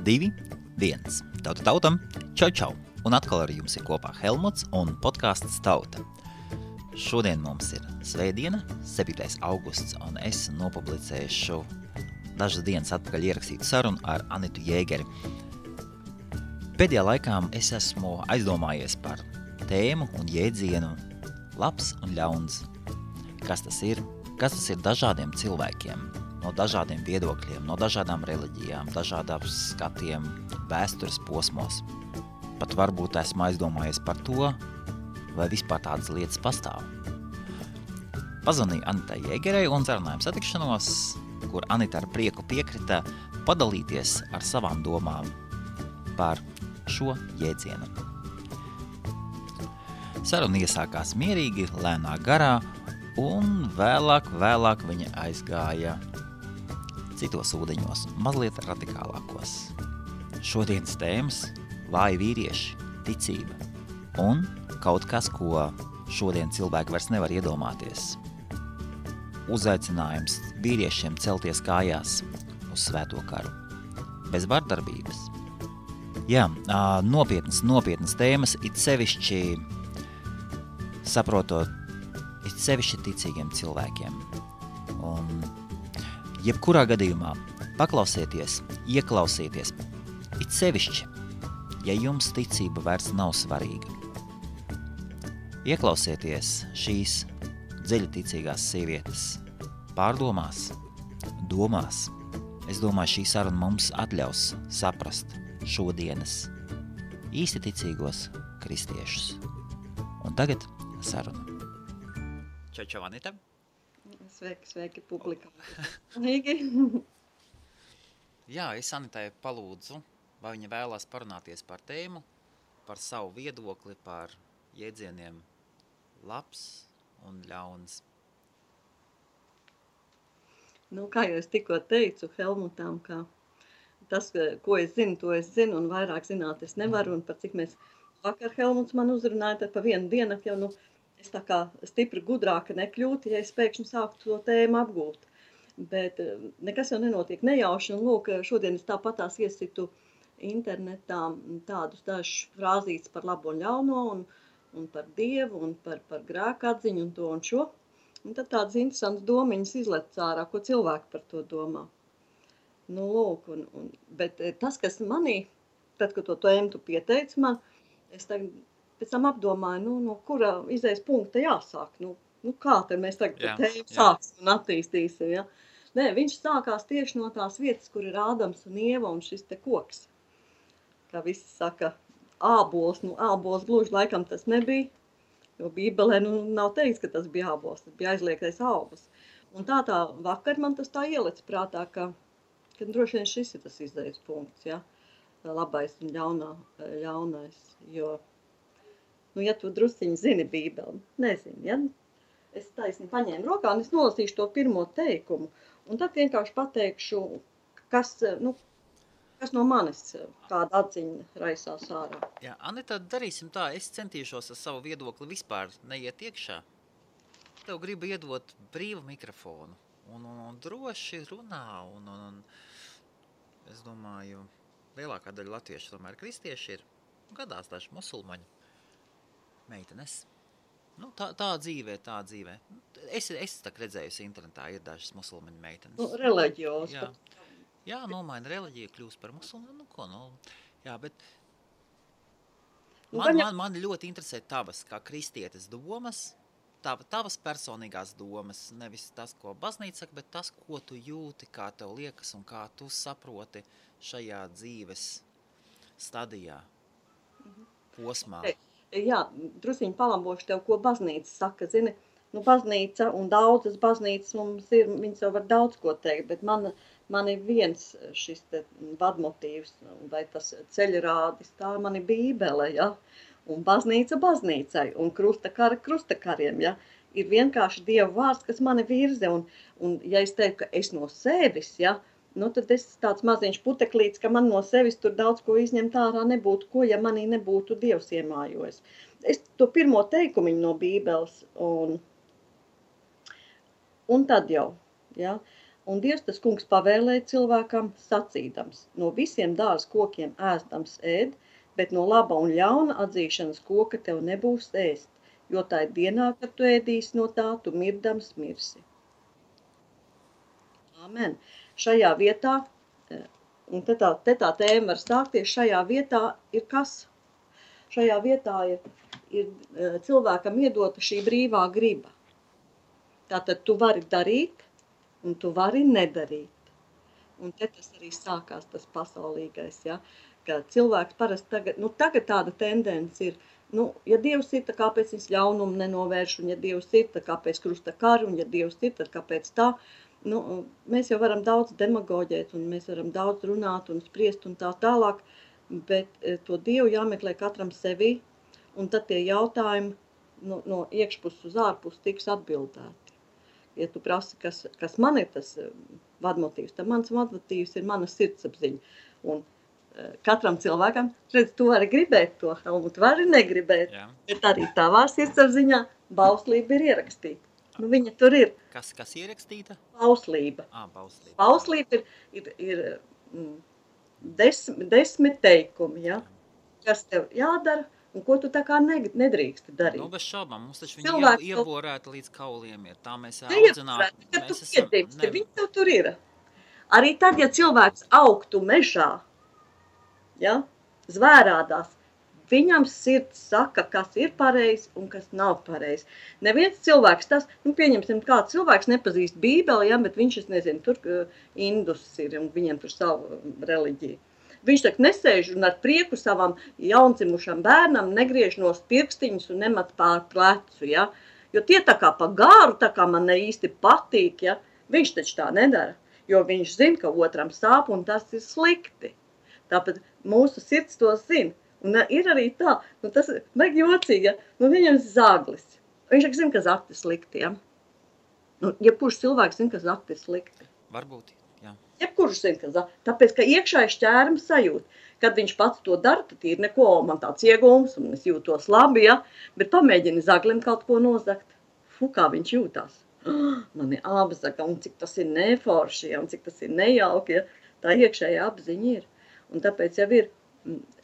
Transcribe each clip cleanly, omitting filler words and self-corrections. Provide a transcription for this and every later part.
2, 1. Tauta tautam, čau! Un atkal ar jums ir kopā Helmuts un podcasts Tauta. Šodien mums ir svētdiena, 7. augusts, un es nopublicēšu dažas dienas atpakaļ ierakstītu sarunu ar Anitu Jēgeri. Pēdējā laikā es esmu aizdomājies par tēmu un jēdzienu labs un ļauns. Kas tas ir dažādiem cilvēkiem, no dažādiem viedokļiem, no dažādām reliģijām, dažādām skatiem, vēstures posmos. Pat varbūt esmu aizdomājies par to, vai vispār tādas lietas pastāv. Pazvanīju Anitai Jēgerei un sarunājām satikšanos, kur Anita ar prieku piekrita padalīties ar savām domām par šo jēdzienu. Saruna iesākās mierīgi, lēnā garā, un vēlāk viņa aizgāja citos ūdeņos, mazliet radikālākos. Šodienas tēmas – vāji vīrieši, ticība un kaut kas, ko šodien cilvēki vairs nevar iedomāties. Uzaicinājums vīriešiem celties kājās uz svēto karu. Bez vardarbības. Jā, nopietnas tēmas, it sevišķi ticīgiem cilvēkiem. Un jebkurā gadījumā paklausieties, ieklausieties, it sevišķi, ja jums ticība vairs nav svarīga. Ieklausieties šīs dziļaticīgās sievietes pārdomās, domās. Es domāju, šī saruna mums atļaus saprast šodienas īsti ticīgos kristiešus. Un tagad saruna. Čau, Anita. Sveiki, publika. Jā, es Anitai palūdzu, vai viņa vēlās parunāties par tēmu, par savu viedokli, par jēdzieniem labs un ļauns. Nu, kā jau es tikko teicu Helmutam, ka tas, ko es zinu, to es zinu, un vairāk zināt es nevaru, un par cik mēs vakar Helmuts man uzrunāja, tad pa vienu dienu jau, es tā kā stipri gudrāka nekļūtu, ja es pēkšņi sāktu to tēmu apgūt. Bet nekas jau nenotiek nejauši, un lūk, šodien es tāpatās iesitu internetā tādus dažus frāzītes par labo un ļauno, un par Dievu, un par grēku atziņu, un to un šo. Un tad tādas interesantas domiņas izlec ārā, ko cilvēki par to domā. Nu, lūk, bet tas, kas manī, tad, kad to tēmu tu pieteici man, es tagad pēc tam apdomāju, no kura izējas punkta jāsāk. Kā tad mēs tagad tēmu sāksim un attīstīsim, ja? Nē, viņš sākās tieši no tās vietas, kur ir Ādams un Ieva un šis te koks. Kā visi saka, ābols, ābols gluži laikam tas nebija, jo Bībelē nav teikts, ka tas bija ābols, tas bija aizliegtais augurs. Un tā vakar man tas tā ielic prātā, ka droši vien šis ir tas izējas punkts, ja? Labais un ļaunais, jo ja tu drusciņi zini Bībeli, nezini, ja? Es taisni paņēmu rokā un es nolasīšu to pirmo teikumu. Un tad vienkārši pateikšu, kas no manis kāda atziņa raisās ārā. Jā, Anita, darīsim tā, es centīšos ar savu viedokli vispār neiet iekšā. Tev gribu iedot brīvu mikrofonu un droši runā. Un es domāju, lielākā daļa latviešu tomēr kristieši ir, gadās daži musulmaņi. Meitenes. Tā dzīvē. Es tā redzējusi internetā, ir dažas musulmaņu meitenes. Reliģios. Jā, nomaina reliģiju, kļūst par musulmanu, Jā, bet man ļoti interesē tavas, kā kristietes domas, tavas personīgās domas, nevis tas, ko baznīca saka, bet tas, ko tu jūti, kā tev liekas un kā tu saproti šajā dzīves stadijā, posmā. Jā, drusiņi palambošu tev, ko baznīca saka, zini, baznīca un daudzas baznīcas mums ir, viņas jau var daudz ko teikt, bet man ir viens šis te vadmotīvs, vai tas ceļrādis, tā man ir Bībele, ja, un baznīca baznīcai, un krustakari krustakariem, ja, ir vienkārši Dieva vārds, kas mani virze, un ja es teiktu, ka es no sevis, ja, tad es tāds maziņš puteklīts, ka man no sevis tur daudz ko izņemt ārā nebūtu, ja manī nebūtu Dievs iemājojis. Es to pirmo teikumiņu no Bībeles, un tad jau, ja, Un Dievs tas kungs pavēlēja cilvēkam sacīdams, no visiem dārza kokiem ēstams ēd, bet no laba un ļauna atzīšanas koka tev nebūs ēst, jo tā ir dienā, kad tu ēdīsi no tā, tu mirdams mirsi. Amen. Šajā vietā, un te tā tēma var stākties, šajā vietā ir kas? Šajā vietā ir cilvēkam iedota šī brīvā griba. Tātad tu vari darīt, un tu vari nedarīt. Un te tas arī sākās tas pasaulīgais, ja? Ka cilvēks parasti tagad tāda tendence ir, ja Dievs ir, tad kāpēc viņš ļaunumu nenovērš, un ja Dievs ir, tad kāpēc krusta kari, un ja Dievs ir, tad kāpēc tā. Mēs jau varam daudz demagoģēt, un mēs varam daudz runāt un spriest un tā tālāk, bet to Dievu jāmeklē katram sevī, un tad tie jautājumi no iekšpuses uz ārpusi tiks atbildēti. Ja tu prasi, kas man ir tas vadmotīvs, tad mans vadmotīvs ir mana sirdsapziņa. Un katram cilvēkam, redz, tu vari gribēt to, Helmut, vari negribēt, bet arī tavā sirdsapziņā bauslība ir ierakstīta. Viņa tur ir. Kas ierakstīta? Bauslība. Bauslība. Bauslība ir 10 teikumi, ja? Kas tev jādara, un ko tu tā kā nedrīksti darīt. Bez šaubām, mums taču viņa ieborēta līdz kauliem ir. Tā mēs audzinām. Viņi tev tur ir. Arī tad, ja cilvēks augtu mežā, ja, zvērādās, viņam sirds saka, kas ir pareizi un kas nav pareizi. Neviens cilvēks tas, pieņemsim, kāds cilvēks nepazīst Bībeli, ja, bet viņš, es nezinu, tur indus ir un viņam tur savu reliģiju. Viņš tak nesēž un ar prieku savam jaundzimušam bērnam negriež no pirkstiņus un nemat pār plecu, ja? Jo tie tā kā pa gāru, tā kā man ne īsti patīk, ja? Viņš taču tā nedara, jo viņš zina, ka otram sāp un tas ir slikti. Tāpēc mūsu sirds to zina. Un ir arī tā, tas vajag jocīgi, ja? Viņam zaglis. Viņš zina, ka zakti ir slikti, ja? Jebkurš cilvēks zina, ka zakti ir slikti. Varbūt. Jebkurš zina, tāpēc, ka iekšēji šķērums sajūt. Kad viņš pats to dara, tad ir neko, man tāds iegūms, un es jūtos labi, ja? Bet pamēģini zaglim kaut ko nozagt. Kā viņš jūtās. Man ir apzaga, un cik tas ir neforši, ja? Un cik tas ir nejauki, ja? Tā iekšēja apziņa ir. Un tāpēc jau ir,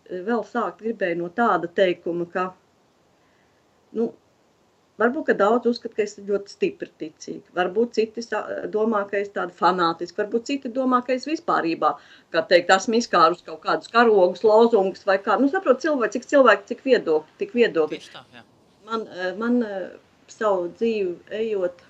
vēl sākt gribēju no tāda teikuma, ka, varbūt, ka daudz uzskat, ka es ļoti stipri ticīgi. Varbūt citi domā, ka es tāda fanātiski. Varbūt citi domā, ka es vispārībā, kā teikt, esmu izkārus kaut kādus karogus, lozungus vai kā. Saprot, cik viedokļi. Tieši tā, jā. Man savu dzīvi ejot,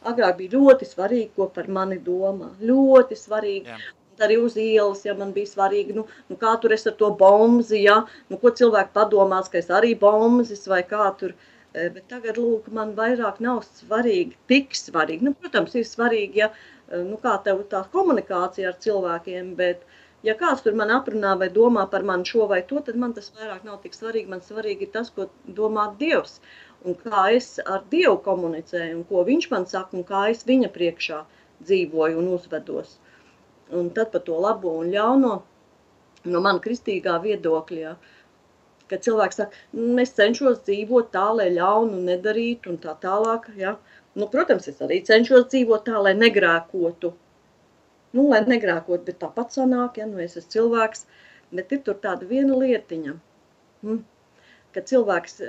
agrāk bija ļoti svarīgi, ko par mani domā. Ļoti svarīgi. Jā. Arī uz ielas, ja man bija svarīgi, kā tur es ar to bomzi, ja, ko cilvēki padomās, ka es arī bombzis vai kā tur, bet tagad, lūk, man vairāk nav svarīgi, tik svarīgi, protams, ir svarīgi, ja, kā tev tā komunikācija ar cilvēkiem, bet, ja kāds tur man aprunā vai domā par mani šo vai to, tad man tas vairāk nav tik svarīgi, man svarīgi ir tas, ko domā Dievs, un kā es ar Dievu komunicēju, un ko viņš man saka, un kā es viņa priekšā dzīvoju un uzvedos. Un tad par to labo un ļauno, no man kristīgā viedokļa, ja, kad cilvēks saka, es cenšos dzīvot tā, lai ļaunu nedarītu un tā tālāk, ja. Protams, es arī cenšos dzīvot tā, lai negrēkotu. Lai negrēkotu, bet tāpat sanāk, ja, es esmu cilvēks, bet ir tur tāda viena lietiņa, kad cilvēks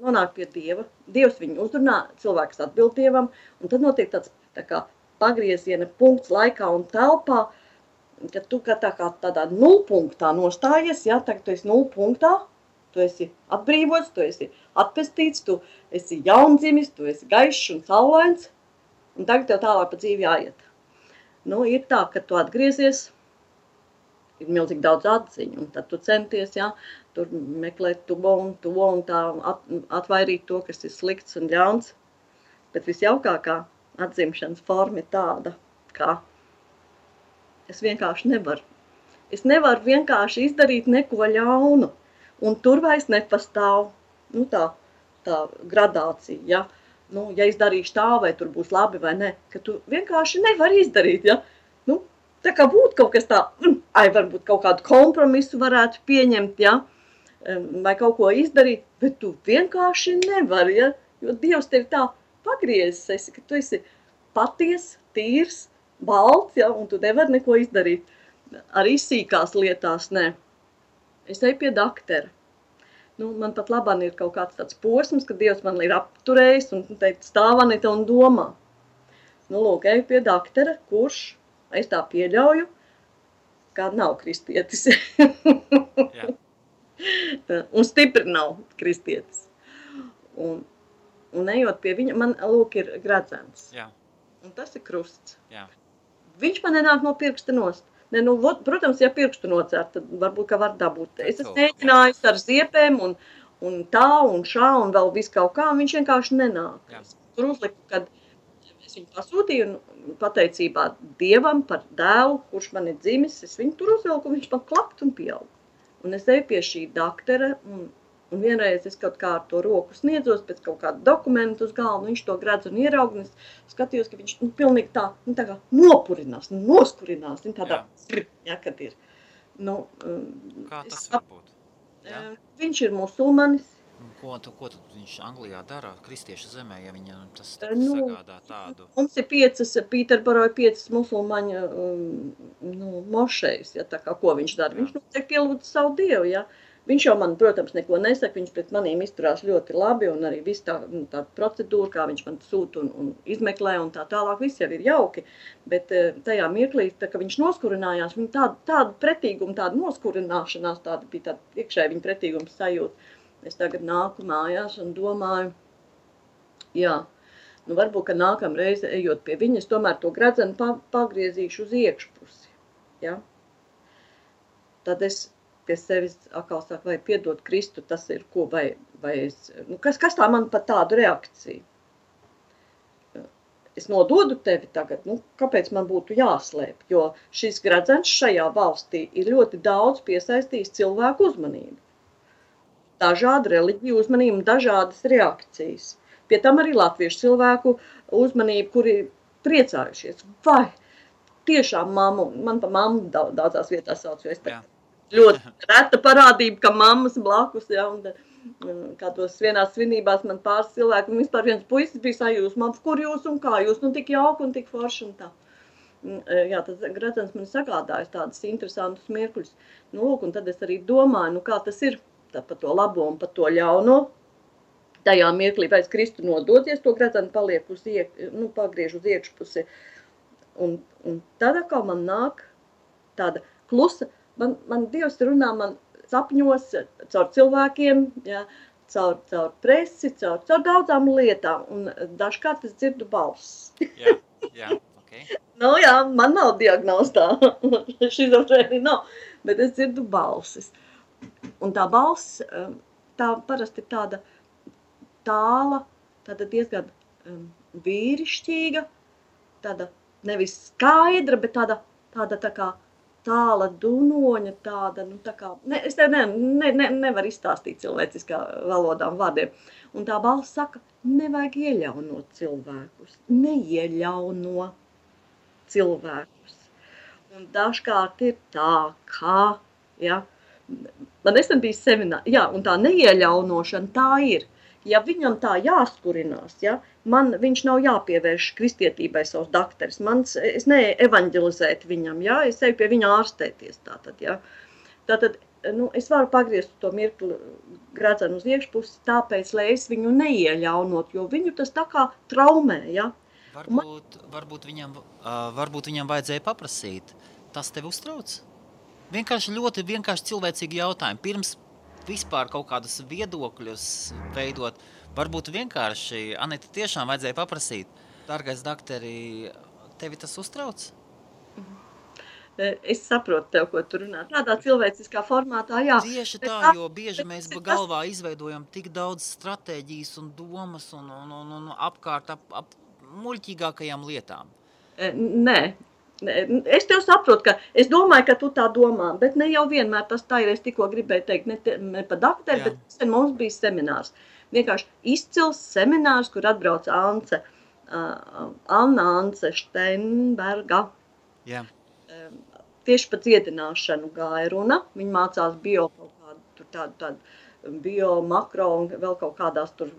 nonāk pie Dieva, Dievs viņu uzrunā, cilvēks atbild Dievam, un tad notiek tāds tā kā pagrieziena punkts laikā un telpā, ka tu tādā nulpunktā nostājies, ja, tagad tu esi nulpunktā, tu esi atbrīvots, tu esi atpestīts, tu esi jaundzimis, tu esi gaišs un saulains, un tagad tev tālāk pa dzīvi jāiet. Ir tā, ka tu atgriezies, ir milzīgi daudz atziņu, un tad tu centies, ja, tur meklēt to un tā atvairīt to, kas ir slikts un ļauns, bet visjaukākā atzimšanas forma ir tāda, ka es vienkārši nevaru. Es nevaru vienkārši izdarīt neko ļaunu, un tur vairs nepastāv, tā gradācija, ja. Ja es darīšu tā, vai tur būs labi vai ne, ka tu vienkārši nevari izdarīt, ja. Tā kā būtu kaut kas tā, varbūt kaut kādu kompromisu varētu pieņemt, ja, vai kaut ko izdarīt, bet tu vienkārši nevari, ja, jo Dievs tevi tā pagriezis esi, ka tu esi paties, tīrs, balts, ja, un tu nevari neko izdarīt. Arī sīkās lietās, nē. Es eju pie daktera. Nu, man pat labāk ir kaut kāds tāds posms, ka Dievs man ir apturējis un teikt, stāv Anita un domā. Nu, lūk, eju pie daktera, kurš, es tā pieļauju, kā nav kristietis. Jā. Un stipri nav kristietis. Un ejot pie viņa, man, lūk, ir gredzens. Jā. Un tas ir krusts. Jā. Viņš man nenāk no pirksta nost. Ne, nu, protams, ja pirkstu nocērt, tad varbūt, ka var dabūt. Es esmu mēģinājis ar ziepēm un tā un šā un vēl visu kaut kā, un viņš vienkārši nenāk. Jā. Tur uzliku, kad es viņu pasūtīju un pateicībā Dievam par dēlu, kurš man ir dzimis, es viņu tur uzvilku, un viņš man klapt un pieaug. Un es eju pie šī daktera, un vienreiz es kaut kā ar to roku sniedzos pēc kaut kāda dokumenta uz galvu, viņš to gredz un ieraug, un es skatījos, ka viņš pilnīgi tā kā nopurinās, noskurinās, tādā, ja, kad ir. Nu, kā tas var būt? Ja? Viņš ir musulmanis. Ko tad viņš Anglijā dara, kristiešu zemē, ja viņam tas sagādā tādu? Mums ir 5, Pīterborā ir 5 musulmaņu mošejas, ja, tā kā ko viņš dara. Viņš notiek pielūdz savu Dievu, ja. Viņš jau man, protams, neko nesaka, viņš pret manīm izturās ļoti labi, un arī viss tā procedūra, kā viņš man sūta un izmeklē, un tā tālāk, viss jau ir jauki. Bet tajā mirklī, tā, ka viņš noskurinājās, viņa tāda pretīguma, tāda noskurināšanās, tāda bija tāda iekšēji viņa pretīguma sajūta. Es tagad nāku mājās un domāju, jā, nu varbūt, ka nākamreiz, ejot pie viņa, es tomēr to gredzenu pagriezīšu uz iekšpusi, ja. Tad es pie sevis atkal saka, vai piedot Kristu, tas ir ko, vai es, nu, kas tā man par tādu reakciju? Es nododu tevi tagad, nu, kāpēc man būtu jāslēp, jo šis gredzens šajā valstī ir ļoti daudz piesaistījis cilvēku uzmanību. Dažādu reliģiju uzmanību, dažādas reakcijas. Pie tam arī latviešu cilvēku uzmanību, kuri priecājušies. Vai tiešām mammu, man pa mammu daudzās vietās sauc, jo es ļoti reta parādība, ka mammas blakus, ja, un kādos vienās svinībās man pāris cilvēku, un vispār viens puisis bija sajūsmā, kur jūs un kā jūs, nu tik jauki un tik forši un tā. Jā, tas gredzens man sagādājas tādas interesantus mirkļus. Nu, lūk, un tad es arī domāju, nu kā tas ir par to labo un par to ļauno. Tajā mirklī, vai es Kristu nodoties, to gredzenu paliek pagriež uz iekšpusi. Un tad atkal man nāk tāda klusa, man Dievs runā man sapņos caur cilvēkiem, ja, caur presi, caur daudzām lietām, un dažkārt es dzirdu balss. Jā, ok. Nu jā, man nav diagnostā, šizofrēnija nav, bet es dzirdu balsis. Un tā balss, tā parasti ir tāda tāla, tāda diezgan vīrišķīga, tāda nevis skaidra, bet tāda tā kā tāla dunoņa, tāda, nu tā kā, es tev nevaru izstāstīt cilvēciskā valodā un vārdiem. Un tā balss saka, nevajag ieļaunot cilvēkus, neieļauno cilvēkus. Un dažkārt ir tā, kā, ja, man nesen bija semināri, jā, un tā neieļaunošana tā ir. Ja viņam tā jāskurinās, ja, viņš nav jāpievērš kristietībai savs dakteris, es neevaņģelizēt viņam, ja, es eju pie viņa ārstēties tātad, ja. Tātad, nu, es varu pagriezt to mirkli gredzenu uz iekšpusi, tāpēc, lai es viņu neieļaunot, jo viņu tas tā kā traumē, ja. Varbūt viņam vajadzēja paprasīt, tas tevi uztrauc? Ļoti vienkārši cilvēcīgi jautājumi, pirms vispār kaut kādus viedokļus veidot, varbūt vienkārši, Anita, tiešām vajadzēja paprasīt, dārgais dakteri, tevi tas uztrauc? Es saprotu tev, ko tu runā. Tādā cilvēciskā formātā, jā. Tieši tā, jo bieži mēs galvā izveidojam tik daudz stratēģijas un domas un apkārt ap muļķīgākajām lietām. Nē. Es tev saprotu, ka es domāju, ka tu tā domā, bet ne jau vienmēr tas tā ir. Es tikko gribēju teikt, ne pa dakteri, bet mums bija seminārs. Vienkārši izcils seminārs, kur atbrauc Anna Ance Steinberga. Jā. Tieši par dziedināšanu gāja runa. Viņa mācās tādu bio, makro un vēl kaut kādās tur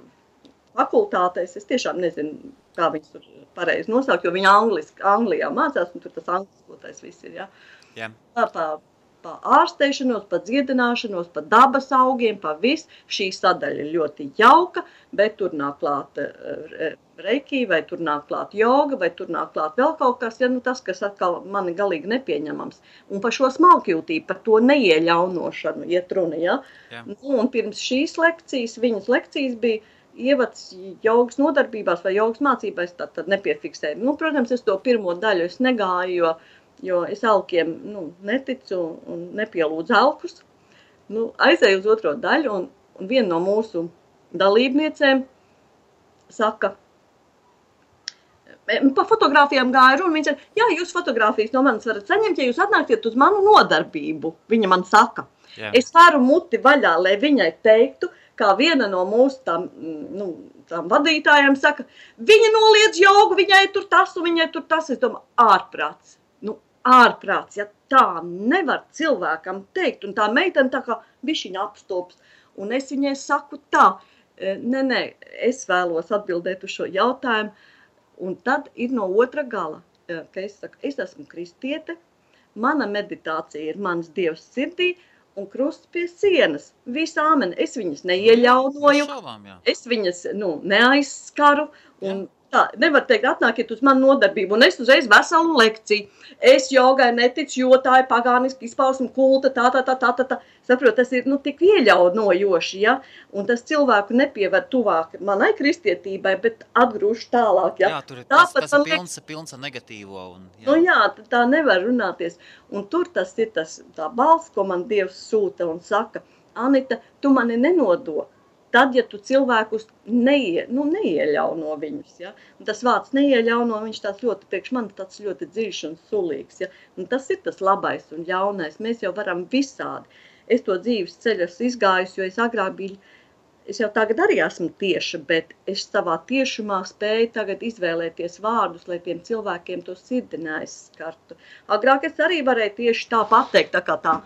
fakultātēs. Es tiešām nezinu kā viņas tur pareizi nosaukt, jo viņa Anglijā mācās, un tur tas angliskotais viss ir, ja. Jā. Pa ārsteišanos, pa dziedināšanos, pa dabas augiem, pa visu. Šī sadaļa ir ļoti jauka, bet tur nāk klāt reiki, vai tur nāk klāt joga, vai tur nāk klāt vēl kaut kas, ja, nu tas, kas atkal mani galīgi nepieņemams. Un par šo smalkjūtību, par to neieļaunošanu iet runa, ja. Nu, un pirms šīs lekcijas, viņas lekcijas bija ievads jogas nodarbībās vai jogas mācībās, tad nepiefiksēju. Nu, protams, es to pirmo daļu es negāju, jo es alkiem neticu un nepielūdzu alkus. Nu, aizēju uz otro daļu, un viena no mūsu dalībniecēm saka, pa fotogrāfijām gāja runa, viņa saka, jā, jūs fotogrāfijas no manis varat saņemt, ja jūs atnāktiet uz manu nodarbību, viņa man saka. Jā. Es varu muti vaļā, lai viņai teiktu, kā viena no mūsu tām vadītājiem saka, viņa noliedz jogu, viņai tur tas un viņai tur tas, es domāju, ārprāts. Ārprāts, ja tā nevar cilvēkam teikt, un tā meitene tā kā bišķiņa apstops, un es viņai saku tā, nē, es vēlos atbildēt uz šo jautājumu, un tad ir no otra gala, ka es saku, es esmu kristiete, mana meditācija ir mans Dievs sirdī, un krusts pie sienas, visu āmeni, es viņas neieļaunoju, es viņas, neaizskaru, un tā, nevar teikt, atnākiet uz manu nodarbību, un es uzreiz veselu lekciju. Es jogai neticu, jo tā ir pagāniski izpausme kulta, tā. Saprot, tas ir, tik ieļaunojoši, ja? Un tas cilvēku nepieved tuvāk manai kristietībai, bet atgrūž tālāk, ja? Jā, tur ir tas ir pilns ar negatīvo. Un, jā. Nu jā, tā nevar runāties. Un tur tas ir tā balss, ko man Dievs sūta un saka, Anita, tu mani nenodo. Tad, ja tu cilvēkus neieļauno viņus, ja? Un tas vārds neieļauno, viņš tāds ļoti, priekš man tāds ļoti dziļš un sulīgs, ja? Un tas ir tas labais un ļaunais, mēs jau varam visādi. Es to dzīves ceļu esmu izgājusi, jo es agrāk biju, es jau tagad arī esmu tieša, bet es savā tiešumā spēju tagad izvēlēties vārdus, lai tiem cilvēkiem to sirdi neaizskartu. Agrāk es arī varēju tieši tā pateikt, tā kā tā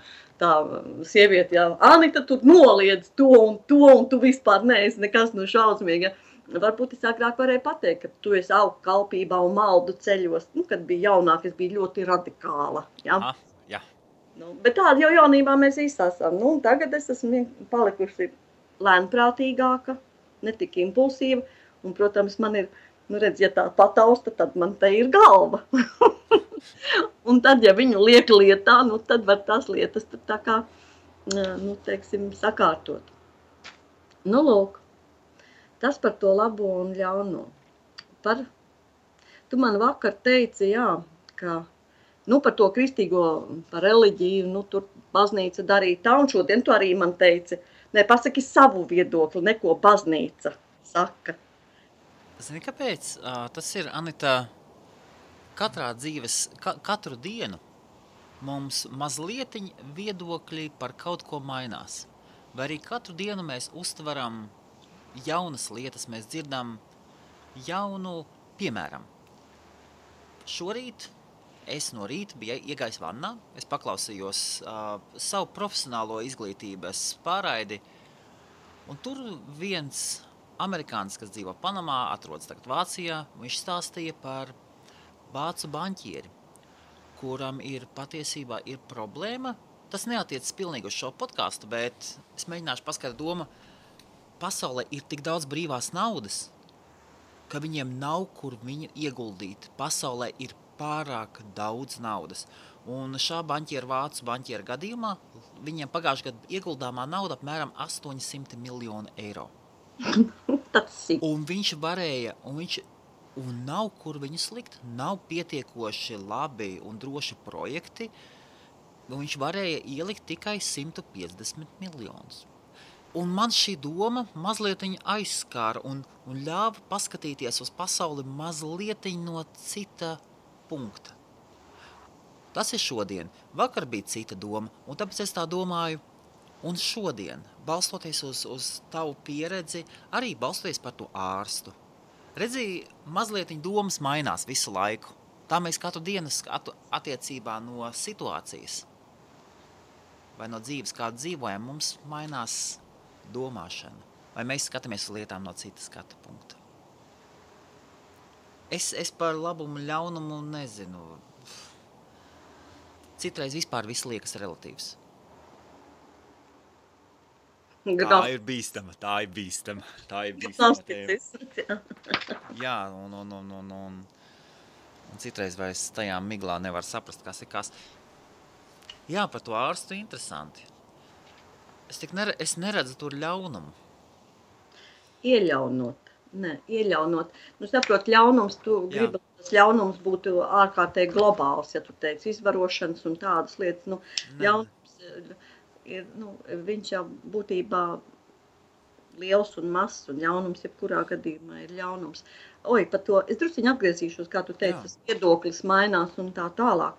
sieviete, jā, Anita, tu noliedz to, un tu vispār neesi nekas šausmīgi. Ja. Varbūt es agrāk varēju pateikt, ka tu esi augu kalpībā un maldu ceļos. Kad bija jaunāk, es biju ļoti radikāla. Ja. Aha, jā. Bet tāda jau jaunībā mēs visi esam. Tagad es esmu palikusi lēnprātīgāka, ne tik impulsīva. Un, protams, man ir, redz, ja tā patausta, tad man te ir galva. Un tad, ja viņu liek lietā, tad var tās lietas tā kā, teiksim, sakārtot. Lūk, tas par to labo un ļauno. Tu man vakar teici, jā, ka, par to kristīgo, par reliģiju, tur baznīca darīja tā, un šodien tu arī man teici, pasaki savu viedokli, neko baznīca saka. Zini, kāpēc? Tas ir, Anita, katru dienu mums mazlietiņ viedokļi par kaut ko mainās. Vai arī katru dienu mēs uztveram jaunas lietas, mēs dzirdam jaunu, piemēram. Šorīt es no rīta biju iegājis vannā, es paklausījos savu profesionālo izglītības pārraidi, un tur viens amerikānis, kas dzīvo Panamā, atrodas tagad Vācijā, viņš stāstīja par vācu banķieri, kuram patiesībā ir problēma. Tas neatiecas pilnīgi uz šo podcastu, bet es mēģināšu paskaidrot domu. Pasaulē ir tik daudz brīvās naudas, ka viņiem nav kur viņu ieguldīt. Pasaulē ir pārāk daudz naudas. Un šā vācu banķiera gadījumā viņiem pagājušajā gadā ieguldāmā nauda apmēram 800 miljonu eiro. Un viņš varēja, un nav kur viņu slikt, nav pietiekoši labi un droši projekti, un viņš varēja ielikt tikai 150 miljonus. Un man šī doma mazlietiņ aizskāra un ļāva paskatīties uz pasauli mazlietiņ no cita punkta. Tas ir šodien. Vakar bija cita doma, un tāpēc es tā domāju, un šodien, balstoties uz tavu pieredzi, arī balstoties par to ārstu. Redzi, mazlietiņ domas mainās visu laiku. Tā mēs katru dienu attiecībā no situācijas vai no dzīves, kādu dzīvojam, mums mainās domāšana. Vai mēs skatāmies uz lietām no citas skatu punkta. Es par labumu ļaunumu nezinu. Citreiz vispār viss liekas relatīvs. Tā ir bīstama tēma. Jā, un citreiz vairs tajā miglā nevar saprast, kas ir kas. Jā, par to ārstu interesanti. Es neredzu tur ļaunumu. Ieļaunot. Nu, saprot, ļaunums, tu gribi, tas ļaunums būtu ārkārtīgi globāls, ja tu teici, izvarošanas un tādas lietas. Nu, ļaunums ir, viņš jau būtībā liels un mazs, un ļaunums jebkurā gadījumā ir ļaunums. Par to, es drusciņi atgriezīšos, kā tu teici, tas viedoklis mainās un tā tālāk.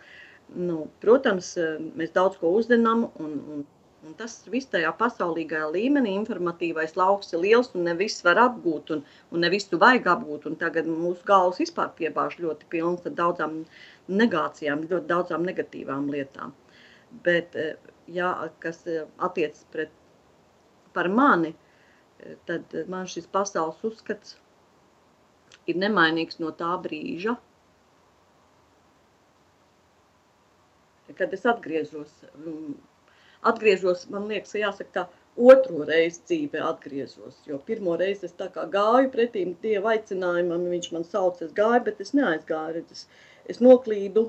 Nu, protams, mēs daudz ko uzzinām, un tas viss tajā pasaulīgajā līmenī, informatīvais lauks ir liels, un ne viss var apgūt, un ne visu vajag apgūt, un tagad mūsu galvas vispār piebāž ļoti pilns ar daudzām negācijām, ļoti daudzām negatīvām lietām. Bet, jā, kas attiecas par mani, tad man šis pasaules uzskats ir nemainīgs no tā brīža, kad es atgriežos, man liekas, jāsaka tā, otro reizi dzīvē atgriezos, jo pirmo reizi es tā kā gāju pretīm Dieva aicinājumam, viņš man sauc, es gāju, bet es neaizgāju, es noklīdu,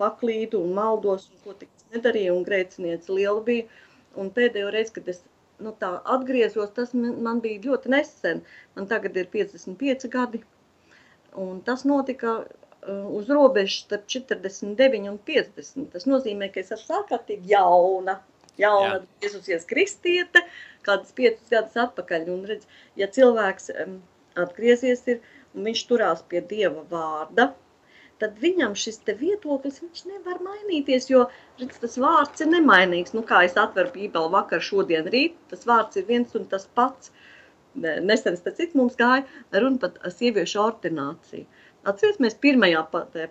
paklīdu un maldos, un ko tik es nedarīju, un grēcinieci liela bija, un pēdējo reizi, kad es tā atgriezos, tas man bija ļoti nesen, man tagad ir 55 gadi, un tas notika uz robežas starp 49 un 50. Tas nozīmē, ka es esmu ārkārtīgi jauna Jēzusies kristiete, kādas 5 gadus atpakaļ. Un redz, ja cilvēks atgriezies ir, un viņš turās pie Dieva vārda, tad viņam šis te viedoklis, viņš nevar mainīties, jo redz, tas vārds ir nemainīgs. Nu, kā es atveru Bībeli vakar, šodien, rīt, tas vārds ir viens un tas pats. Nesen, pēc cik mums gāja runa par sieviešu ordināciju. Atceries, mēs pirmajā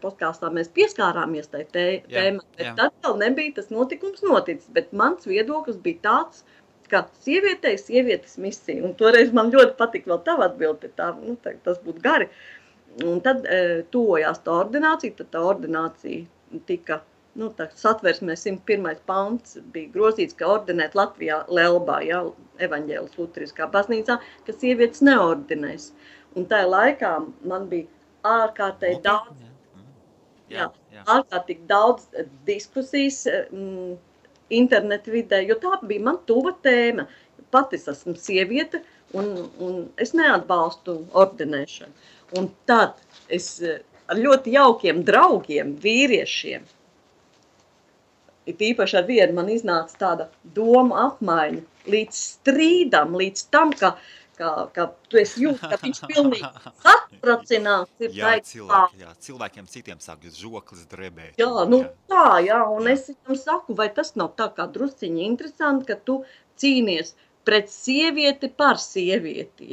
podkāstā mēs pieskārāmies tai tēmai, bet tad vēl nebija tas notikums noticis, bet mans viedoklis bija tāds, ka sievietes misija, un toreiz man ļoti patika vēl tava atbildi, tas būtu gari, un tad tuvojās tā ordinācija, tad tā ordinācija tika, tā satversmē 101. pants bija grozīts, ka ordinēt Latvijā Lelbā, evaņģēlis luteriskā baznīcā, ka sievietes neordinēs, un tajā laikā man bija ārkārtīgi daudz diskusijas internetu vidē, jo tā bija man tuva tēma. Pat es esmu sieviete un es neatbalstu ordinēšanu. Un tad es ar ļoti jaukiem draugiem, vīriešiem, īpaši ar vienu man iznāca tāda doma apmaiņa līdz strīdam, līdz tam, ka tu esi jūt, ka viņš pilnīgi satracināts ir. Cilvēkiem citiem sāk žoklis drebēt. Un es viņam saku, vai tas nav tā kā drusciņi interesanti, ka tu cīnies pret sievieti par sievieti,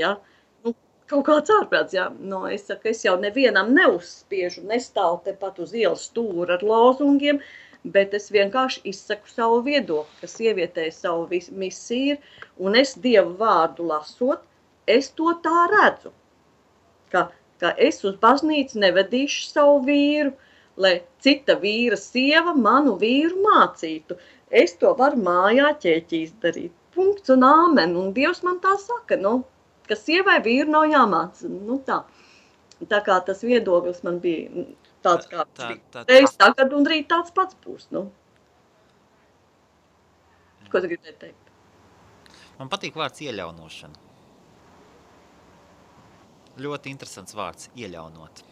kaut kāds ārprāts, es saku, es jau nevienam neuzspiežu, nestāvu tepat uz ielas stūra ar lozungiem, bet es vienkārši izsaku savu viedokli, ka sievietei savu misiju ir, un es Dievu vārdu lasot, es to tā redzu, ka es uz baznīcu nevedīšu savu vīru, lai cita vīra sieva manu vīru mācītu. Es to varu mājā ķēķīs darīt. Punkts un āmen. Un Dievs man tā saka, ka sievai vīru nav jāmāca. Tā kā tas viedoklis man bija tāds kā reiz tagad un rīt tāds pats būs. Ko tu gribēji teikt? Man patīk vārds ieļaunošana. Ļoti interesants vārds, ieļaunot.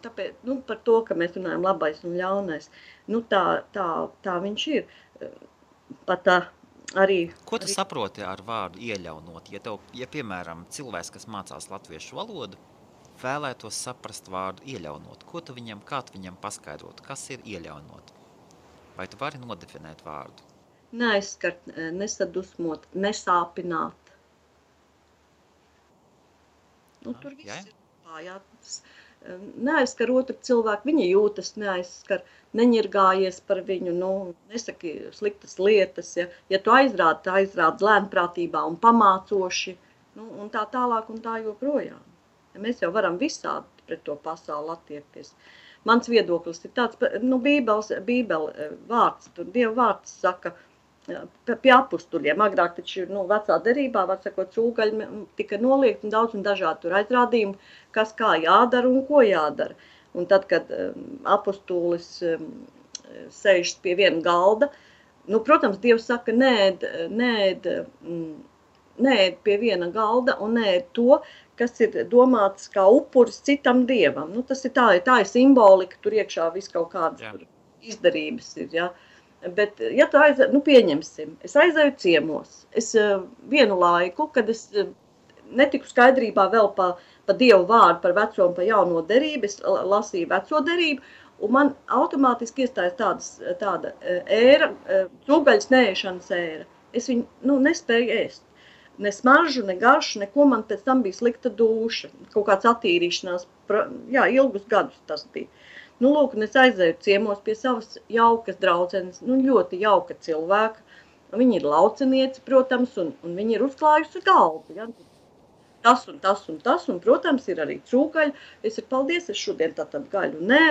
Tāpēc, par to, ka mēs runājam labais un ļaunais, tā viņš ir. Pat arī... Ko tu saproti ar vārdu ieļaunot? Ja piemēram, cilvēks, kas mācās latviešu valodu, vēlētos saprast vārdu ieļaunot, kā tu viņam paskaidrot, kas ir ieļaunot? Vai tu vari nodefinēt vārdu? Neaizskart, nesadusmot, nesāpināt. Tur viss ir pājāts. Neaizskar otru cilvēku, viņa jūtas neaizskar, neņirgājies par viņu, nesaki sliktas lietas. Ja tu aizrādi lēnprātībā un pamācoši, Nu, un tā tālāk un tā joprojām. Mēs jau varam visādi pret to pasauli attiekties. Mans viedoklis ir tāds, Bībele vārds, tur Dieva vārds saka, pie apustuļiem. Agrāk taču vecā derībā, var sakot, cūgaļi tika noliegt un daudz un dažādi tur aizrādījumi, kas kā jādara un ko jādara. Un tad, kad apustulis sēžas pie viena galda, protams, Dievs saka, neēd pie viena galda un neēd to, kas ir domāts kā upuris citam dievam. Tas ir tā ir simbolika, tur iekšā viss kaut kādas izdarības ir, ja. Bet, ja tu pieņemsim, es aizēju ciemos. Es vienu laiku, kad es netiku skaidrībā vēl pa Dievu vārdu, par veco un pa jauno derību, es lasīju veco derību, un man automātiski iestājas tāda ēra, cūgaļas neēšanas ēra. Es viņu nespēju ēst. Ne smaržu, ne garšu, neko, man pēc tam bija slikta dūša, kaut kāds attīrīšanās, ilgus gadus tas bija. Lūk, un es aizēju ciemos pie savas jaukas draudzenes, ļoti jauka cilvēka. Viņa ir lauceniece, protams, un viņa ir uzklājusi galdu. Ja? Tas un tas un tas, un, protams, ir arī cūgaļa. Es saku, paldies, es šodien tātad gaļu nē,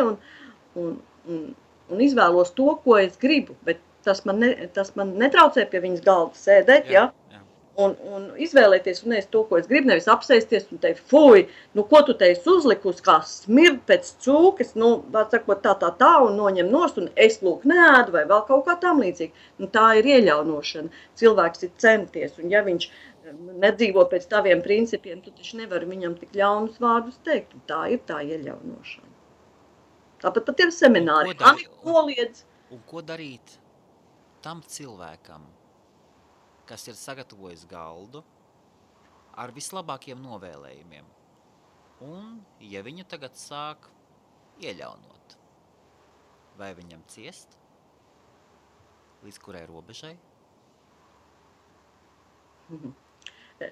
un izvēlos to, ko es gribu, bet tas man netraucē pie viņas galda sēdēt, ja? Un izvēlēties un ēst to, ko es gribu, nevis apsēsties un teikt, fuj, ko tu teisi uzlikus, kā smird pēc cūkas, var sakot tā, un noņem nost, un es lūk neēdu, vai vēl kaut kā tam līdzīgi. Tā ir ieļaunošana. Cilvēks ir centies, un ja viņš nedzīvo pēc taviem principiem, tu taču nevari viņam tik ļaunus vārdus teikt, un tā ir tā ieļaunošana. Tāpat pat ir semināri. Un ko darīt tam cilvēkam, kas ir sagatavojis galdu ar vislabākiem novēlējumiem. Un, ja viņu tagad sāk ieļaunot, vai viņam ciest, līdz kurai robežai?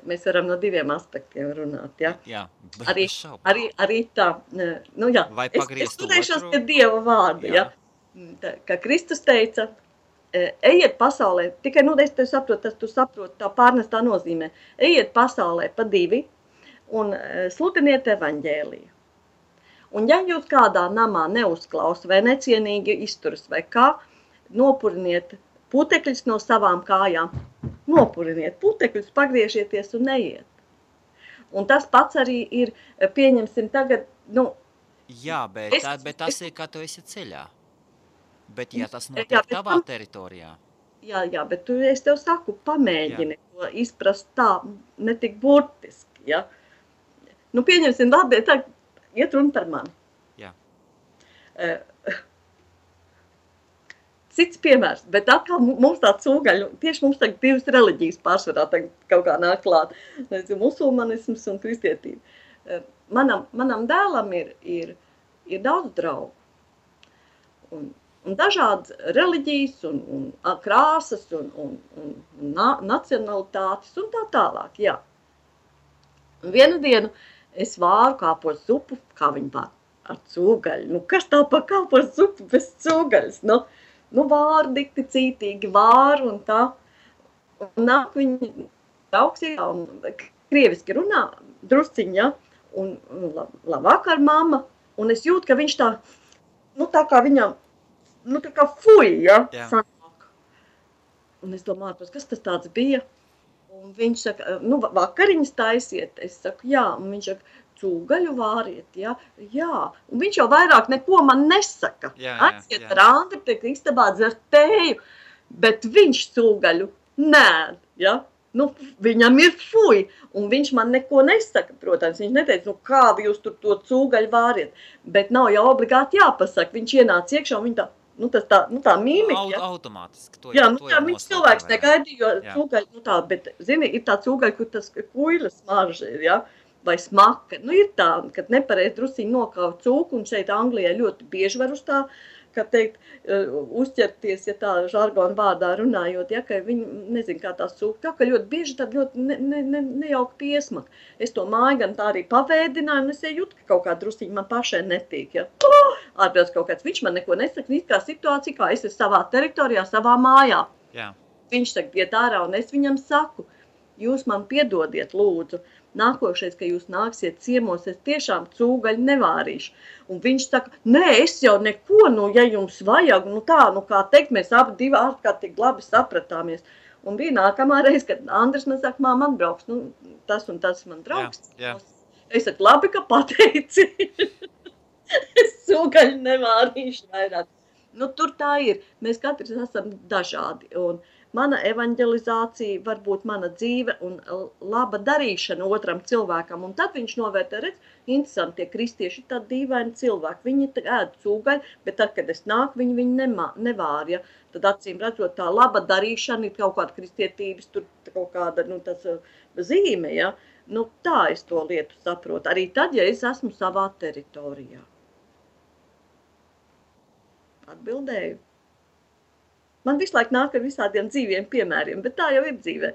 Mēs varam no diviem aspektiem runāt, ja? Jā, arī tā, vai pagriezt es turēšos pie Dieva vārda, ja? Kā Kristus teica, ejiet pasaulē, tikai, es te saprotu, tu saproti tā pārnestā nozīmē, ejiet pasaulē pa divi un sludiniet evaņģēliju. Un ja jūs kādā namā neuzklausa vai necienīgi izturas vai kā, nopuriniet putekļus no savām kājām, nopuriniet putekļus, pagriežieties un neiet. Un tas pats arī ir, pieņemsim tagad, Jā, bet tas ir, kā tu esi ceļā. Bet, ja tas notiek tavā teritorijā? Jā, bet es tev saku, pamēģini to izprast tā, ne tik burtiski, ja? Pieņemsim, labi, tā iet runa par mani. Jā. Cits piemērs, bet atkal mums tā cūgaļa, tieši mums tagad divas reliģijas pārsvarā tagad kaut kā nāk klāt, musulmanisms un kristietība. Manam dēlam ir daudz draugu. Un dažādas reliģijas, un krāsas, un nacionalitātes, un tā tālāk, jā. Un vienu dienu es vāru kāpos zupu, kā viņi vār, ar cūgaļu. Kas tā pa kāpos zupu bez cūgaļas? Vāru dikti cītīgi, vāru un tā. Un nāk viņi augstajā un krieviski runā, drusciņi, ja, un labvakar, mamma, un es jūtu, ka viņš tā kā viņam, tā kā fuj, ja, sanāk. Un es domāju, kas tas tāds bija? Un viņš saka, vakariņas taisiet. Es saku, jā, un viņš saka, cūgaļu vāriet, ja? Jā. Un viņš jau vairāk neko man nesaka. Aiziet ar Andri, tiek istabā dzert tēju, bet viņš cūgaļu nēd, ja? Viņam ir fuj, un viņš man neko nesaka, protams, viņš neteica, kā jūs tur to cūgaļu vāriet, bet nav jau obligāti jāpasaka, viņš ienāca iekšā, un viņa tā mīmika, ja? Automātiski, to viņš cilvēks negaidīja, jo cūgaļu, bet, zini, ir tā cūgaļa, kur tas kuļa smarža ir, ja? Vai smaka, ir tā, kad nepareiz drusiņi nokauj cūku, un šeit Anglijā ļoti bieži var uz tā, kā teikt, uzķerties, ja tā žargona vārdā runājot, ja, ka viņi, nezinu, kā tās cūka, tā, ka ļoti bieži tad ļoti nejauka piesmaka. Es to māju gan tā arī pavēdināju, un es jūtu, ka kaut kā drusiņi man pašai netīk, ja. Ārpēc kaut kāds, viņš man neko nesaka, it kā situācija, kā es esmu savā teritorijā, savā mājā. Jā. Viņš saka, iet ārā, un es viņam saku, jūs man piedodiet, lūdzu, nākošais, ka jūs nāksiet ciemos, es tiešām cūgaļu nevārīšu. Un viņš saka, nē, es jau neko, ja jums vajag, kā teikt, mēs abi divi ārkārtīgi labi sapratāmies. Un bija nākamā reize, kad Andris man saka, man brauks, tas un tas man draugs. Jā. Es saku, labi, ka pateici. Es cūgaļu nevārīšu vairāk. Tur tā ir. Mēs katrs esam dažādi. Un mana evanģelizācija var būt mana dzīve un laba darīšana otram cilvēkam. Un tad viņš novērtē, redz, interesanti, tie kristieši ir tādi dīvaini cilvēki. Viņi ēd cūgaļu, bet tad, kad es nāku, viņi nevār. Ja? Tad acīm redzot, tā laba darīšana ir kaut kāda kristietības, tur kaut kāda tas zīme. Ja? Tā es to lietu saprotu. Arī tad, ja es esmu savā teritorijā. Atbildēju. Man visu laiku nāk ar visādiem dzīviem piemēriem, bet tā jau ir dzīvē.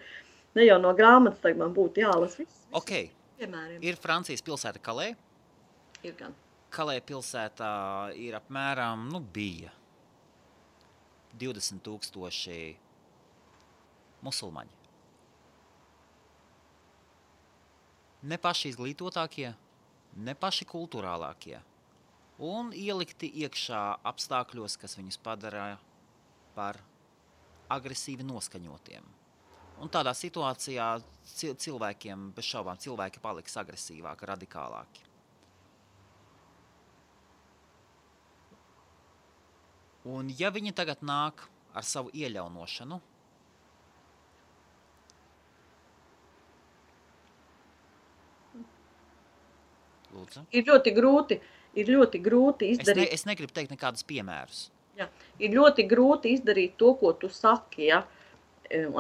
Ne jau no grāmatas tagad man būtu jālas viss piemēriem. Ir Francijas pilsēta Kalē. Ir gan. Kalē pilsētā ir apmēram, bija 20,000 musulmaņi. Ne paši izglītotākie, ne paši kulturālākie. Un ielikti iekšā apstākļos, kas viņus padara par agresīvi noskaņotiem. Un tādā situācijā cilvēkiem, bez šaubām, cilvēki paliks agresīvāki, radikālāki. Un ja viņi tagad nāk ar savu ieļaunošanu, lūdzu. Ir ļoti grūti izdarīt. Es negribu teikt nekādus piemērus. Jā, ir ļoti grūti izdarīt to, ko tu saki, ja.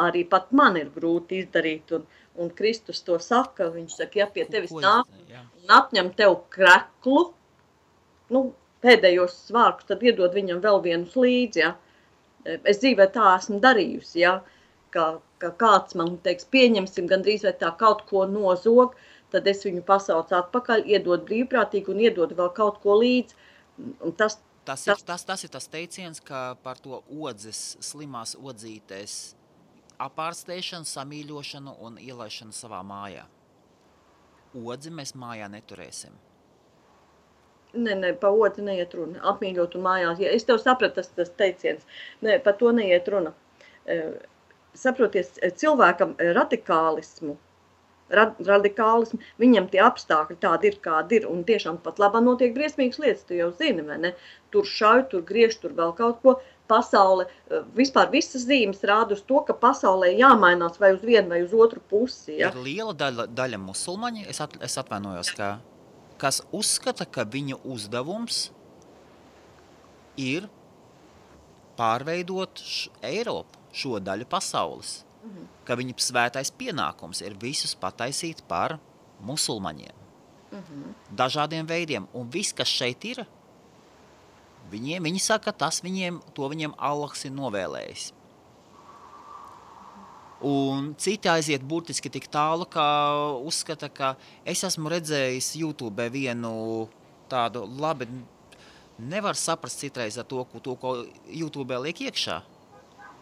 Arī pat man ir grūti izdarīt, un Kristus to saka, viņš saka, ja pie tevis nāk un apņem tev kreklu, pēdējos svārkus, tad iedod viņam vēl vienus līdzi, ja. Es dzīvē tā esmu darījusi, ja, ka kāds man teiks, pieņemsim gandrīz vai tā kaut ko nozog, tad es viņu pasaucu atpakaļ, iedod brīvprātīgi un iedod vēl kaut ko līdzi. Tas ir tas teiciens, ka par to slimās odzītes apārstēšanu, samīļošanu un ielaišanu savā mājā. Odzi mēs mājā neturēsim. Nē, pa odzi neiet runa. Apmīļot un mājās. Ja es tev sapratu tas teiciens. Nē, par to neiet runa. Saproties, cilvēkam radikālismu, viņam tie apstākļi tādi ir, kādi ir, un tiešām pat labā notiek briesmīgas lietas, tu jau zini, vai ne? Tur šauj, tur griež, tur vēl kaut ko. Pasaule, vispār visas zīmes rāda uz to, ka pasaulē jāmainās vai uz vienu vai uz otru pusi. Ja? Ir liela daļa musulmaņi, es atvainojos, kas uzskata, ka viņa uzdevums ir pārveidot Eiropu, šo daļu pasaules. Ka viņa svētais pienākums ir visus pataisīt par musulmaņiem. Dažādiem veidiem. Un viss, kas šeit ir, viņi saka, to viņiem Allahs ir novēlējis. Un citi aiziet burtiski tik tālu, ka uzskata, ka es esmu redzējis YouTube vienu tādu labi, nevar saprast citreiz ar to, ko YouTube liek iekšā.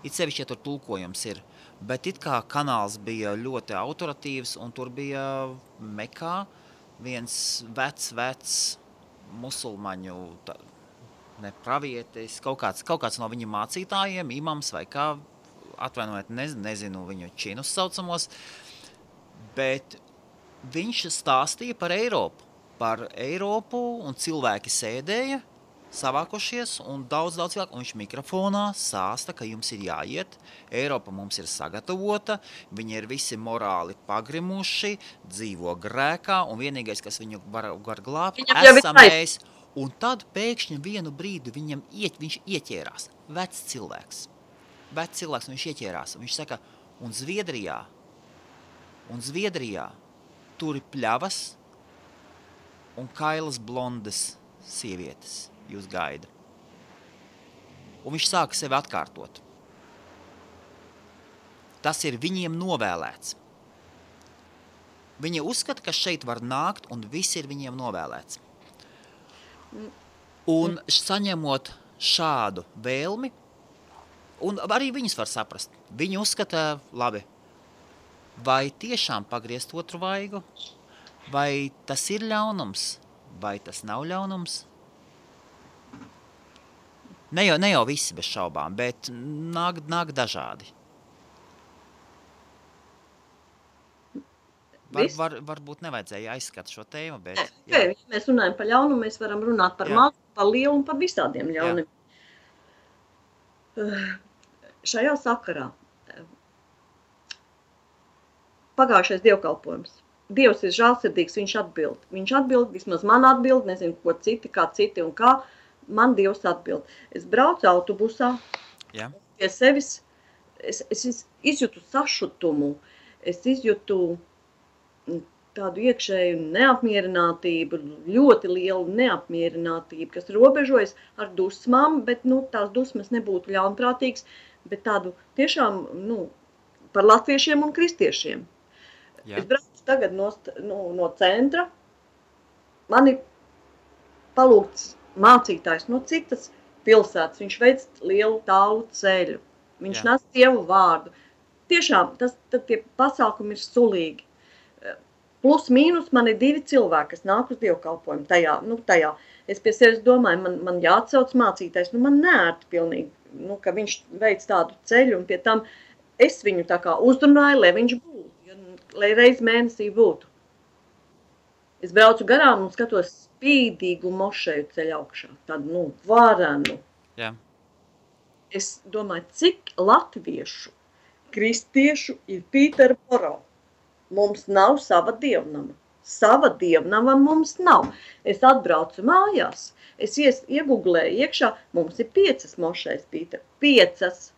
It sevišķi, ja tur tulkojums ir. Bet it kā kanāls bija ļoti autoritīvs, un tur bija Mekā viens vecs musulmaņu pravietis, kaut kāds no viņa mācītājiem, imams vai kā, atvainojiet, nezinu viņu činus saucamos, bet viņš stāstīja par Eiropu, un cilvēki sēdēja, savākošies, un daudz cilvēku, un viņš mikrofonā sāsta, ka jums ir jāiet, Eiropa mums ir sagatavota, viņi ir visi morāli pagrimuši, dzīvo grēkā, un vienīgais, kas viņu var glābt, esam mēs. Un tad pēkšņi vienu brīdi viņš ieķērās, vecs cilvēks, un viņš ieķērās, un viņš saka, un Zviedrijā tur ir pļavas un kailas blondas sievietes. Jūs gaida. Un viņš sāka sevi atkārtot. Tas ir viņiem novēlēts. Viņi uzskata, ka šeit var nākt, un viss ir viņiem novēlēts. Un saņemot šādu vēlmi, un arī viņus var saprast. Viņi uzskata, labi, vai tiešām pagriezt otru vaigu, vai tas ir ļaunums, vai tas nav ļaunums? Ne jau visi bez šaubām, bet nāk dažādi. Varbūt nevajadzēja aizskat šo tēmu, bet... Ja mēs runājam par ļaunumu, mēs varam runāt par mazu, par lielu un par visādiem ļaunumiem. Šajā sakarā pagājušais dievkalpojums. Dievs ir žēlsirdīgs, viņš atbild. Viņš atbild, vismaz man atbild, nezinu, ko kā citi un kā. Man Dievs atbild. Es braucu autobusā, pie sevis, es izjūtu sašutumu, es izjūtu tādu iekšēju neapmierinātību, ļoti lielu neapmierinātību, kas robežojas ar dusmām, bet tās dusmas nebūtu ļaunprātīgas, bet tādu tiešām par latviešiem un kristiešiem. Es braucu tagad no centra, mani palūgts mācītājs no citas pilsētas, viņš veic lielu tālu ceļu, viņš nes Dievu vārdu. Tiešām, tie pasākumi ir sulīgi. Plus mīnus man ir 2 cilvēki, kas nāk uz dievkalpojumu tajā. Es pie sevis domāju, man jāatsauc mācītājs, man neērti pilnīgi, ka viņš veic tādu ceļu, un pie tam es viņu tā kā uzrunāju, lai viņš būtu, lai reiz mēnesī būtu. Es braucu garām un skatos spīdīgu mošeju ceļu augšā, tādu, varenu. Jā. Es domāju, cik latviešu, kristiešu ir Pīterboro. Mums nav sava dievnama. Sava dievnama mums nav. Es atbraucu mājās. Es ieguglēju iekšā. Mums ir 5 mošais, Pīter. 5.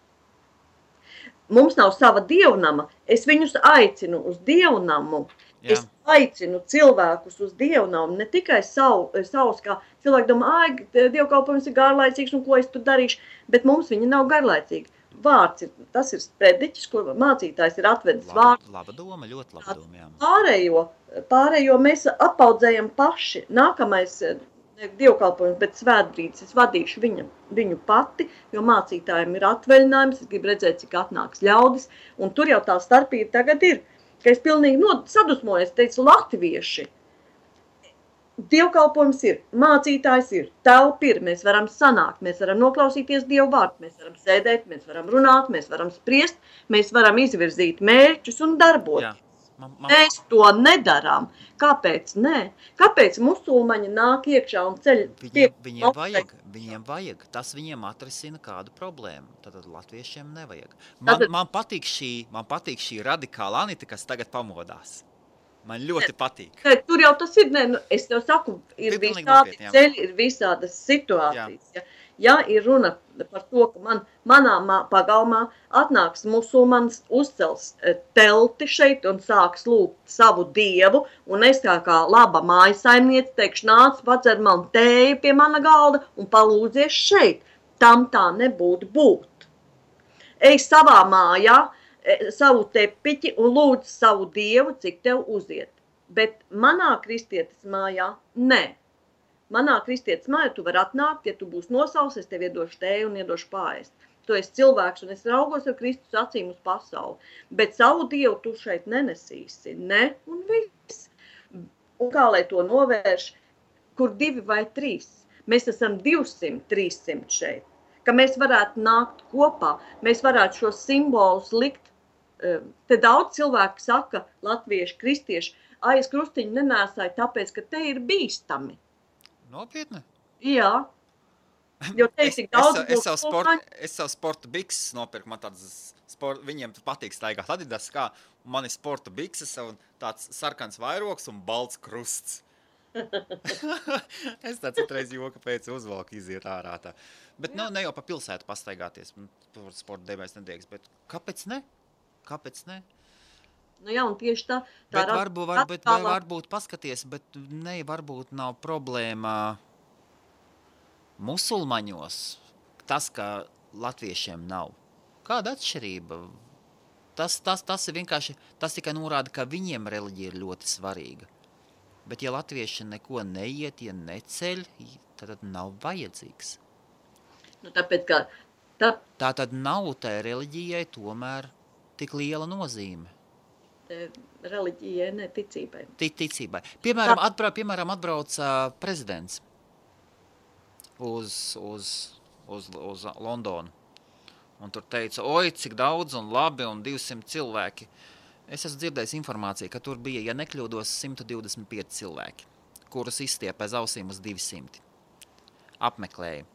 Mums nav sava dievnama. Es viņus aicinu uz dievnamu. Jā. Es aicinu cilvēkus uz dievnamu. Ne tikai savus, kā cilvēki domā, dievkalpojums ir garlaicīgs un ko es tur darīšu. Bet mums viņi nav garlaicīgi. Vārds tas ir sprediķis, ko mācītājs ir atvedis vārdu. Laba doma, ļoti laba doma, jā. Pārējo mēs apaudzējam paši. Nākamais dievkalpojums, bet svētbrīdis es vadīšu viņu pati, jo mācītājiem ir atvaļinājums, es gribu redzēt, cik atnāks ļaudis, un tur jau tā starpība tagad ir, ka es pilnīgi sadusmojos, teicu, latvieši. Dievkalpojums ir, mācītājs ir, telpa ir, mēs varam sanākt, mēs varam noklausīties Dievu vārdu, mēs varam sēdēt, mēs varam runāt, mēs varam spriest, mēs varam izvirzīt mērķus un darboties. Mēs to nedarām. Kāpēc nē? Kāpēc musulmaņi nāk iekšā un ceļ? Viņiem vajag. Tas viņiem atrisina kādu problēmu. Tad latviešiem nevajag. Man patīk šī radikāla Anita, kas tagad pamodās. Man ļoti patīk. Tur jau tas ir, es tev saku, ir visādi ceļi, ir visādas situācijas. Ja ir runa par to, ka manā pagalmā atnāks musulmanis, uzcels telti šeit un sāks lūgt savu dievu, un es kā laba mājasaimniece teikšu, nāc, padzer man tēju pie mana galda un palūdzies šeit. Tam tā nebūtu būt. Ej savā mājā, savu tepiķi un lūdz savu dievu, cik tev uziet. Bet manā kristietes mājā, nē. Manā kristietes mājā tu var atnākt, ja tu būsi nosauls, es tev iedošu tēju un iedošu pārēst. Tu esi cilvēks un es raugos ar Kristus acīm uz pasauli. Bet savu dievu tu šeit nenesīsi. Ne un viss. Un kā lai to novērš, kur 2 vai 3? Mēs esam 200, 300 šeit. Ka mēs varētu nākt kopā, mēs varētu šos simbolus likt. Te daudz cilvēku saka, latvieši, kristieši, es krustiņu nenēsāju, tāpēc, ka te ir bīstami. Nopietni? Jā. Jo te ir tik daudz... Es savu sporta bikses nopirku, man viņiem patīk staigāt Adidas, kā man ir sporta bikses un tāds sarkans vairoks un balts krusts. Es tā citreiz joka pēc uzvalku iziet ārā tā. Bet ne jau pa pilsētu pastaigāties, sporta dēmēs nedrīkst, bet kāpēc ne? Kāpēc ne? Jā, un tieši tā bet varbūt paskaties, bet varbūt nav problēma musulmaņos, tas, ka latviešiem nav. Kāda atšķirība? Tas ir vienkārši, tas tikai norāda, ka viņiem reliģija ir ļoti svarīga. Bet ja latvieši neko neiet, ja neceļ, tad nav vajadzīgs. Tāpēc, ka... Tā tad nav tai reliģijai tomēr tik liela nozīme. Reliģijai, ne ticībai. Ticībai. Piemēram, atbrauc prezidents uz Londonu. Un tur teica, oi, cik daudz un labi un 200 cilvēki. Es esmu dzirdējis informāciju, ka tur bija, ja nekļūdos, 125 cilvēki, kurus izstiep aiz ausīm uz 200. Apmeklēja.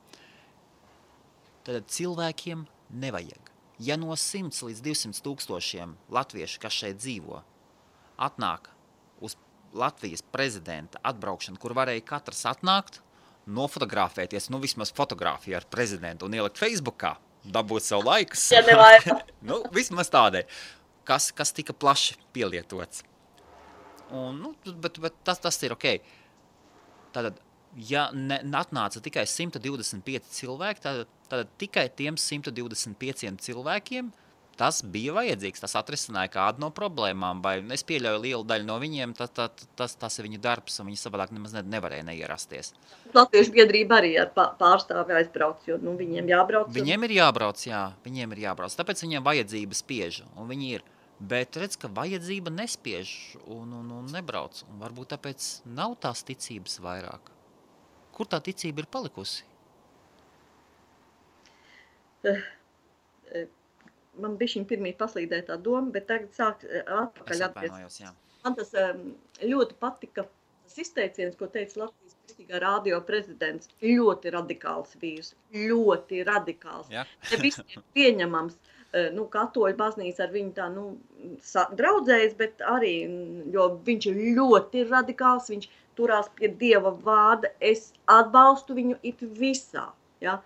Tad cilvēkiem nevajag. Ja no 100 līdz 200 tūkstošiem latviešu, kas šeit dzīvo, atnāk uz Latvijas prezidenta atbraukšanu, kur varēja katrs atnākt, nofotografēties, vismaz fotografiju ar prezidentu un ielikt Facebookā, dabūt savu laikus. Ja nevajag. Vismaz tādai, kas tika plaši pielietots. Un, bet tas ir ok. Tātad, ja atnāca tikai 125 cilvēki, tad tikai tiem 125 cilvēkiem tas bija vajadzīgs. Tas atrisināja kādu no problēmām, vai es pieļauju lielu daļu no viņiem, tas ir viņu darbs, un viņi savādāk nemaz nevarēja neierasties. Latviešu biedrība arī ar pārstāvi aizbrauc, jo viņiem jābrauc. Viņiem ir jābrauc, jā. Viņiem ir jābrauc. Tāpēc viņiem vajadzība spiež, un viņi ir. Bet redz, ka vajadzība nespiež un nebrauc. Un varbūt tāpēc nav tās ticības vairāk. Kur tā ticība ir palikusi? Man bišķiņ pirmī paslīdēja tā doma, bet tagad sāk atpakaļ atgriezties. Man tas ļoti patika, tas izteiciens, ko teica Latvijas Kristīgā radio prezidents, ļoti radikāls vīrs, ļoti radikāls. Ja. Ne visiem pieņemams, katoļu baznīca ar viņu tā, draudzējas, bet arī, jo viņš ir ļoti radikāls, viņš turās pie Dieva vārda, es atbalstu viņu it visā, ja.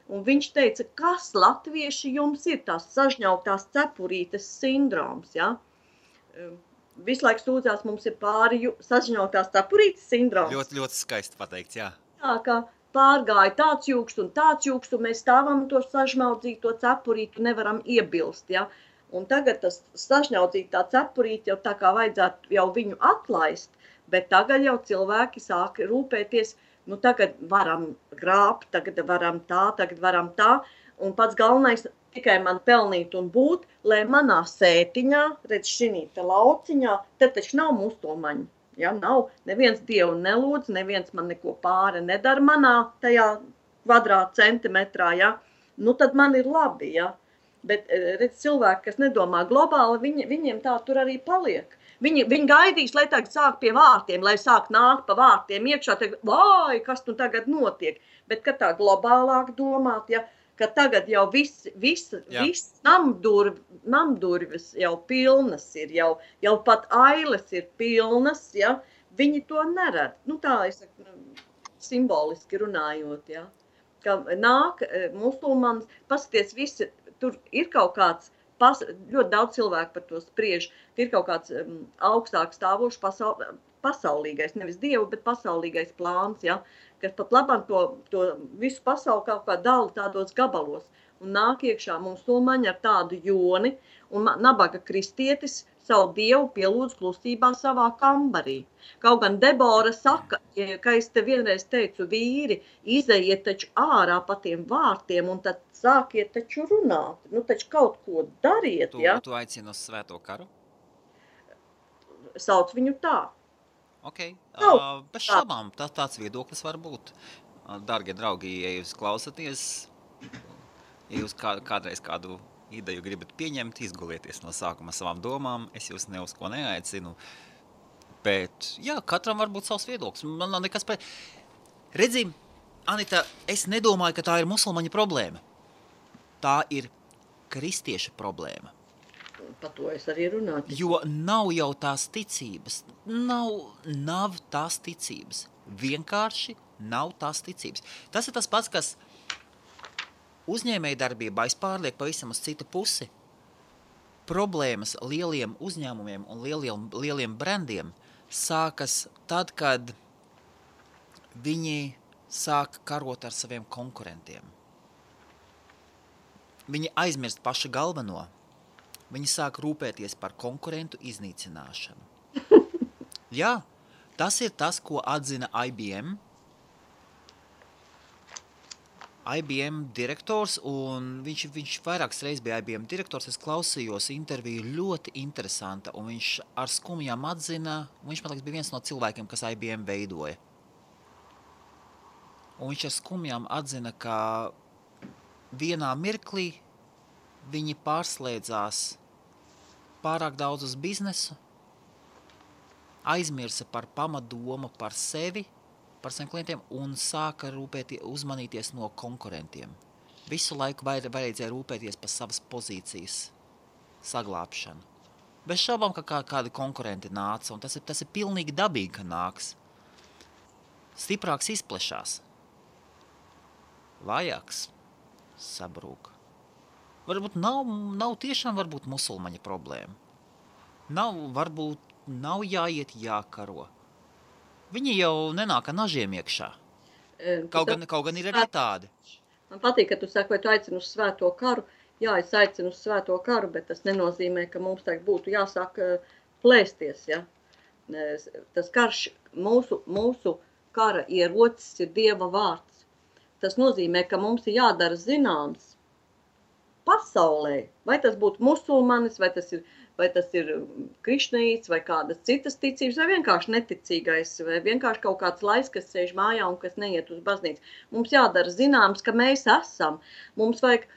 Un viņš teica, kas latvieši jums ir tās sažņautās cepurītes sindroms, ja? Visu laiku sūdzās, mums ir pāri sažņautās cepurītes sindroms. Ļoti, ļoti skaisti pateikts, jā. Jā, ka pārgāja tāds jūkst, un mēs stāvam to sažņaudzīto cepurītu nevaram iebilst, ja? Un tagad tas sažņaudzītā cepurīte jau tā kā vajadzētu jau viņu atlaist, bet tagad jau cilvēki sāk rūpēties, tagad varam grābt, tagad varam tā, un pats galvenais tikai man pelnīt un būt, lai manā sētiņā, redz šinī te lauciņā, te taču nav musulmaņu, ja, nav, neviens Dievu nelūdz, neviens man neko pāri nedara manā tajā kvadrātcentimetrā, ja, tad man ir labi, ja, bet, redz, cilvēki, kas nedomā globāli, viņiem tā tur arī paliek. Viņi gaidīs, lai tagad sāk pie vārtiem, lai sāk nākt pa vārtiem iekšā, vai, kas tu tagad notiek. Bet, kad tā globālāk domāt, ja, ka tagad jau viss namdurvis jau pilnas ir, jau pat ailes ir pilnas, ja, viņi to neredz. Tā, es saku, simboliski runājot, ja, ka nāk musulmanis, paskaties visi, tur ir kaut kāds, ļoti daudz cilvēku par to spriež, ka ir kaut kāds augstāk stāvošs pasaulīgais, nevis Dievu, bet pasaulīgais plāns, ja, kas pat labam to visu pasauli kaut kā dala tādos gabalos. Un nāk iekšā musulmaņi ar tādu joni, un nabaga kristietis savu Dievu pielūdz klusībā savā kambarī. Kaut gan Debora saka, ka es te vienreiz teicu, vīri, izejiet taču ārā pa tiem vārtiem, un tad sākiet taču runāt. Taču kaut ko dariet, ja? Tu aicini uz svēto karu? Sauc viņu tā. Ok, bez šaubām, tāds viedoklis var būt. Dargie draugi, ja jūs klausaties, ja jūs kādreiz kādu ideju gribat pieņemt, izgulieties no sākuma savām domām, es jūs ne uz ko neaicinu, bet, jā, katram var būt savs viedoklis. Man nav nekas Redzi, Anita, es nedomāju, ka tā ir musulmaņa problēma. Tā ir kristieša problēma. Par to es arī runāju. Jo nav jau tās ticības. Nav tās ticības. Vienkārši nav tās ticības. Tas ir tas pats, kas uzņēmējdarbībā es pārlieku pavisam uz citu pusi. Problēmas lieliem uzņēmumiem un lieliem brandiem sākas tad, kad viņi sāk karot ar saviem konkurentiem. Viņi aizmirst pašu galveno. Viņi sāk rūpēties par konkurentu iznīcināšanu. Jā, tas ir tas, ko atzina IBM. IBM direktors, un viņš vairākas reizes bija IBM direktors. Es klausījos interviju, ļoti interesanta, un viņš ar skumjām atzina, viņš, man liekas, bija viens no cilvēkiem, kas IBM veidoja. Un viņš ar skumjām atzina, ka vienā mirklī viņi pārslēdzās pārāk daudz uz biznesu, aizmirsa par pamatdomu par sevi, par saviem klientiem un sāka uzmanīties no konkurentiem. Visu laiku vajadzēja rūpēties par savas pozīcijas saglābšanu. Bez šaubām, ka kādi konkurenti nāca, un tas ir pilnīgi dabīgi, ka nāks. Stiprāks izplešās. Vājāks sabrūk. Varbūt nav tiešām varbūt musulmaņa problēma. Varbūt nav jāiet jākaro. Viņi jau nenāk ar nažiem iekšā. Kaut gan ir arī tādi. Man patīk, ka tu saki, vai tu aicini uz svēto karu. Jā, es aicinu uz svēto karu, bet tas nenozīmē, ka mums tagad būtu jāsāk plēsties. Ja? Tas karš, mūsu kara ierocis ir Dieva vārds. Tas nozīmē, ka mums ir jādara zināms pasaulē. Vai tas būtu musulmanis, vai tas ir krišnaīts, vai kādas citas ticības, vai vienkārši neticīgais, vai vienkārši kaut kāds laiks, kas sēž mājā un kas neiet uz baznīcu. Mums jādara zināms, ka mēs esam. Mums vajag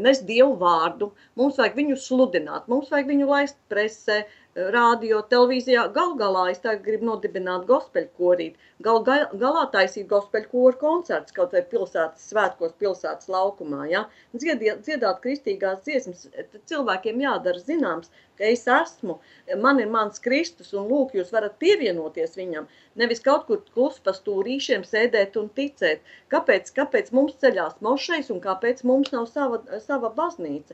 nest Dievu vārdu, mums vajag viņu sludināt, mums vajag viņu laist presē, rādio, televīzijā. Galā es tagad gribu nodibināt gospeļu korīt. Galā taisīt gospeļu koru koncerts, kaut vai pilsētas svētkos, pilsētas laukumā. Ja? Dziedāt kristīgās dziesmas. Cilvēkiem jādara zināms, ka es esmu, man ir mans Kristus, un lūk, jūs varat pievienoties viņam. Nevis kaut kur klus pa stūrīšiem sēdēt un ticēt. Kāpēc mums ceļās mošais un kāpēc mums nav sava baznīca?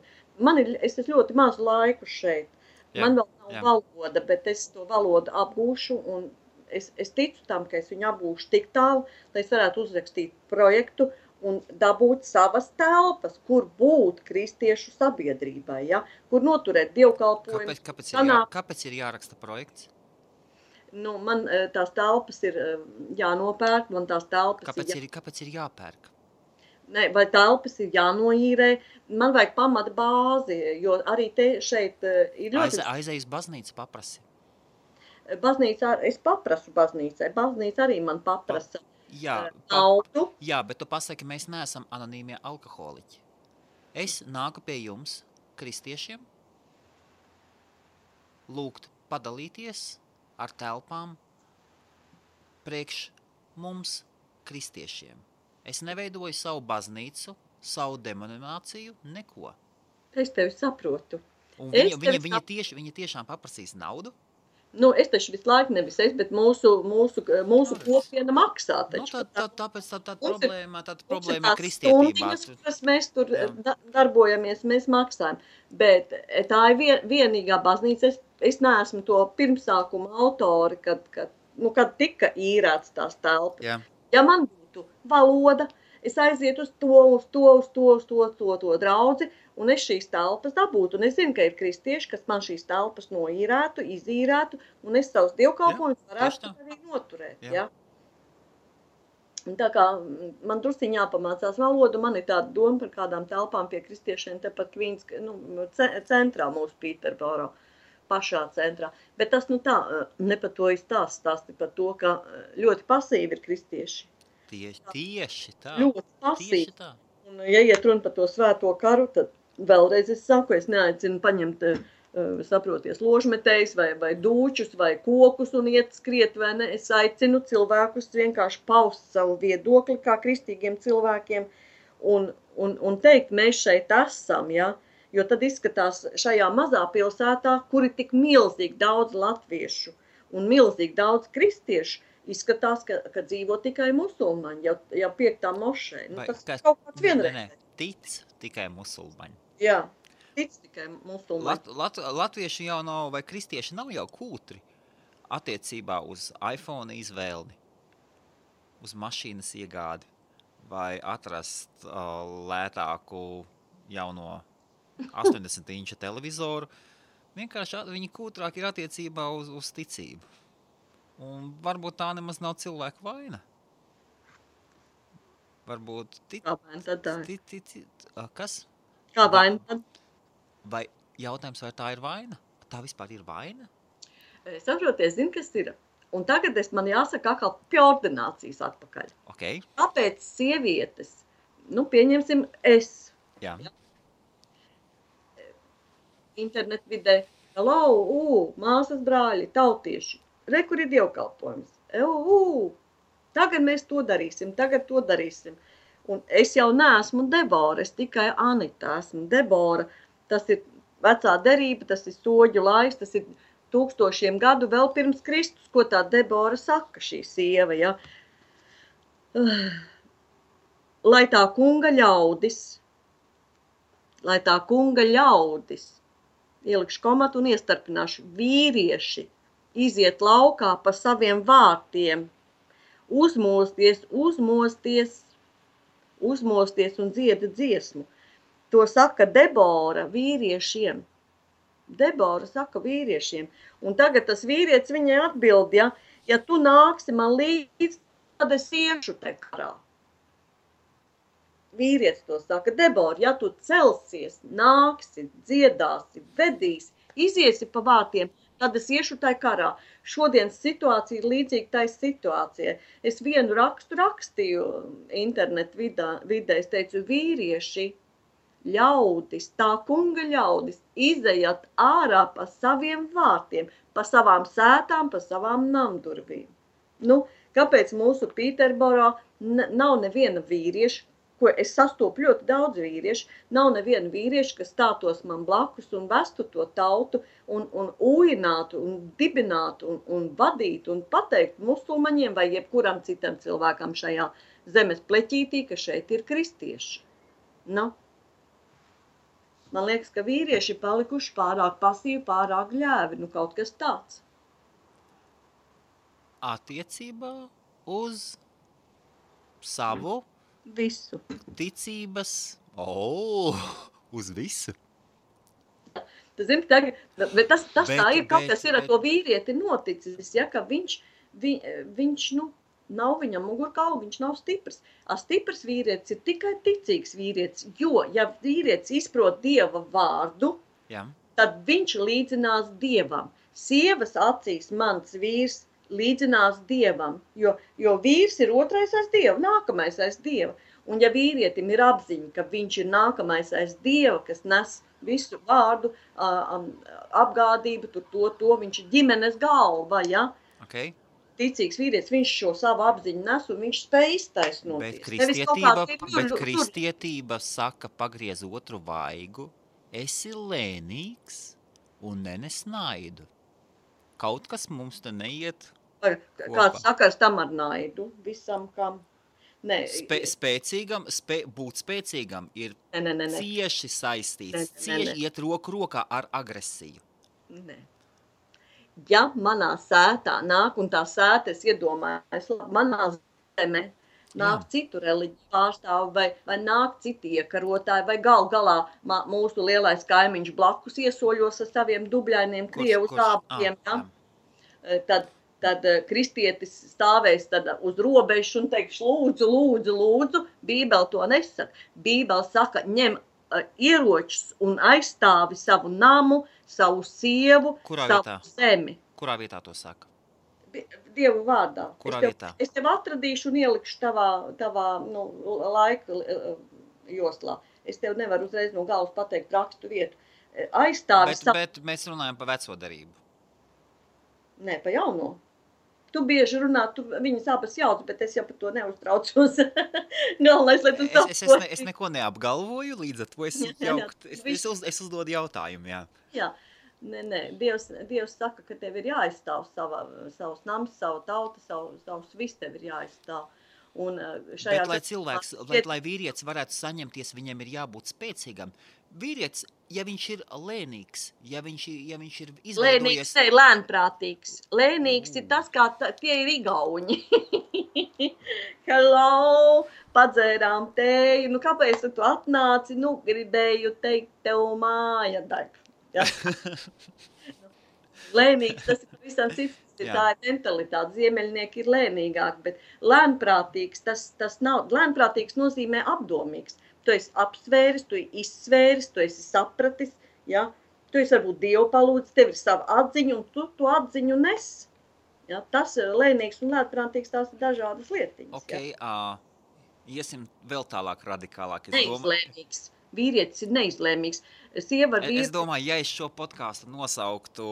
Es esmu ļoti mazu laiku šeit. Jā, man vēl nav valoda, bet es to valodu apgūšu, un es ticu tam, ka es viņu apgūšu tik tālu, lai es varētu uzrakstīt projektu un dabūt savas telpas, kur būt kristiešu sabiedrībai, ja? Kur noturēt dievkalpojumu. Kāpēc ir jāraksta projekts? Nu, man tās telpas ir jānopērk, man tās telpas Kāpēc ir jāpērk? Ne, vai telpas ir jānoīrē, man vajag pamata bāzi, jo arī šeit ir ļoti... Aizej uz baznīcu paprasi. Es paprasu baznīcai, baznīca arī man paprasa naudu. Jā, bet tu pasaki, mēs neesam anonīmie alkoholiķi. Es nāku pie jums, kristiešiem, lūgt padalīties ar telpām priekš mums, kristiešiem. Es neveidoju savu baznīcu, savu demonināciju, neko. Es tevi saprotu. Un viņi tiešām paprasīs naudu? Nu, es taču visu laiku nevis bet mūsu kopiena maksā. Taču, tāpēc tāda problēma kristietībā. Stundiņas, mēs tur darbojamies, mēs maksājam. Bet tā ir vienīgā baznīca. Es neesmu to pirmsākuma autori, kad tika īrēts tās telpas. Jā. Ja man būtu valoda, es aizietu uz to draudzi, un es šīs telpas dabūtu. Un es zinu, ka ir kristieši, kas man šīs telpas noīrētu, izīrētu, un es savus dievkalpojumus varētu arī noturēt. Ja? Un tā kā man drusciņ jāpamācās valodu, man ir tāda doma par kādām telpām pie kristiešiem, tepat Kvīns, centrā mūsu Pīterboro, pašā centrā. Bet tas ne par to stāsti par to, ka ļoti pasīvi ir kristieši. Tieši tā. Ļoti pasīvi. Un, ja iet runa par to svēto karu, tad vēlreiz es saku, es neaicinu paņemt, saproties, ložmetējs vai dūčus vai kokus un iet skriet, vai ne. Es aicinu cilvēkus vienkārši paust savu viedokli kā kristīgiem cilvēkiem un teikt, mēs šeit esam, ja. Jo tad izskatās šajā mazā pilsētā, kur ir tik milzīgi daudz latviešu un milzīgi daudz kristiešu, izskatās, ka dzīvo tikai musulmaņi, jau 5. mošē. Tas kaut kāds vienreiz. Tic tikai musulmaņi. Jā, tic tikai musulmaņi. Latvieši jau nav, vai kristieši nav jau kūtri attiecībā uz iPhone izvēli, uz mašīnas iegādi, vai atrast lētāku jauno 80-inča televizoru. Vienkārši viņi kūtrāk ir attiecībā uz ticību. Un varbūt tā nemaz nav cilvēka vaina. varbūt Kā vaina tad tā ir? kas? Kā vaina tad? Vai jautājums, vai tā ir vaina? Tā vispār ir vaina? Saproties, zini, kas ir? Un tagad man jāsaka atkal pie ordinācijas atpakaļ. Okay. Kāpēc sievietes, pieņemsim es, Jā. internet vidē, māsas brāļi, tautieši, re, kur ir dievkalpojums, tagad mēs to darīsim, un es jau neesmu Debora, es tikai Anita esmu Debora, tas ir vecā derība, tas ir soģu laiks, tas ir 1000 gadu vēl pirms Kristus, ko tā Debora saka, šī sieva, ja. Lai tā kunga ļaudis, ielikšu komatu un iestarpināšu, vīrieši iziet laukā pa saviem vārtiem, uzmosties un dzieda dziesmu. To saka Debora vīriešiem. Debora saka vīriešiem. Un tagad tas vīrietis viņai atbild, ja tu nāksi man līdz, tad es iešu te karā. Vīrietis to saka, Debora, ja tu celsies, nāksi, dziedāsi, vedīsi, iziesi pa vārtiem, tad es iešu tai karā. Šodienas situācija ir līdzīga tai situācijai. Es vienu rakstu rakstīju internet vidē, es teicu, vīrieši, ļaudis, tā kunga ļaudis, izejat ārā pa saviem vārtiem, pa savām sētām, pa savām namdurvīm. Kāpēc mūsu Pīterborā nav neviena vīrieša, ko es sastopu ļoti daudz vīriešu, nav neviena vīrieša, kas stātos man blakus un vestu to tautu un ūjinātu un dibinātu un vadītu un pateiktu musulmaņiem vai jebkuram citam cilvēkam šajā zemes pleķītī, ka šeit ir kristieši. Man liekas, ka vīrieši palikuši pārāk pasīvi, pārāk ļēvi, kaut kas tāds. Attiecībā uz savu visu ticības, uz visu. Tu zini, tagad, bet tas tā ir, kaut kas ir ar to vīrieti noticis, ka viņš nav viņam mugurkaula, viņš nav stiprs. Stiprs vīrietis ir tikai ticīgs vīrietis, jo, ja vīrietis izprot Dieva vārdu, tad viņš līdzinās Dievam. Sievas acīs mans vīrs līdzinās Dievam, jo vīrs ir otrais aiz Dieva, nākamais aiz Dieva. Un ja vīrietim ir apziņa, ka viņš ir nākamais aiz Dieva, kas nes visu vārdu, apgādību, to viņš ir ģimenes galva, Okay. Ticīgs vīrietis, viņš šo savu apziņu nes un viņš spēj iztaisnoties. Bet kristietība saka, pagriez otru vaigu, esi lēnīgs un nenes naidu. Kaut kas mums te neiet kopā. Kāds sakars tam ar naidu visam, kam? Būt spēcīgam ir cieši saistīts, cieši iet roku rokā ar agresiju. Nē. Ja manā sētā nāk, un tā sēta es iedomājos, manā zemē nāk citu reliģiju pārstāvi, vai nāk citi iekarotāji, vai galā mūsu lielais kaimiņš blakus iesoļos ar saviem dubļainiem krievu zābkiem, tad kristietis stāvēs uz robežu un teiks, lūdzu, Bībele to nesaka. Bībele saka, ņem ieročus un aizstāvi savu namu, savu sievu, savu zemi. Kurā vietā to saka? Dievu vārdā. Kurā vietā? Es tev atradīšu un ielikšu tavā laika joslā. Es tev nevaru uzreiz no galvas pateikt rakstu vietu. Aizstāvi savu... Bet mēs runājam par veco darību. Nē, pa jauno. Tu bieži runā, viņas abas jauc, bet es jau par to neuztraucos. Galvenais, lai tu saproti. Es neko neapgalvoju, līdz ar to es uzdodu jautājumu, Jā, nē, Dievs saka, ka tev ir jāaizstāv savus nams, savu tautu, savus viss tev ir jāaizstāv. Bet, lai vīrietis varētu saņemties, viņam ir jābūt spēcīgam. Vīrietis, ja viņš ir lēnīgs, ja viņš ir izveidojies... Lēnīgs, ne, lēnprātīgs. Lēnīgs ir tas, kā tie ir igauņi. Hello, padzērām tēju. Kāpēc tu atnāci? Gribēju teikt tev māja daļu. Ja? Lēnīgs, tas ir visam cits tā ir mentalitāte. Ziemeļnieki ir lēnīgāki, bet lēnprātīgs, tas nav. Lēnprātīgs nozīmē apdomīgs. Tu esi apsvēris, tu esi izsvēris, tu esi sapratis, ja? Tu esi varbūt Dievu palūdzis, tev ir sava atziņa, un tu to atziņu nes. Ja? Tas lēnīgs un lēnprātīgs, tās ir dažādas lietiņas. Okay, iesim vēl tālāk radikālāk. Neizlēmīgs. Vīrietis ir neizlēmīgs. Es domāju, ja es šo podcastu nosauktu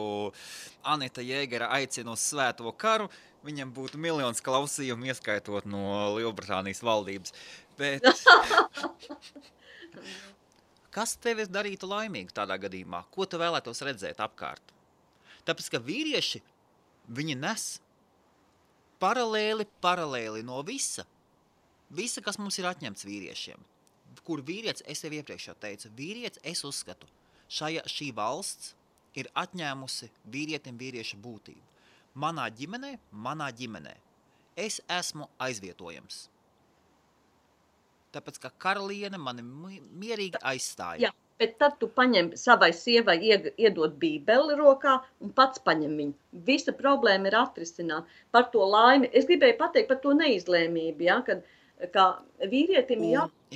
Anita Jēgera aicina uz svēto karu, viņam būtu miljons klausījumu, ieskaitot no Lielbritānijas valdības. Bet kas tevi darītu laimīgu tādā gadījumā? Ko tu vēlētos redzēt apkārt? Tāpēc, ka vīrieši, viņi nes paralēli no visa, kas mums ir atņemts vīriešiem. Kur vīrietis, es tev iepriekš jau teicu, vīrietis, es uzskatu, šī valsts ir atņēmusi vīrietim vīrieša būtību. Manā ģimenē, es esmu aizvietojams. Tāpēc, ka karaliene mani mierīgi aizstāja. Jā, bet tad tu paņem savai sievai iedot bībeli rokā un pats paņem viņu. Visa problēma ir atrisināt par to laimi. Es gribēju pateikt par to neizlēmību, ja, kad kā vīrietim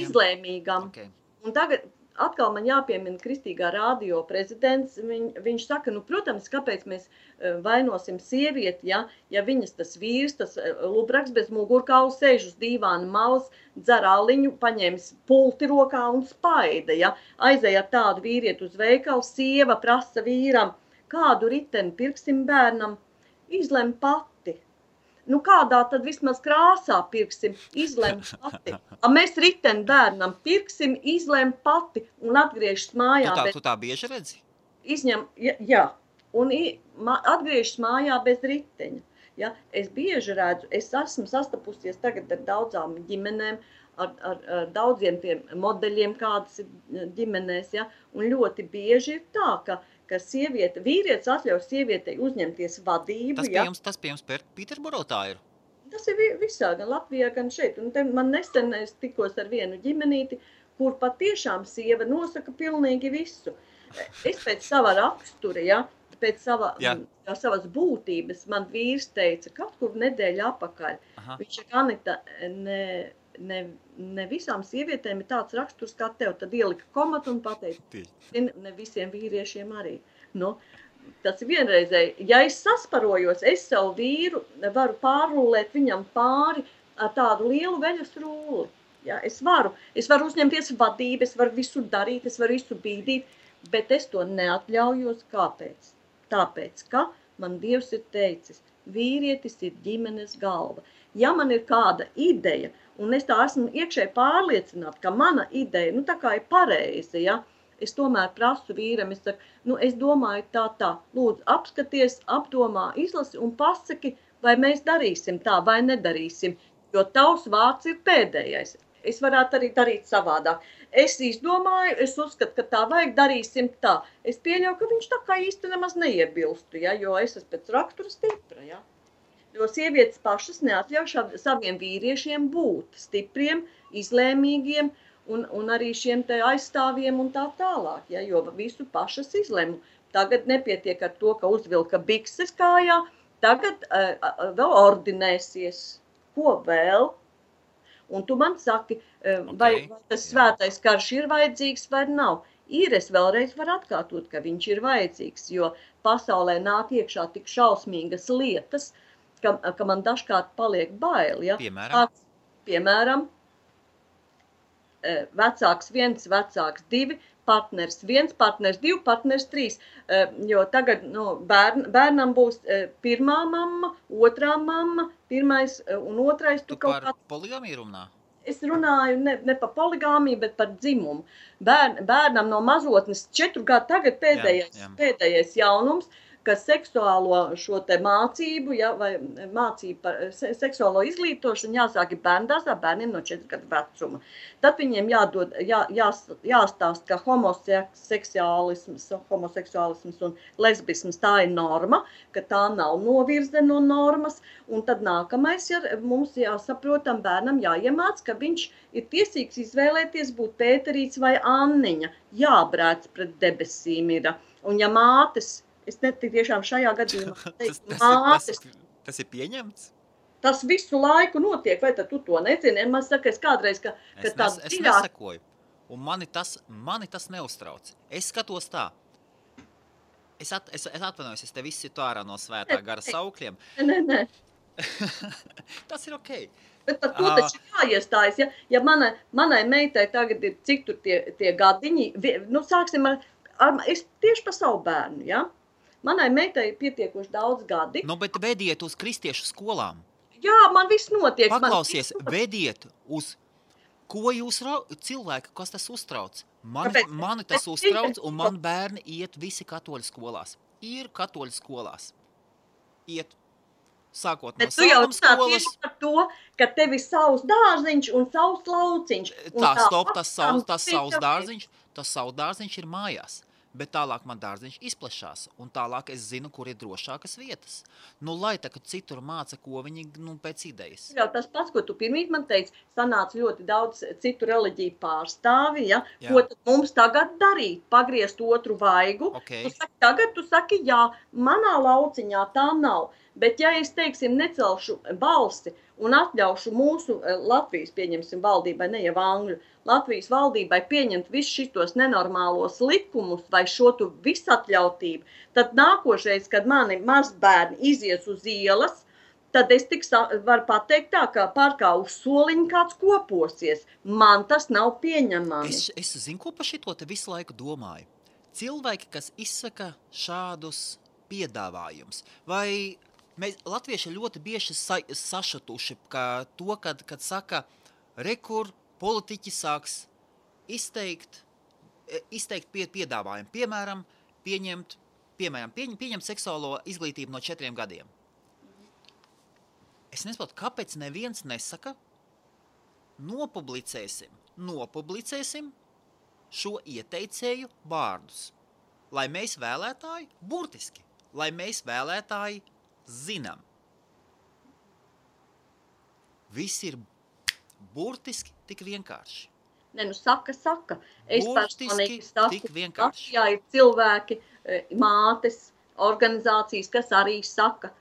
izlēmīgam. Okay. Un tagad atkal man jāpiemina Kristīgā radio prezidents. Viņš saka, protams, kāpēc mēs vainosim sievieti, ja viņas tas vīrs, tas lubraks bez mugurkaula sēž uz dīvāna malas, dzer aliņu, paņēmis pulti rokā un spaida. Ja? Aizēja ar tādu vīrieti uz veikalu, sieva prasa vīram, kādu riteni pirksim bērnam, izlem pati. Kādā tad vismaz krāsā pirksim, izlem pati. Mēs riteni bērnam pirksim, izlem pati un atgriežas mājā. Tu tā bieži redzi? Jā, un atgriežas mājā bez riteņa. Ja? Es bieži redzu, es esmu sastapusies tagad ar daudzām ģimenēm, ar daudziem tiem modeļiem, kādas ir ģimenēs, ja? Un ļoti bieži ir tā, ka vīrietis atļauj sievietei uzņemties vadību. Tas pie jums Pīterburā tā ir? Tas ir visā, gan Latvijā, gan šeit. Un man nesen es tikos ar vienu ģimenīti, kur patiešām sieva nosaka pilnīgi visu. Es pēc sava rakstura, ja, pēc savas būtības, man vīrs teica, kaut kur nedēļa apakaļ. Aha. Viņš saka, Anita, ne visām sievietēm ir tāds raksturs kā tev, tad ielika komatu un pateica, ne visiem vīriešiem arī. Tas ir vienreizēji. Ja es sasparojos, es savu vīru varu pārrullēt viņam pāri ar tādu lielu veļas rulli. Ja, es varu uzņemties vadību, es varu visu darīt, es varu visu bīdīt, bet es to neatļaujos. Kāpēc? Tāpēc, ka man Dievs ir teicis, vīrietis ir ģimenes galva. Ja man ir kāda ideja, un es tā esmu iekšēji pārliecināta, ka mana ideja, tā kā ir pareiza, ja, es tomēr prasu vīram, es saku, es domāju tā, lūdzu, apskaties, apdomā, izlasi un pasaki, vai mēs darīsim tā, vai nedarīsim, jo tavs vārds ir pēdējais. Es varētu arī darīt savādāk. Es izdomāju, es uzskatu, ka tā vajag, darīsim tā. Es pieļauju, ka viņš tā kā īsti nemaz neiebilstu, ja, jo es esmu pēc rakstura stipra, ja. Jo sievietes pašas neatļauj saviem vīriešiem būt stipriem, izlēmīgiem un arī šiem te aizstāvjiem un tā tālāk, ja, jo visu pašas izlēmu. Tagad nepietiek ar to, ka uzvilka bikses kājā, tagad vēl ordinēsies. Ko vēl? Un tu man saki, vai tas svētais karš ir vajadzīgs vai nav. Es vēlreiz varu atkārtot, ka viņš ir vajadzīgs, jo pasaulē nāk iekšā tik šausmīgas lietas, ka man dažkārt paliek bail. Ja? Piemēram, vecāks 1, vecāks 2, partners 1, partners 2, partners 3. Jo tagad bērnam būs pirmā mamma, otrā mamma, pirmais un otrais. Tu par poligāmiju runā? Es runāju ne par poligāmiju, bet par dzimumu. Bērnam no mazotnes 4 gadu tagad pēdējais jaunums, ka seksuālo šo te mācību, ja, vai mācību par seksuālo izglītošanu jāsāk bērndārzā bērniem no 4 gadu vecuma. Tad viņiem jāstāst, ka homoseksuālisms un lesbisms tā ir norma, ka tā nav novirze no normas, un tad nākamais mums jāsaprotam bērnam jāiemāc, ka viņš ir tiesīgs izvēlēties būt Pēterīts vai Anniņa, jābrēc pret debesīm ir. Un ja mātes Es tiešām šajā gadījumā teiktu, tas ir pieņemts? Tas visu laiku notiek, vai tad tu to nezini? Man saka, es kādreiz, ka tāds es nesakoju, un mani tas neuztrauc. Es skatos tā. Es atvainojos, es te visu tu ārā no svētā gara saukļiem. Nē. Tas ir okei. Bet par to taču jāiestājas, ja manai meitai tagad ir cik tur tie gadiņi, nu sāksim es tieši par savu bērnu, ja? Manai meitai ir pietiekoši daudz gadi. Nu, bet vediet uz kristiešu skolām. Jā, man viss notiek. Paklausies, vediet uz, ko jūs cilvēki, kas tas uztrauc. Mani tas uztrauc, un man bērni iet visi katoļu skolās. Ir katoļu skolās. Iet. Sākot no sākuma skolas. Bet tu jau runā tieši par to, ka tev ir savs dārziņš un savs lauciņš. Tas savs dārziņš ir mājās. Bet tālāk man dārziņš izplešās, un tālāk es zinu, kur ir drošākas vietas. Nu, lai tā, ka citur māca, ko viņi, pēc idejas. Jā, tas pats, ko tu pirmīt man teici, sanāca ļoti daudz citu reliģiju pārstāvi, ja? Ko tad mums tagad darīt? Pagriezt otru vaigu? Okay. Tu saki, jā, manā lauciņā tā nav. Bet ja es, teiksim, necelšu balsi un atļaušu mūsu Latvijas, pieņemsim, valdībai, ne jau Angļu, Latvijas valdībai pieņemt visus šitos nenormālos likumus vai šo tu visatļautību, tad nākošais, kad mani mazbērni izies uz ielas, tad es varu pateikt tā, ka parkā uz soliņa kāds koposies. Man tas nav pieņemami. Es zinu, ko par šito te visu laiku domāju. Cilvēki, kas izsaka šādus piedāvājumus, vai mēs latvieši ļoti bieži sašatuši, kad saka, rekur politiķi sāks izteikt piedāvājumu. Piemēram, pieņemt seksuālo izglītību no 4 gadiem. Es nesaprotu, kāpēc neviens nesaka, nopublicēsim šo ieteicēju vārdus, lai mēs vēlētāji, burtiski, lai mēs vēlētāji zinām. Viss ir burtiski tik vienkārši. Ne, nu saka. Es burtiski tik vienkārši. Jā, ir cilvēki, mātes, organizācijas, kas arī saka,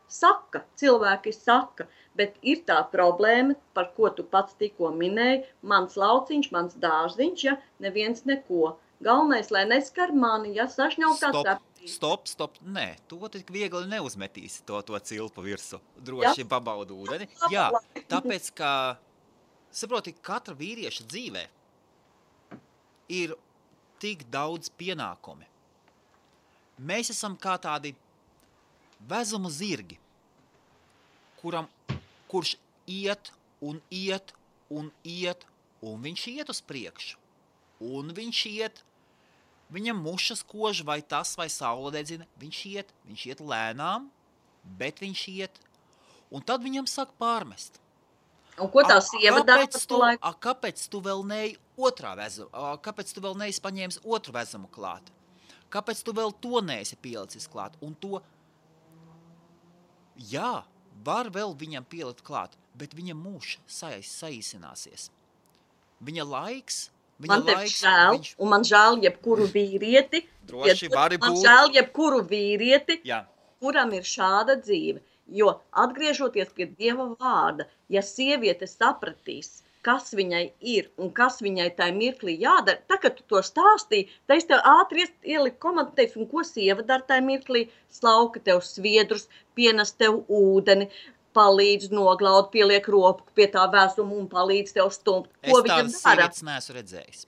cilvēki saka, bet ir tā problēma, par ko tu pats tikko minēji, mans lauciņš, mans dārziņš, ja, neviens neko. Galvenais, lai neskar mani, ja sašņauj kāds Stop, nē, to tik viegli neuzmetīsi to cilpu virsu, droši pabaudu ūdeni. Jā, tāpēc, ka, saproti, katra vīrieša dzīvē ir tik daudz pienākumi. Mēs esam kā tādi vezumu zirgi, kurš iet, un viņš iet uz priekšu, un viņš iet, viņam mušas kož vai tas, vai saule dedzina, viņš iet lēnām, bet viņš iet, un tad viņam sāk pārmest. Un ko tā sieva dara par to laiku? Kāpēc tu vēl neej otrā vezumu, kāpēc tu vēl neesi paņēmis otru vezumu klāt? Kāpēc tu vēl to neesi pielicis klāt? Un to, jā, var vēl viņam pielikt klāt, bet viņa mūžs saīsināsies. Viņa laiks, man tev žēl, un man žēl jebkuru vīrieti, droši vari būt. Man žēl jebkuru vīrieti, jā. Kuram ir šāda dzīve. Jo atgriežoties pie Dieva vārda, ja sieviete sapratīs, kas viņai ir un kas viņai tajā mirklī jādara, tā, kad tu to stāstīji, tad es tev ātri ieliku komandu, teicu, un ko sieva dara tajā mirklī, slauka tev sviedrus, pienes tev ūdeni, palīdz noglaud, pieliek roku pie tā vēsuma un palīdz tev stumt. Ko viņa dara? Es tādas sievietes neesmu redzējis.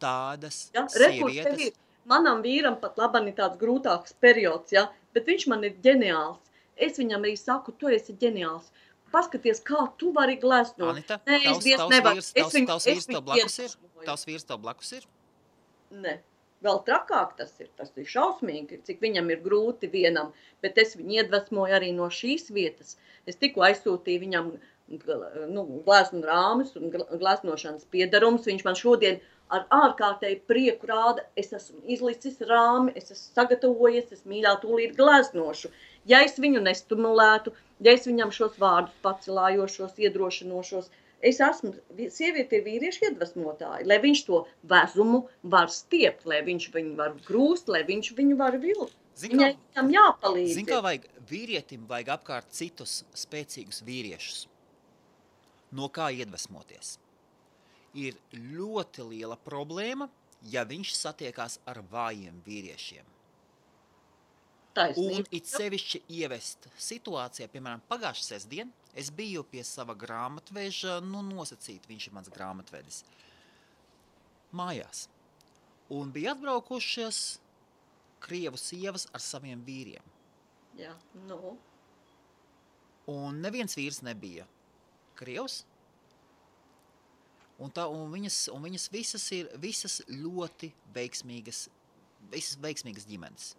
Tādas sievietes. Manam vīram pat labam ir tāds grūtāks periods, ja? Bet viņš man ir ģeniāls. Es viņam arī saku, tu esi ģeniāls. Paskaties, kā tu vari gleznot. Anita, tavs vīrs tev blakus ir? Ne. Vēl trakāk tas ir šausmīgi, cik viņam ir grūti vienam, bet es viņu iedvesmoju arī no šīs vietas. Es tikko aizsūtīju viņam gleznu rāmis un gleznošanas piedarums. Viņš man šodien ar ārkārtēju prieku rāda, es esmu izlicis rāmi, es esmu sagatavojies, es mīļā tūlīt gleznošu. Ja es viņu nestimulētu, ja es viņam šos vārdus pacelājošos, iedrošinošos, es esmu, sieviete ir vīriešu iedvesmotāja, lai viņš to vezumu var stiept, lai viņš viņu var grūst, lai viņš viņu var vilkt. Viņai tam jāpalīdz. Zin, kā vīrietim vajag apkārt citus spēcīgus vīriešus. No kā iedvesmoties? Ir ļoti liela problēma, ja viņš satiekās ar vājiem vīriešiem. Taisnība. Un it sevišķi ievest situācijā, piemēram, pagājušā sestdien, es biju pie sava grāmatveža, nosacīt, viņš ir mans grāmatvedis, mājās. Un bija atbraukušies krievu sievas ar saviem vīriem. Jā, nu. Un neviens vīrs nebija krievs. Un viņas visas ļoti veiksmīgas ģimenes.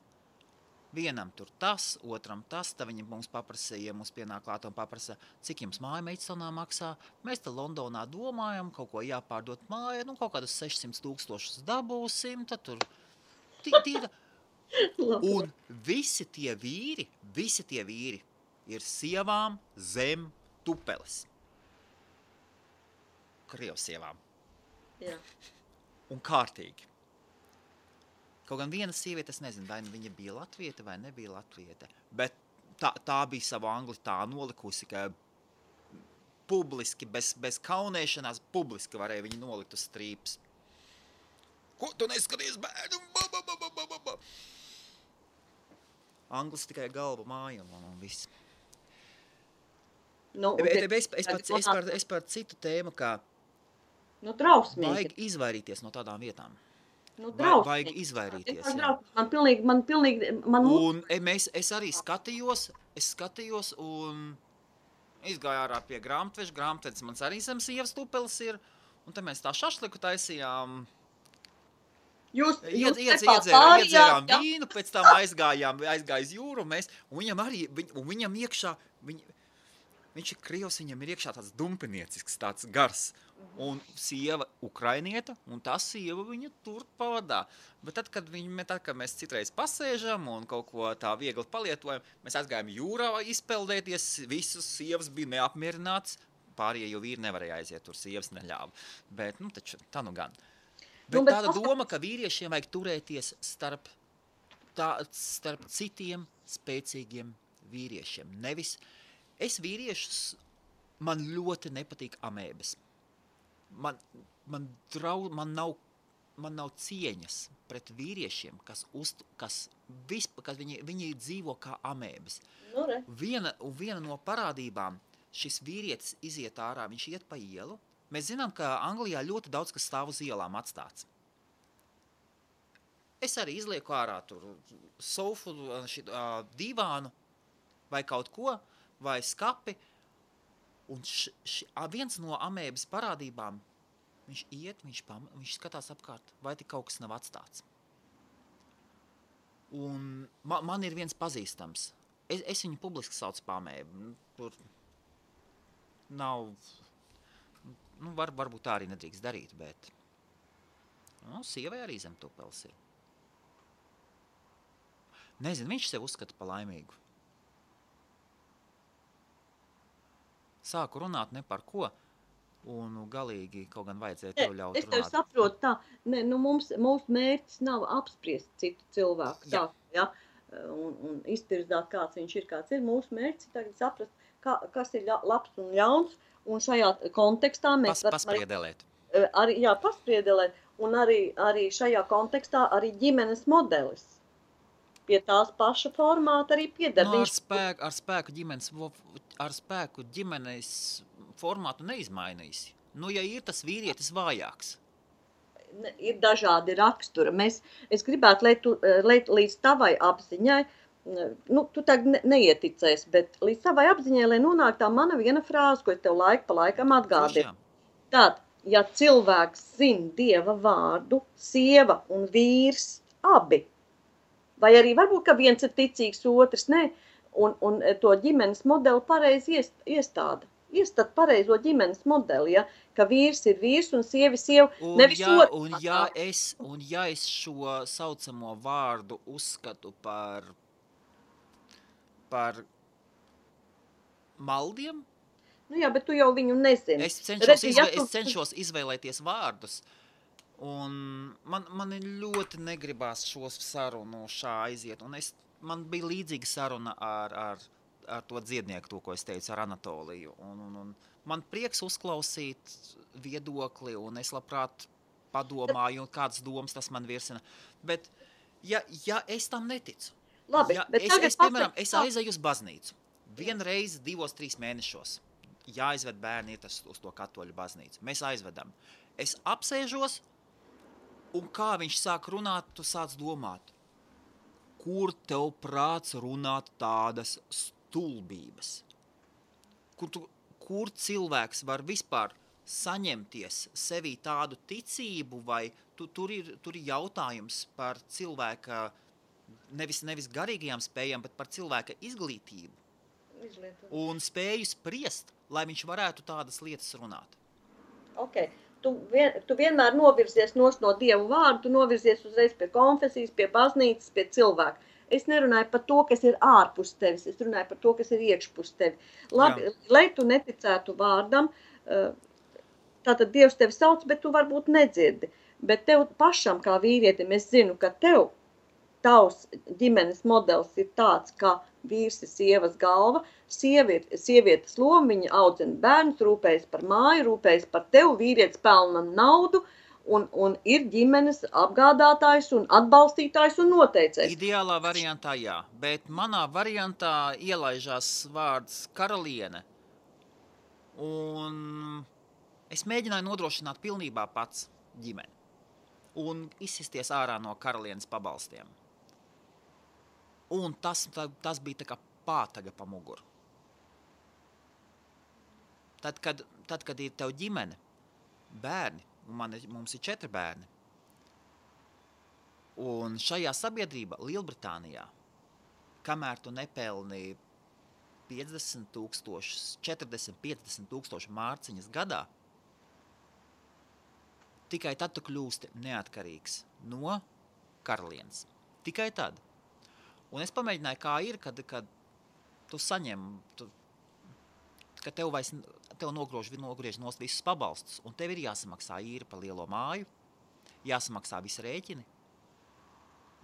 Vienam tur tas, otram tas, tad viņi mums paprasīja, mums pienāk klāt un paprasa, cik jums māja Meidstonnā maksā. Mēs te Londonā domājam, kaut ko jāpārdot māja, kaut kādus 600,000 dabūsim, tad tur tīra. Un visi tie vīri ir sievām zem tupeles. Krievsievām. Jā. Un kārtīgi. Kaut gan viena sieviete, es nezinu, vai viņa bija latviete vai nebija latviete, bet tā bija savu angli tā nolikusi, ka publiski, bez kaunēšanās, publiski varēja viņu nolikt uz strīpas. Ko tu neskaties, bērnu? Anglis tikai galva māja un viss. Nu, Es par citu tēmu, kā drausmīgi. Vajag izvairīties no tādām vietām. Vajag izvairīties, jā. Man pilnīgi... Un es arī skatījos un izgāju ārā pie grāmatveža. Grāmatvedis mans arī zem sievas tupeles ir. Un te mēs tā šašliku taisījām. Iedzērām vīnu, pēc tam aizgāja jūru. Un viņam iekšā... Viņš ir krievs, viņam ir iekšā tāds dumpiniecisks, tāds gars. Un sieva ukrainieta, un tā sieva viņa tur pavadā. Bet tad, kad mēs citreiz pasēžam un kaut ko tā viegli palietojam, mēs aizgājām jūrā izpeldēties, visas sievas bija neapmierināts, pārējie vīri nevarēja aiziet, tur sievas neļāva. Bet, taču, tā nu gan. Bet tāda doma, ka vīriešiem vajag turēties starp citiem spēcīgiem vīriešiem. Nevis... Es vīriešus, man ļoti nepatīk amēbas. Man nav cieņas pret vīriešiem, kas viņi dzīvo kā amēbas. Viena no parādībām, šis vīrietis iziet ārā, viņš iet pa ielu. Mēs zinām, ka Anglijā ļoti daudz kas stāv uz ielām atstāts. Es arī izlieku ārā tur sofu, divānu vai kaut ko, vai skapi, un viens no amēbas parādībām, viņš iet, viņš skatās apkārt, vai tik kaut kas nav atstāts. Un man ir viens pazīstams. Es viņu publiski saucu par amēbu. Tur nav, varbūt tā arī nedrīkst darīt, bet sievai arī zem tupeles ir. Nezinu, viņš sev uzskata par laimīgu. Sāku runāt ne par ko, un galīgi kaut gan vajadzēja tev ļaut runāt. Es tev saprotu tā, mūsu mērķis nav apspriest citu cilvēku, tā, ja, un iztirzāt, kāds viņš ir, kāds ir. Mūsu mērķis ir tagad saprast, kas ir labs un ļauns, un šajā kontekstā mēs Paspriedelēt. Paspriedelēt, un arī šajā kontekstā arī ģimenes modelis. Pie tās paša formāta arī pieder. Ar spēku ģimenes formātu neizmainīsi. Ja ir tas vīrietis vājāks. Ir dažādi raksturi. Es gribētu, lai līdz tavai apziņai, tu tagad neieticēsi, bet līdz tavai apziņai, lai nonāk tā mana viena frāze, ko es tev laiku pa laikam atgādinu. Tad, ja cilvēks zina Dieva vārdu, sieva un vīrs abi, vai arī varbūt, ka viens ir ticīgs, otrs ne, un to ģimenes modeli pareizi iestāda. Iestāda pareizo ģimenes modeli, ja, ka vīrs ir vīrs un sieva. Un ja es šo saucamo vārdu uzskatu par maldiem, Nu jā, bet tu jau viņu nezini. Es cenšos izvēlēties vārdus, un man ļoti negribās šos sarunu šā aiziet, un man bija līdzīga saruna ar to dziednieku, to, ko es teicu, ar Anatoliju, un man prieks uzklausīt viedokli, un es labprāt padomāju, un kādas domas tas man virsina, bet ja es tam neticu, Labi, bet piemēram, es aizēju uz baznīcu, vienreiz 2-3 mēnešos, jāizved bērni iet uz to katoļu baznīcu. Mēs aizvedam. Es apsēžos, un kā viņš sāk runāt, tu sāc domāt, kur tev prāts runāt tādas stulbības? Kur cilvēks var vispār saņemties sevī tādu ticību, vai tur ir jautājums par cilvēka, nevis garīgajām spējām, bet par cilvēka izglītību. Un spēju spriest, lai viņš varētu tādas lietas runāt. Ok, tu vienmēr novirzies no Dievu vārdu, tu novirzies uzreiz pie konfesijas, pie baznīcas, pie cilvēka. Es nerunāju par to, kas ir ārpus tevis, es runāju par to, kas ir iekšpus tevi. Labi, lai tu neticētu vārdam, tātad Dievs tevi sauc, bet tu varbūt nedzirdi. Bet tev pašam kā vīrietim, es zinu, ka tavs ģimenes modelis ir tāds, ka vīrs ir sievas galva, sievietes loma, viņa audzina bērnus, rūpējas par māju, rūpējas par tevi, vīrietis pelna naudu un ir ģimenes apgādātājs un atbalstītājs un noteicējs. Ideālā variantā jā, bet manā variantā ielaižās vārds karaliene, un es mēģināju nodrošināt pilnībā pats ģimeni un izsisties ārā no karalienes pabalstiem. Un tas bija tā kā pātaga pa muguru. Tad, kad ir tev ģimene, bērni, un mums ir 4 bērni, un šajā sabiedrībā, Lielbritānijā, kamēr tu nepelni 40-50 tūkstoši mārciņas gadā, tikai tad tu kļūsti neatkarīgs no karalienes. Tikai tad. Un es pamēģināju, kā ir, kad tu saņem, ka tev nogriež nost visus pabalstus, un tev ir jāsamaksā īri par lielo māju, jāsamaksā visi rēķini,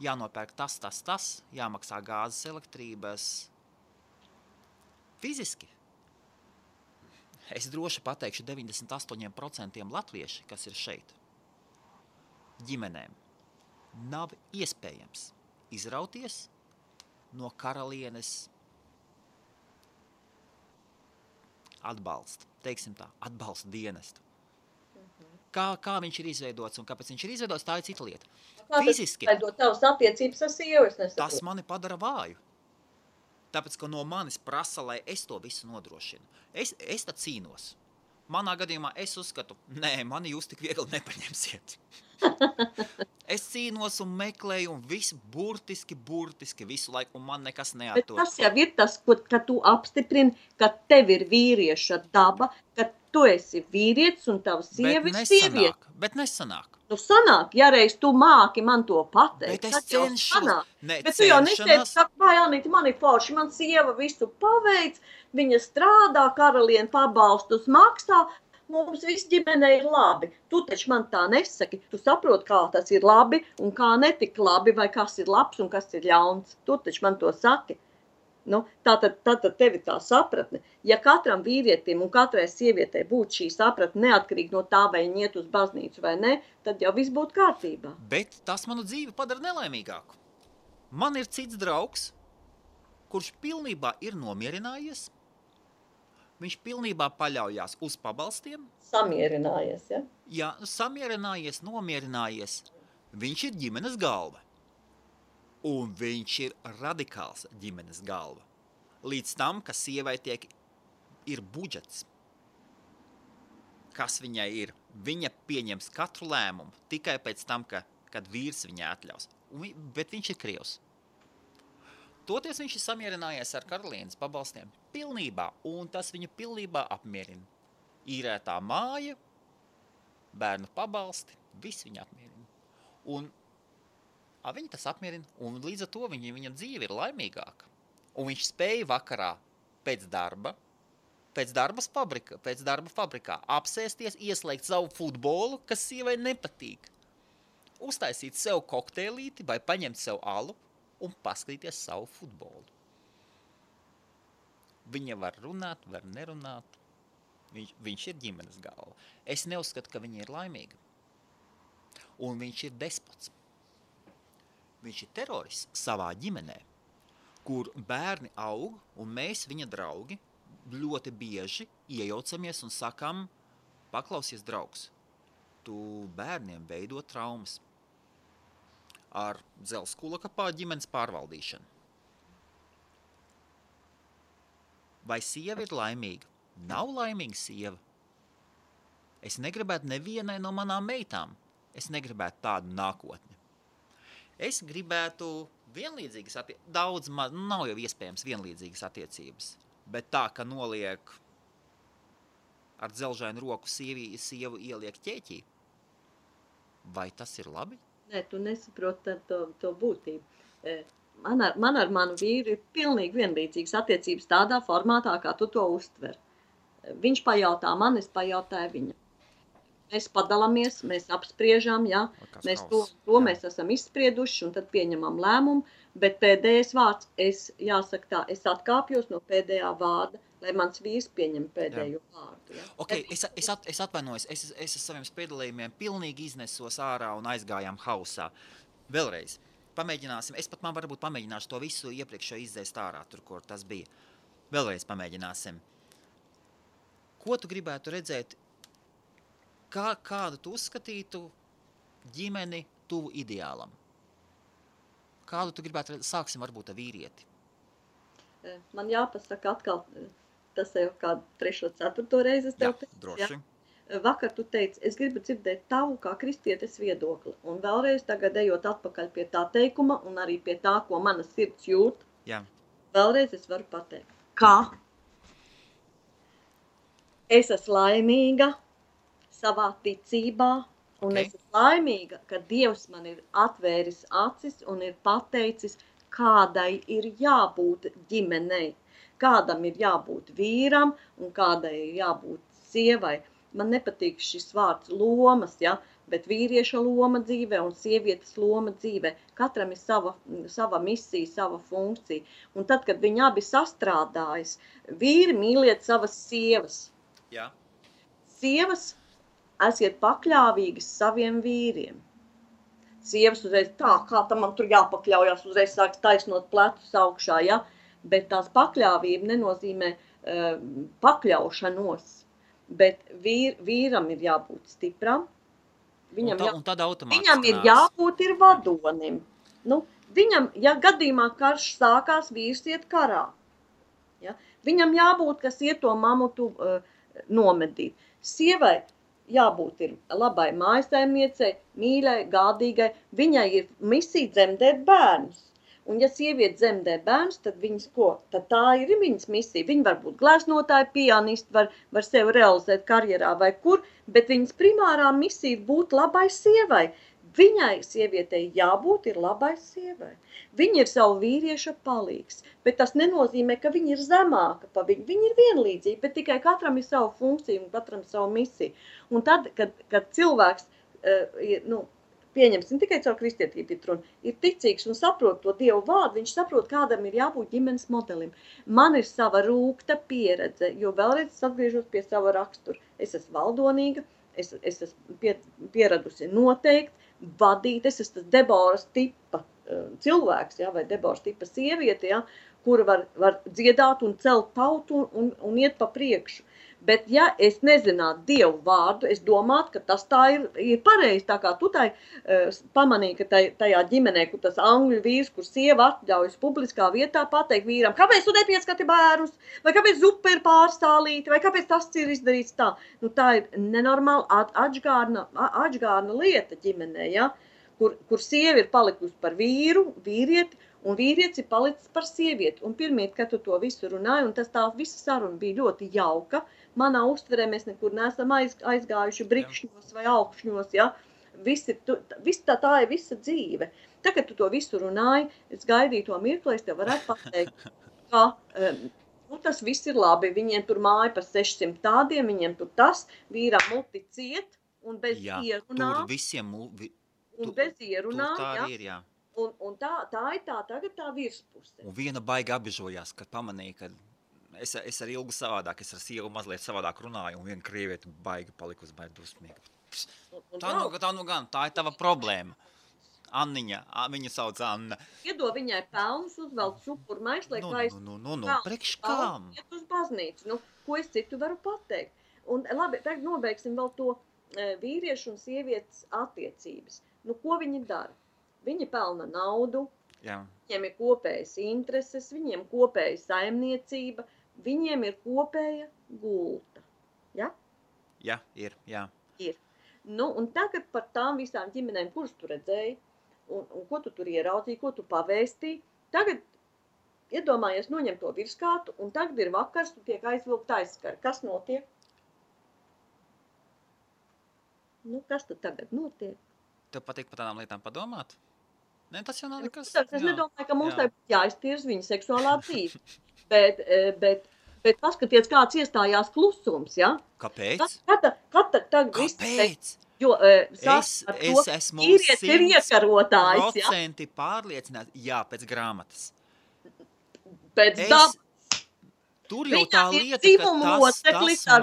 jānopērk tas, jāmaksā gāzes, elektrības. Fiziski. Es droši pateikšu 98% latvieši, kas ir šeit, ģimenēm, nav iespējams izrauties no karalienes atbalsta, teiksim tā, atbalsta dienestu. Kā viņš ir izveidots un kāpēc viņš ir izveidots, tā ir cita lieta. Fiziski. Tavas attiecības ar sievu, es nesaprotu. Tas mani padara vāju. Tāpēc, ka no manis prasa, lai es to visu nodrošinu. Es tad cīnos. Manā gadījumā es uzskatu, mani jūs tik viegli nepaņemsiet. Es cīnos un meklēju un visu burtiski visu laiku, un man nekas neatdod. Bet tas jau ir tas, ka tu apstiprini, ka tev ir vīrieša daba, ka tu esi vīrietis un tava sieva ir sieviete. Bet nesanāk. Nu sanāk, ja reiz tu māki man to pateikt, bet es cenšos. Bet tu jau neteici, ka, vai Anita, man ir forši, man sieva visu paveic, viņa strādā, karaliene pabalstus maksā, mums viss ģimenei ir labi. Tu taču man tā nesaki, tu saproti, kā tas ir labi un kā netik labi, vai kas ir labs un kas ir ļauns. Tu taču man to saki. Nu, tātad tev ir tā sapratne. Ja katram vīrietim un katrai sievietei būtu šī sapratne neatkarīgi no tā, vai viņi iet uz baznīcu vai ne, tad jau viss būtu kārtībā. Bet tas manu dzīvi padara nelaimīgāku. Man ir cits draugs, kurš pilnībā ir nomierinājies. Viņš pilnībā paļaujās uz pabalstiem. Samierinājies, ja? Jā, samierinājies, nomierinājies. Viņš ir ģimenes galva. Un viņš ir radikāls ģimenes galva. Līdz tam, ka sievai ir budžets. Kas viņai ir? Viņa pieņems katru lēmumu tikai pēc tam, kad vīrs viņai atļaus. Bet viņš ir krievs. Toties viņš ir samierinājies ar karalienes pabalstiem pilnībā, un tas viņu pilnībā apmierina. Īrētā māja, bērnu pabalsti, viss viņu apmierina. Un viņa tas apmierina, un līdz ar to viņa dzīve ir laimīgāka. Un viņš spēja vakarā pēc darba, pēc darba fabrikā, apsēsties, ieslēgt savu futbolu, kas sievai nepatīk. Uztaisīt sev kokteilīti vai paņemt sev alu un paskatīties savu futbolu. Viņa var runāt, var nerunāt. Viņš ir ģimenes galva. Es neuzskatu, ka viņa ir laimīga. Un viņš ir despots. Viņš ir terorists savā ģimenē, kur bērni aug, un mēs, viņa draugi, ļoti bieži iejaucamies un sakam, paklausies, draugs, tu bērniem veido traumas ar dzelzkulaka ģimenes pārvaldīšanu. Vai sieva ir laimīga? Nav laimīga sieva. Es negribētu nevienai no manām meitām. Es negribētu tādu nākotni. Es gribētu vienlīdzīgas attiecības. Daudz nav jau iespējams vienlīdzīgas attiecības. Bet tā, ka noliek ar dzelžainu roku sievu ieliek ķēķī, vai tas ir labi? Nē, tu nesaproti to būtību. Man ar manu vīru ir pilnīgi vienlīdzīgas attiecības tādā formātā, kā tu to uztver. Viņš pajautā man, es pajautāju viņam. Mēs padalāmies, mēs apspriežam, ja? Mēs to mēs esam izsprieduši un tad pieņemam lēmumu, bet pēdējais vārds, jāsaka tā, es atkāpjos no pēdējā vārda, lai mans vīrs pieņem pēdējo vārdu. Ja? Okay, es atvainojos, es ar saviem spiedalījumiem pilnīgi iznesos ārā un aizgājām hausā. Vēlreiz, pamēģināsim, man varbūt pamēģināšu to visu iepriekšējo izdzēst ārā, tur, kur tas bija. Vēlreiz pamēģināsim. Ko tu gribētu redzēt, kādu tu uzskatītu ģimeni tuvu ideālam? Kādu tu gribētu redzēt? Sāksim varbūt ar vīrieti. Man jāpasaka atkal, tas jau kādu 3. 4. reizi es tev teicu. Droši. Ja? Vakar tu teici, es gribu dzirdēt tavu kā kristietes viedokli. Un vēlreiz tagad ejot atpakaļ pie tā teikuma un arī pie tā, ko mana sirds jūt. Jā. Vēlreiz es varu pateikt. Kā? Es esmu laimīga savā ticībā, un es esmu laimīga, ka Dievs man ir atvēris acis un ir pateicis, kādai ir jābūt ģimenei, kādam ir jābūt vīram un kādai ir jābūt sievai. Man nepatīk šis vārds lomas, ja, bet vīrieša loma dzīvē un sievietes loma dzīvē. Katram ir sava misija, sava funkcija. Un tad, kad viņi abi sastrādājas, vīri mīliet savas sievas. Jā. Sievas esiet pakļāvīgas saviem vīriem. Sievas uzreiz tā, kā tam man tur jāpakļaujās, uzreiz sāks taisnot plecus augšā, ja? Bet tās pakļāvība nenozīmē pakļaušanos, bet vīram ir jābūt stipram, viņam ir jābūt ir vadonim. Nu, viņam, ja gadījumā karš sākās, vīrs iet karā. Ja? Viņam jābūt, kas iet to mamutu nomedīt. Sievai jābūt ir labai mājsaimniecei, mīļai, gādīgai. Viņai ir misija dzemdēt bērnus. Un ja sieviete dzemdē bērnus, tad viņas ko? Tad tā ir viņas misija. Viņa var būt gleznotāja, pianisti, var sevi realizēt karjerā vai kur, bet viņas primārā misija ir būt labai sievai. Viņai, sievietei, jābūt ir labai sievai. Viņa ir savu vīrieša palīgs, bet tas nenozīmē, ka viņa ir zemāka pa viņu. Viņa ir vienlīdzīga, bet tikai katram ir savu funkciju un katram savu misiju. Un tad, kad cilvēks, pieņemsim tikai caur kristietību ir ticīgs un saprot to Dievu vārdu, viņš saprot, kādam ir jābūt ģimenes modelim. Man ir sava rūgta pieredze, jo vēlreiz es atgriežos pie sava rakstura. Es esmu valdonīga, es esmu pieradusi noteikti, vadīt, es esmu tas Deboras tipa cilvēks, ja, vai Deboras tipa sieviete, ja, kura var dziedāt un celt tautu un iet pa priekšu. Bet ja es nezinātu Dievu vārdu, es domātu, ka tas tā ir pareizi, tā kā tu pamanīji, ka tajā ģimenē, kur tas angļu vīrs, kur sieva atļaujas publiskā vietā pateikt vīram, kāpēc tu nepieskati bērnus, vai kāpēc zupa ir pārstālīta, vai kāpēc tas ir izdarīts tā. Nu, tā ir nenormāla atžgārna lieta ģimenē, ja? Kur sieva ir palikusi par vīrieti, un vīrietis ir palicis par sievieti. Un pirmīt, kad tu to visu runāji, un tā visa saruna bija ļoti jauka, manā uztverē mēs nekur neesam aizgājuši brikšņos vai augšņos, ja? Tā ir visa dzīve. Tagad tu to visu runāji, es gaidīju to mirkli, es tev varētu pateikt, ka Nu, tas viss ir labi. Viņiem tur māja par 600 tādiem, viņiem tur tas, vīram muti ciet un bez ierunā. Tur visiem, un bez ierunā, tur tā arī ir, jā. Un tā ir tagad tā virspuse. Un viena baigi apbežojās, kad pamanīja, ka es ar Ilgu savādāk, es ar sievu mazliet savādāk runāju, un viena krievieta baigi palikusi baigi dusmīga. Tā ir tava problēma. Anniņa, viņa sauc Anna. Iedod viņai pelnus, uzvelk šupur maislē, priekš kām? Iet uz baznīcu. Ko es citu varu pateikt? Un labi, tagad nobeigsim vēl to vīriešu un sievietes attiecības. Ko viņi dara? Viņi pelna naudu, viņiem ir kopējas intereses, viņiem kopēja saimniecība, viņiem ir kopēja gulta. Ja? Jā, ir, jā. Ir. Un tagad par tām visām ģimenēm, kuras tu redzēji, un ko tu tur ieraudzīji, ko tu pavēstīji, tagad iedomājies noņem to virskātu, un tagad ir vakars, tu tiek aizvilkt aizskari. Kas notiek? Kas tad tagad notiek? Tev patīk par tādām lietām padomāt? Ne, tas jau nav nekas. Es nedomāju, ka mums jāiztirs viņa seksuālā dzīve. Bet paskaties, kāds iestājās klusums, ja? Kāpēc? Kāpēc? Jo es esmu 100% pārliecināts, pēc grāmatas. Pēc dabas. Tur jau tā lieta, ka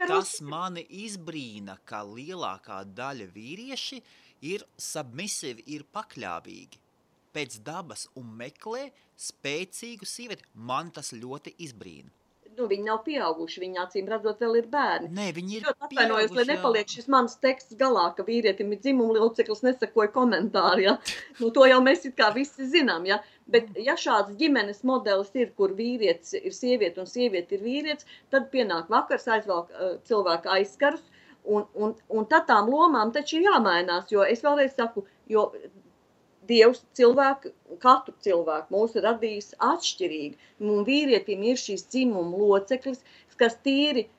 tas mani izbrīna, ka lielākā daļa vīrieši ir submisivi, ir pakļāvīgi pēc dabas un meklē spēcīgu sievieti. Man tas ļoti izbrīna. Viņi nav pieauguši, viņi acīm redzot vēl ir bērni. Nē, viņi ir pieauguši. Lai nepaliek šis mans teksts galā, ka vīrietim ir dzimuma loceklis, nesakoja komentāri, ja? To jau mēs it kā visi zinām, ja? Bet ja šāds ģimenes modelis ir, kur vīrietis ir sieviete un sieviete ir vīrietis, tad pienāk vakars, aizvelk cilvēka aizskarus, un tad tām lomām taču ir jāmainās, jo es vēlreiz saku, jo Dievs katru cilvēku mūs ir radījis atšķirīgi. Un vīrietim ir šīs dzimuma loceklis, kas tīri,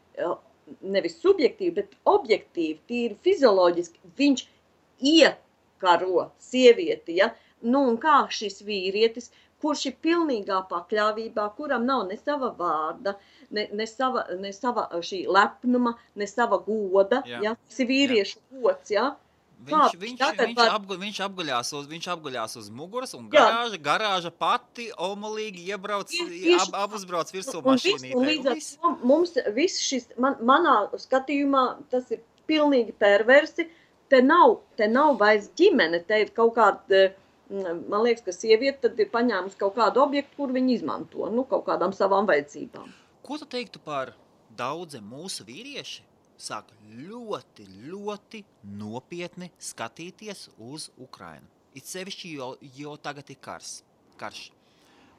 nevis subjektīvi, bet objektīvi, tīri fizioloģiski, viņš iekaro sievieti, ja? Un kā šis vīrietis, kurš ir pilnīgā pakļāvībā, kuram nav ne sava vārda, ne sava šī lepnuma, ne sava goda, ja? Tas ir vīriešu gods, ja? Viņš apguļās uz muguras un garāža pati omulīgi apuzbrauc virsū mašīnītē. Un līdz ar to mums viss šis, manā skatījumā, tas ir pilnīgi perversi, te nav vairs ģimene, te ir kaut kāda, man liekas, ka sieviete tad ir paņēmusi kaut kādu objektu, kur viņi izmanto, kaut kādām savām vajadzībām. Ko tu teiktu par daudziem mūsu vīrieši? Sāk ļoti, ļoti nopietni skatīties uz Ukrainu. It sevišķi, jo tagad ir karš.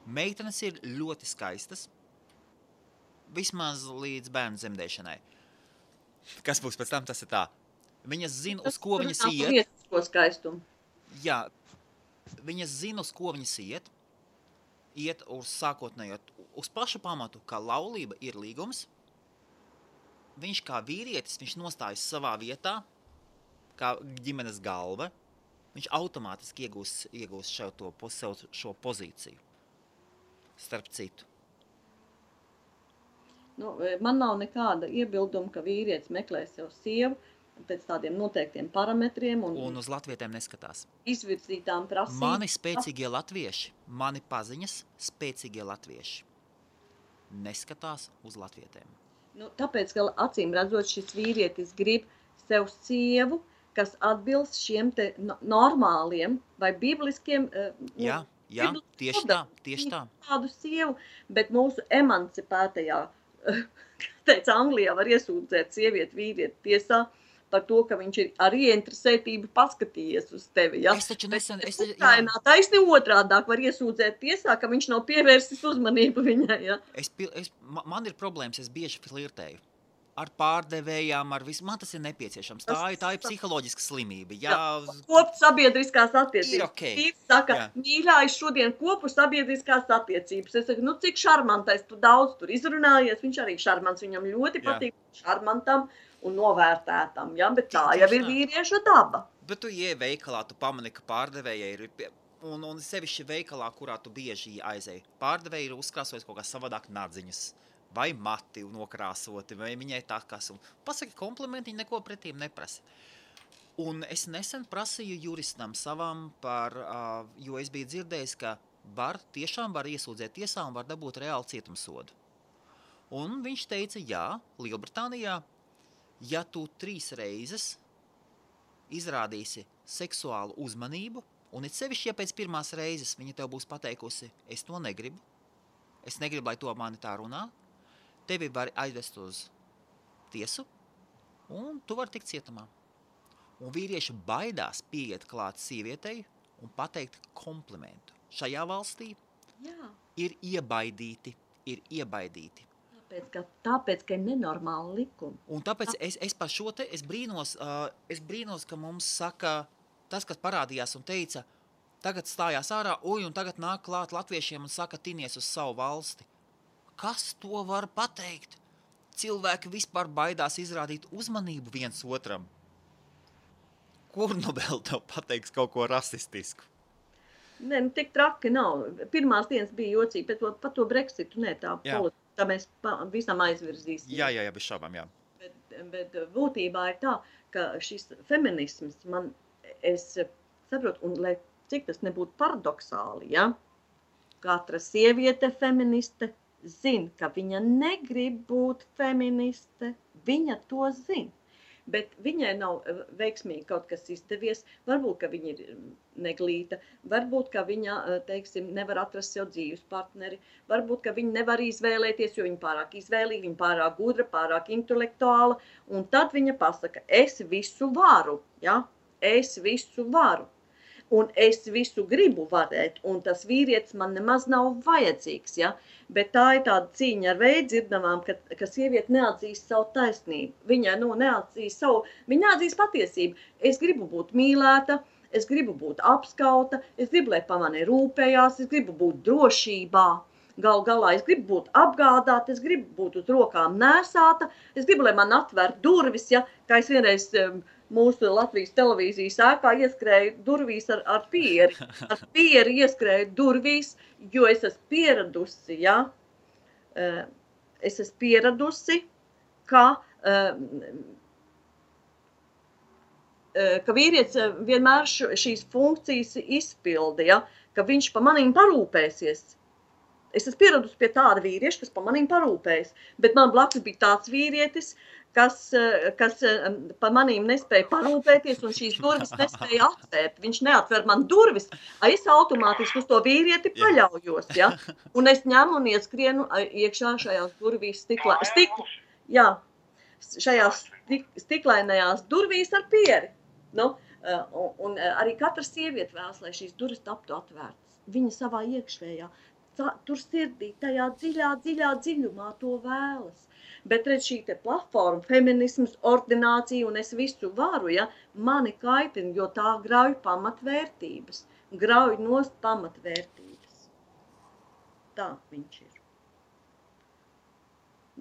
Meitenes ir ļoti skaistas, vismaz līdz bērnu dzemdēšanai. Kas būs pēc tam, tas ir tā. Viņas zina, uz ko viņas iet. Jā, viņas zina, uz ko viņas iet uz sākotnējo, uz pašu pamatu, ka laulība ir līgums. Viņš kā vīrietis, viņš nostājas savā vietā, kā ģimenes galva, viņš automātiski iegūs šo pozīciju, starp citu. Man nav nekāda iebilduma, ka vīrietis meklē sev sievu pēc tādiem noteiktiem parametriem. Un uz latvietēm neskatās. Izvirzītām prasībām. Mani spēcīgie latvieši, mani paziņas spēcīgie latvieši neskatās uz latvietēm. Tāpēc, ka acīm redzot, šis vīrietis grib sev sievu, kas atbilst šiem te normāliem vai bibliskiem... Jā, tieši tā. Tādu sievu, bet mūsu emancipētajā, teica, Anglijā var iesūdzēt sievieti vīrieti tiesā par to, ka viņš ir ar ieinteresētību paskatījies uz tevi. Ja? Es taču nesen... Ukrainā taisni otrādāk var iesūdzēt tiesā, ka viņš nav pievērsis uzmanību viņai. Ja? Man ir problēmas, es bieži flirtēju. Ar pārdevējām, ar visu. Man tas ir nepieciešams. Tā ir psiholoģiska slimība. Kopt sabiedriskās attiecības. Ir okei. Viņš saka, mīļā, es šodien kopu sabiedriskās attiecības. Es saku, cik šarmantais, tu daudz tur izrunājies. Viņš arī šarmants, viņam ļoti patīk šarmantam un novērtētam, ja? Bet tā jau ir vīrieša daba. Bet tu ieej veikalā, tu pamani, ka pārdevējai ir... un sevišķi veikalā, kurā tu bieži aizēji. Pārdevēji ir uzkrāsojis kaut kā savādāk nadziņas, vai mati nokrāsoti, vai viņai tā kas. Un pasaki komplimenti, viņa neko pretīm neprasa. Un es nesen prasīju juristam savam jo es biju dzirdējis, ka tiešām var iesūdzēt tiesā un var dabūt reāli cietumsodu. Un viņš teica, jā, Lielbritānijā, ja tu 3 reizes izrādīsi seksuālu uzmanību, un it sevišķi, ja pēc 1. reizes viņa tev būs pateikusi, es to negribu, lai to mani tā runā, tevi var aizvest uz tiesu, un tu vari tikt cietumā. Un vīrieši baidās pieiet klāt sievietei un pateikt komplimentu. Šajā valstī ir iebaidīti. Tāpēc, ka ir nenormāli likumi. Un tāpēc es par šo te, es brīnos, ka mums saka, tas, kas parādījās un teica, tagad stājās ārā, un tagad nāk klāt latviešiem un saka, tinies uz savu valsti. Kas to var pateikt? Cilvēki vispār baidās izrādīt uzmanību viens otram. Kur nu vēl tev pateiks kaut ko rasistisku? Nē, tik traki nav. Pirmās dienas bija jocīgi, par to Brexitu, tā tā mēs visam aizvirzīsim. Jā, bez šaubām, jā. Bet būtībā ir tā, ka šis feminisms es saprotu, un lai cik tas nebūtu paradoxāli, ja? Katra sieviete feministe zina, ka viņa negrib būt feministe, viņa to zina. Bet viņai nav veiksmīgi kaut kas izdevies, varbūt, ka viņa ir neglīta, varbūt, ka viņa, teiksim, nevar atrast sev dzīves partneri, varbūt, ka viņa nevar izvēlēties, jo viņa pārāk izvēlīga, viņa pārāk gudra, pārāk intelektuāla, un tad viņa pasaka, es visu varu, ja? Es visu varu, un es visu gribu varēt, un tas vīrietis man nemaz nav vajadzīgs, ja? Bet tā ir tāda cīņa ar veidzirdamām, ka sieviete neatzīst savu taisnību. Viņa neatzīst patiesību. Es gribu būt mīlēta, es gribu būt apskauta, es gribu, lai pa mani rūpējās, es gribu būt drošībā. Galā es gribu būt apgādāta, es gribu būt uz rokām nēsāta, es gribu, lai man atver durvis, ja, kā es vienreiz mūsu Latvijas televīzijas ēkā ieskrēju durvīs ar pieri. Ar pieri ieskrēju durvīs, jo es esmu pieradusi, ja? Es esmu pieradusi, ka vīrietis vienmēr šīs funkcijas izpilda, ja? Ka viņš pa manīm parūpēsies. Es esmu pieradusi pie tāda vīrieša, kas pa manīm parūpējas, bet man blakus bija tāds vīrietis, kas pa manīm nespēja parūpēties un šīs durvis nespēja atvērt. Viņš neatver man durvis, es automātiski uz to vīrieti paļaujos, ja? Un es ņemu un ieskrienu iekšā šajās durvīs šajās stiklainajās durvīs ar pieri. Nu, un arī katra sieviete vēlas, lai šīs durvis taptu atvērtas. Viņa savā iekšējā, tur sirdī, tajā dziļumā to vēlas. Bet redz šī te platforma, feminisms, ordinācija un es visu varu, ja, mani kaitina, jo tā grauj pamatvērtības. Grauj nost pamatvērtības. Tā viņš ir.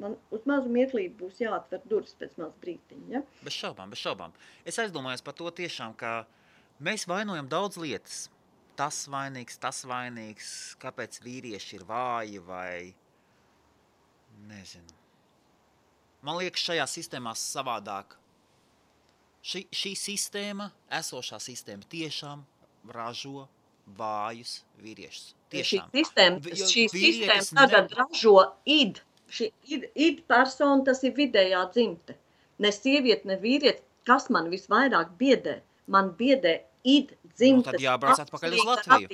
Man uz mazu mirklīti būs jāatver durvis pēc maz brītiņa, ja? Bez šaubām. Es aizdomājos par to tiešām, ka mēs vainojam daudz lietas. Tas vainīgs, kāpēc vīrieši ir vāji vai nezinu. Man liekas, šajā sistēmā savādāk. Šī sistēma, esošā sistēma tiešām ražo vājus vīriešus. Tiešām. Šī sistēma tagad ražo id. Šī id persona, tas ir vidējā dzimte. Ne sieviete, ne vīrietis, kas man visvairāk biedē. Man biedē id dzimtes. Tad jābrauc atpakaļ uz Latviju.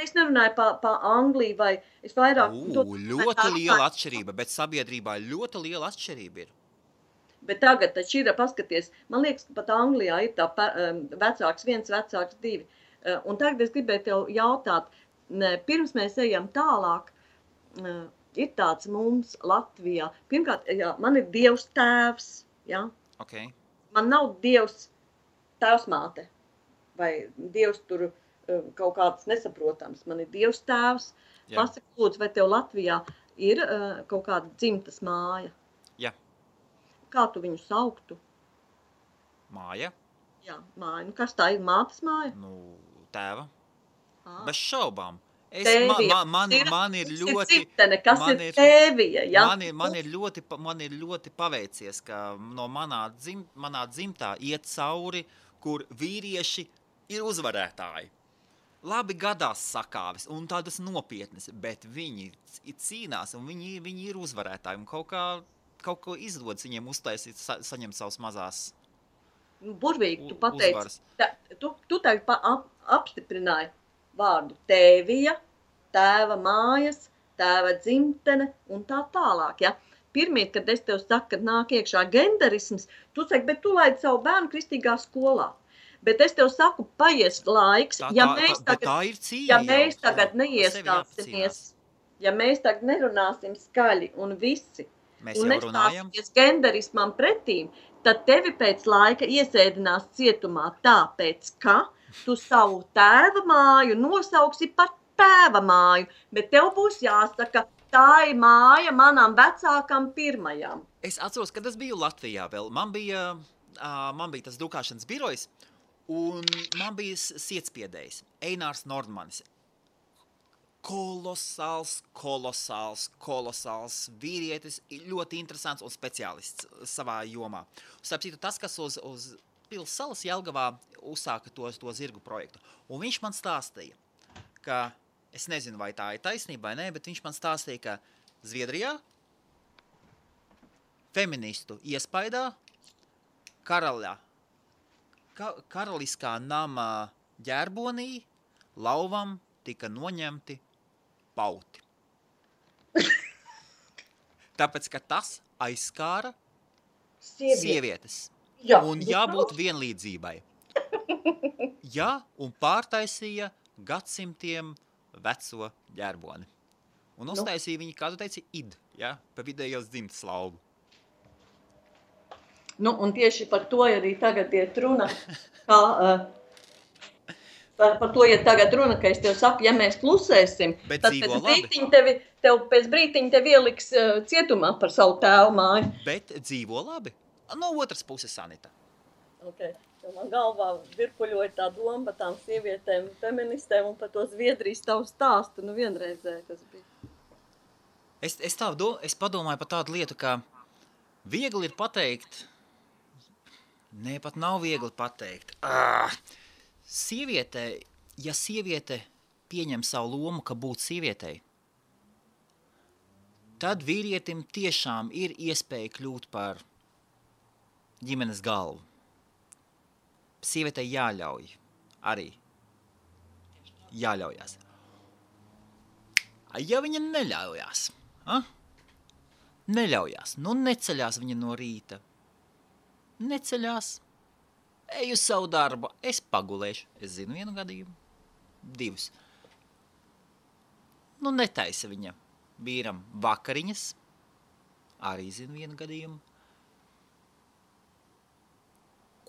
Es nerunāju pa Angliju vai es vairāk... Ļoti liela atšķirība, bet sabiedrībā ļoti liela atšķirība ir. Bet tagad taču ir, paskaties, man liekas, ka pat Anglijā ir tā vecāks 1, vecāks 2. Un tagad es gribēju tev jautāt, pirms mēs ejam tālāk, ir tāds mums Latvijā. Pirmkārt, jā, man ir Dievs tēvs, jā. Okay. Man nav Dievs tēvsmāte, vai Dievs tur kaut kāds nesaprotams. Man ir Dievs tēvs. Pasaka, lūdzu, vai tev Latvijā ir kaut kāda dzimtas māja? Jā. Kā tu viņu sauktu? Māja? Jā, māja. Nu, kas tā ir? Mātes māja? Nu, tēva. Ah. Bez šaubām. Tēvija. Man ir ļoti... Ciptene, kas ir tēvija, ja? Man ir ļoti paveicies, ka no manā dzimtā iet cauri, kur vīrieši ir uzvarētāji. Labi gadās sakāves un tādas nopietnas, bet viņi cīnās un viņi ir uzvarētāji. Un kaut ko izdodas viņiem uztaisīt, saņemt savas mazās burvīgi, tu pateici. uzvaras. Tu tagad apstiprināji vārdu tēvija, tēva mājas, tēva dzimtene un tā tālāk, ja? Pirmīt, kad es tev saku, kad nāk iekšā genderisms, tu saki, bet tu laidi savu bērnu kristīgā skolā. Bet es tev saku, paies laiks, ja mēs tagad neiestāsimies, ja mēs tagad nerunāsim skaļi un visi, un nestāsimies genderismam pretīm, tad tevi pēc laika iesēdinās cietumā tāpēc, ka tu savu tēva māju nosauksi par tēva māju, bet tev būs jāsaka, tā ir māja manam vecākam pirmajam. Es atceros, kad es biju Latvijā vēl, man bija tas drukāšanas birojs, un man bija sietspiedējs, Einārs Nordmanis. Kolosāls vīrietis, ļoti interesants un speciālists savā jomā. Starp citu, tas, kas uz Pils salas Jelgavā uzsāka to zirgu projektu. Un viņš man stāstīja, ka, es nezinu, vai tā ir taisnība vai nē, bet viņš man stāstīja, ka Zviedrijā feministu iespaidā karaliskā nama ģerbonī lauvam tika noņemti pauti. Tāpēc, ka tas aizskāra sievietes. Jā, un jābūt vienlīdzībai. Jā, un pārtaisīja gadsimtiem veco ģerboni. Un uztaisīja viņi, kā tu teici, ja, pa vidējos dzimtas lauvu. Un tieši par to arī tagad iet runa, par to iet tagad runa, ka es tev saku, ja mēs klusēsim, bet tad pēc brītiņa tev ieliks cietumā par savu tēvu māju. Bet dzīvo labi. No otras puses, Sanita. Okay. Man galvā virpuļoja tā doma par tām sievietēm, feministēm un par to Zviedrijas tavu stāstu, vienreizē tas bija. Es padomāju par tādu lietu, ka viegli ir pateikt, pat nav viegli pateikt. Ja sieviete pieņem savu lomu, ka būt sievietei, tad vīrietim tiešām ir iespēja kļūt par ģimenes galvu. Sievietei jāļauj arī. Jāļaujās. Ja viņa neļaujās, neceļās viņa no rīta. Neceļās, eju savu darbu, es pagulēšu. Es zinu vienu gadījumu, 2. Netaisa viņa vīram vakariņas, arī zinu vienu gadījumu.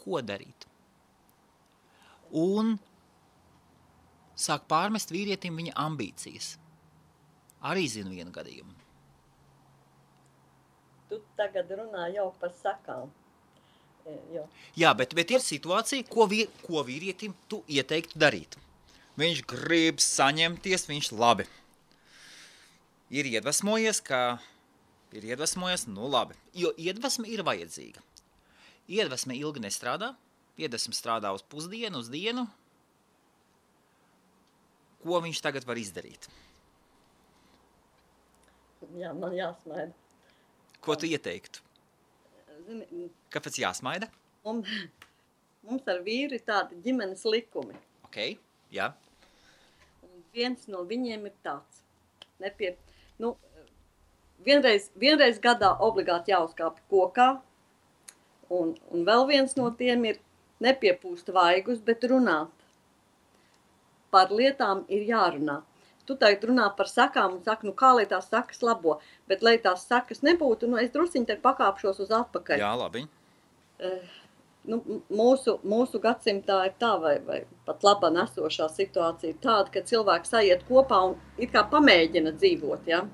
Ko darīt? Un sāk pārmest vīrietim viņa ambīcijas. Arī zinu vienu gadījumu. Tu tagad runā jau par sakām. Jā, bet ir situācija, ko vīrietim tu ieteiktu darīt. Viņš grib saņemties, viņš labi. Ir iedvesmojies, labi. Jo iedvesme ir vajadzīga. Iedvesme ilgi nestrādā, iedvesme strādā uz pusdienu, uz dienu. Ko viņš tagad var izdarīt? Jā, man jāsmaida. Ko tu ieteiktu? Zini, kāpēc jāsmaida? Mums ar vīru ir tādi ģimenes likumi. Ok, jā. Un viens no viņiem ir tāds. Vienreiz gadā obligāti jāuzkāpj kokā. Un vēl viens no tiem ir nepiepūst vaigus, bet runāt. Par lietām ir jārunā. Tu tagad runā par sakām un saka, kā lai tās sakas labo. Bet, lai tās sakas nebūtu, es drusciņi te pakāpšos uz atpakaļ. Jā, labi. Mūsu gadsimtā ir tā, vai pat labā nesošā situācija ir tāda, ka cilvēki sajiet kopā un it kā pamēģina dzīvot, ja?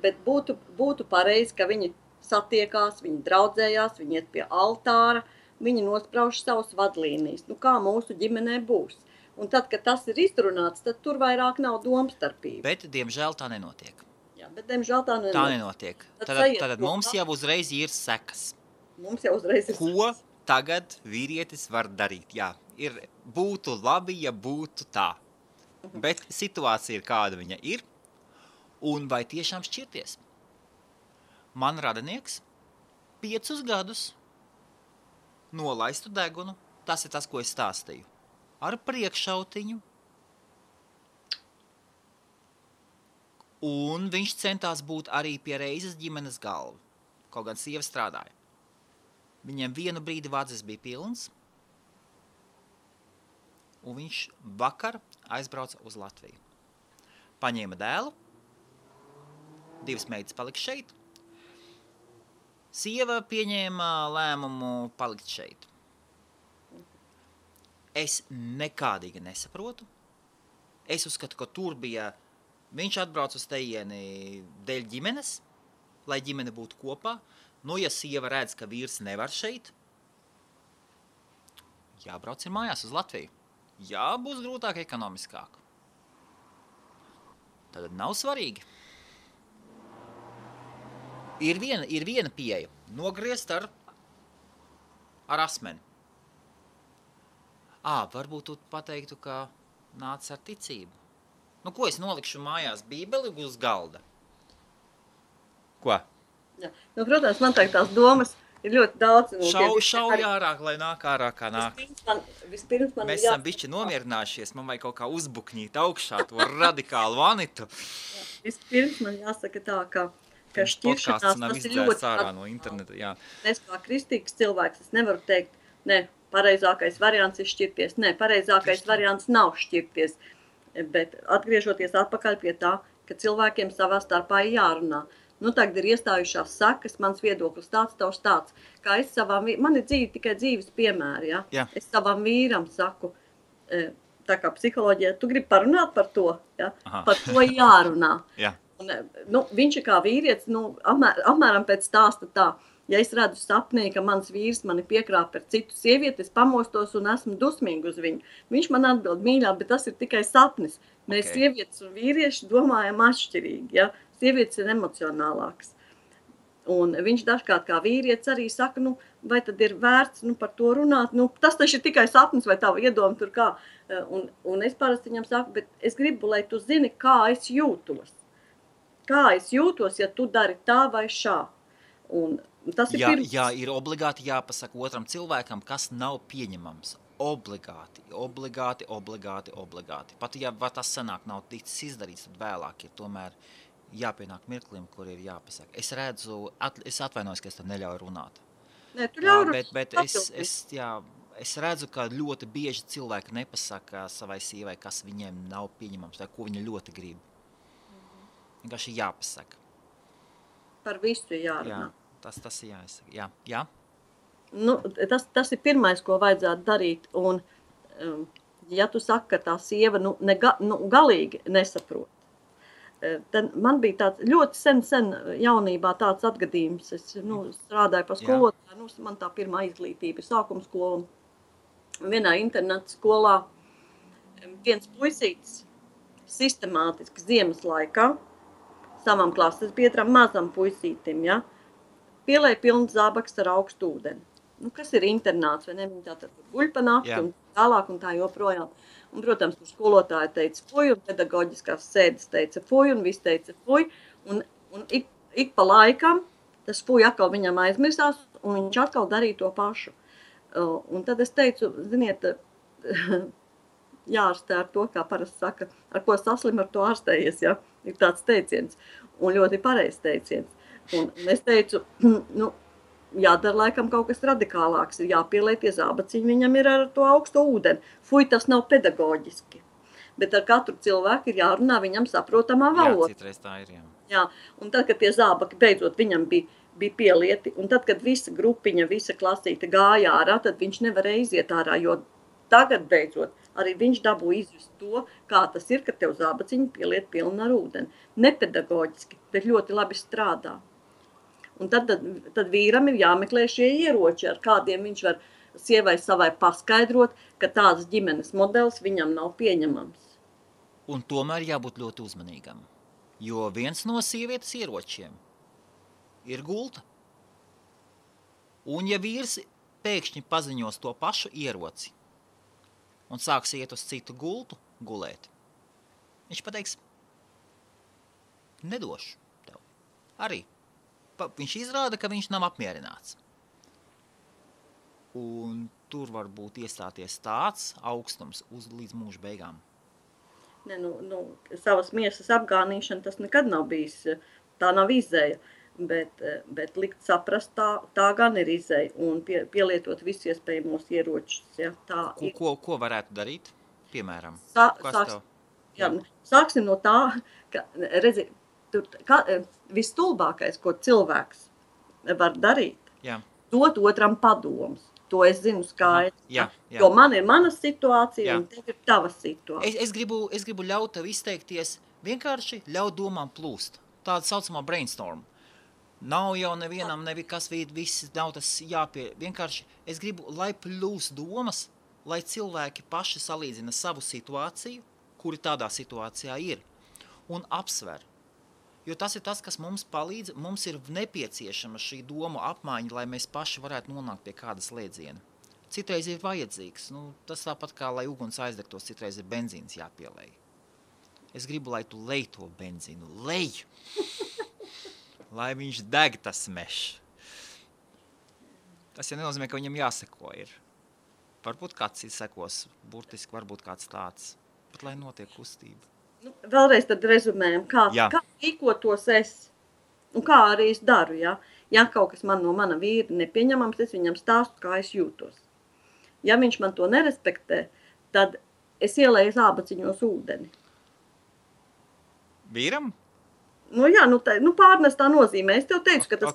Bet būtu pareizi, ka viņi satiekās, viņi draudzējās, viņi iet pie altāra, viņi nosprauž savus vadlīnijas. Kā mūsu ģimenē būs? Un tad, kad tas ir izrunāts, tad tur vairāk nav domstarpība. Bet, diemžēl, tā nenotiek. Jā, bet, diemžēl, tā Tā nenotiek. Tad mums jau uzreiz ir sekas. Mums jau uzreiz ir Ko tagad vīrietis var darīt? Jā, būtu labi, ja būtu tā. Bet situācija ir kāda viņa ir. Un vai tiešām šķirties? Man radinieks 5 gadus nolaistu degunu. Tas ir tas, ko es stāstīju. Ar priekšautiņu. Un viņš centās būt arī pie reizes ģimenes galva. Kaut gan sieva strādāja. Viņiem vienu brīdi vadzis bija pilns. Un viņš vakar aizbrauca uz Latviju. Paņēma dēlu. 2 meitas palika šeit. Sieva pieņēma lēmumu palikt šeit. Es nekādīgi nesaprotu. Es uzskatu, ka tur bija, viņš atbrauc uz tejieni dēļ ģimenes, lai ģimene būtu kopā. Nu, ja sieva redz, ka vīrs nevar šeit, jābrauc ir mājās uz Latviju. Jā, būs grūtāk ekonomiskāk. Tad nav svarīgi. Ir viena pieeja. Nogriezt ar asmeni. Varbūt tu pateiktu, ka nāc ar ticību. Nu, ko es nolikšu mājās Bībeli uz galda? Ko? Jā. Nu, protams, man tās domas ir ļoti daudz. Šauj ārāk, lai nāk ārā, kā nāk. Vispirms man Mēs esam bišķi nomierinājušies, man vajag kaut kā uzbukņīt augšā to radikālu vanitu. Vispirms man jāsaka tā, ka šķiršanās tas ir ļoti ārā no interneta, jā. Es kā kristīgs cilvēks, es nevaru teikt, ne, pareizākais variants ir šķirties. Nē, pareizākais variants nav šķirties. Bet atgriežoties atpakaļ pie tā, ka cilvēkiem savā starpā ir jārunā. Nu, tagad ir iestājušās sekas, mans viedoklis tāds, tavs tāds. Kā es man ir tikai dzīves piemēri, ja? Jā. Es savam vīram saku, tā kā psiholoģija, tu gribi parunāt par to, ja? Par to jārunā. Jā. Un, viņš ir kā vīrietis, apmēram pēc stāsta tā. Ja es redzu sapnī, ka mans vīrs mani piekrāp par citu sievieti, es pamostos un esmu dusmīgi uz viņu. Viņš man atbild mīļā, bet tas ir tikai sapnis. Mēs sievietes un vīrieši domājam atšķirīgi, ja? Sievietes ir emocionālākas. Un viņš dažkārt kā vīrietis arī saka, vai tad ir vērts par to runāt? Tas taču ir tikai sapnis vai tava iedoma tur kā. Un es parasti viņam saku, bet es gribu, lai tu zini, kā es jūtos. Kā es jūtos, ja tu dari tā vai šā. Un tas ir pirms. Jā, ir obligāti jāpasaka otram cilvēkam, kas nav pieņemams. Obligāti. Pat ja tas sanāk nav ticis izdarīts, tad vēlāk ir tomēr jāpienāk mirklim, kur ir jāpasaka. Es redzu, es atvainojos, ka es tev neļauju runāt. Nē, tu ļauj runāt. Bet es redzu, ka ļoti bieži cilvēki nepasaka savai sievai, kas viņiem nav pieņemams, vai ko viņa ļoti grib. Vienkārši jāpasaka. Par visu jārunā. Jā, tas ir jāsaka. Jā. Tas ir pirmais, ko vajadzētu darīt. Un, ja tu saki, ka tā sieva galīgi nesaprot, tad man bija tāds ļoti sen jaunībā tāds atgadījums. Es strādāju par skolotāju, man tā pirmā izglītība ir sākuma skola. Vienā interneta skolā viens puisītis sistemātiski ziemas laikā savam klases biedram, mazam puisītim, ja, pielēja pilnu zābaks ar augstu ūdeni. Kas ir internāts, vai ne? Viņi tātad guļ pa nakti un tālāk un tā joprojām. Un, protams, kur skolotāja teica fuj, un pedagoģiskās sēdes teica fuj, un viss teica fuj. Un ik pa laikam tas fuj atkal viņam aizmirsās, un viņš atkal darīja to pašu. Un tad es teicu, ziniet, jārastē ar to, kā parasti saka, ar ko saslim, ar to ārstējies, ja? Ir tāds teiciens, un ļoti pareizs teiciens. Un es teicu, jādara laikam kaut kas radikālāks, ir jāpieliek tie zābaciņi, viņam ir ar to augsto ūdeni. Fuj, tas nav pedagoģiski. Bet ar katru cilvēku ir jārunā viņam saprotamā valoda. Jā, citreiz tā ir, jā. Jā, un tad, kad tie zābaki beidzot viņam bija pielieti, un tad, kad visa grupiņa, visa klasīte gāja ārā, tad viņš nevarēja iziet ārā, jo tagad beidzot arī viņš dabū izjust to, kā tas ir, ka tev zābaciņi pieliet pilni ar ūdeni. Nepedagoģiski, bet ļoti labi strādā. Un tad vīram ir jāmeklē šie ieroči, ar kādiem viņš var sievai savai paskaidrot, ka tāds ģimenes modelis viņam nav pieņemams. Un tomēr jābūt ļoti uzmanīgam, jo viens no sievietes ieročiem ir gulta. Un ja vīrs pēkšņi paziņos to pašu ieroci un sāks iet uz citu gultu gulēt, viņš pateiks, nedošu tev. Arī. Viņš izrāda, ka viņš nav apmierināts. Un tur var būt iestāties tāds augstums līdz mūža beigām. Ne, savas miesas apgānīšana tas nekad nav bijis, tā nav izēja, bet likt saprast, tā gan ir izēja un pielietot visus iespējamos ieročus. Ja, ko varētu darīt, piemēram? Sāksim no tā, ka redzi, vistulbākais, ko cilvēks var darīt, dot otram padomus. To es zinu skaidri. Jo man ir mana situācija un tev ir tava situācija. Es gribu ļaut tev izteikties, vienkārši ļaut domām plūst. Tāda saucamā brainstorm. Nav jau nevienam nevikas viss nav tas vienkārši es gribu, lai plūst domas, lai cilvēki paši salīdzina savu situāciju, kuri tādā situācijā ir, un apsver. Jo tas ir tas, kas mums palīdz, mums ir nepieciešama šī domu apmaiņa, lai mēs paši varētu nonākt pie kādas slēdziena. Citreiz ir vajadzīgs, tas tāpat kā, lai uguns aizdegtos, citreiz ir benzīns jāpielej. Es gribu, lai tu lej to benzīnu, lej! Lai viņš deg tas mešs. Tas jau nenozīmē, ka viņam jāseko ir. Varbūt kāds sekos, burtiski varbūt kāds tāds, bet lai notiek kustība. Vēlreiz tad rezumējam, kā rīkotos es un kā arī es daru. Ja kaut kas man no mana vīra nepieņemams, es viņam stāstu, kā es jūtos. Ja viņš man to nerespektē, tad es ielēju zābaciņos ūdeni. Vīram? Pārnestā nozīmē. Es tev teicu, ka tas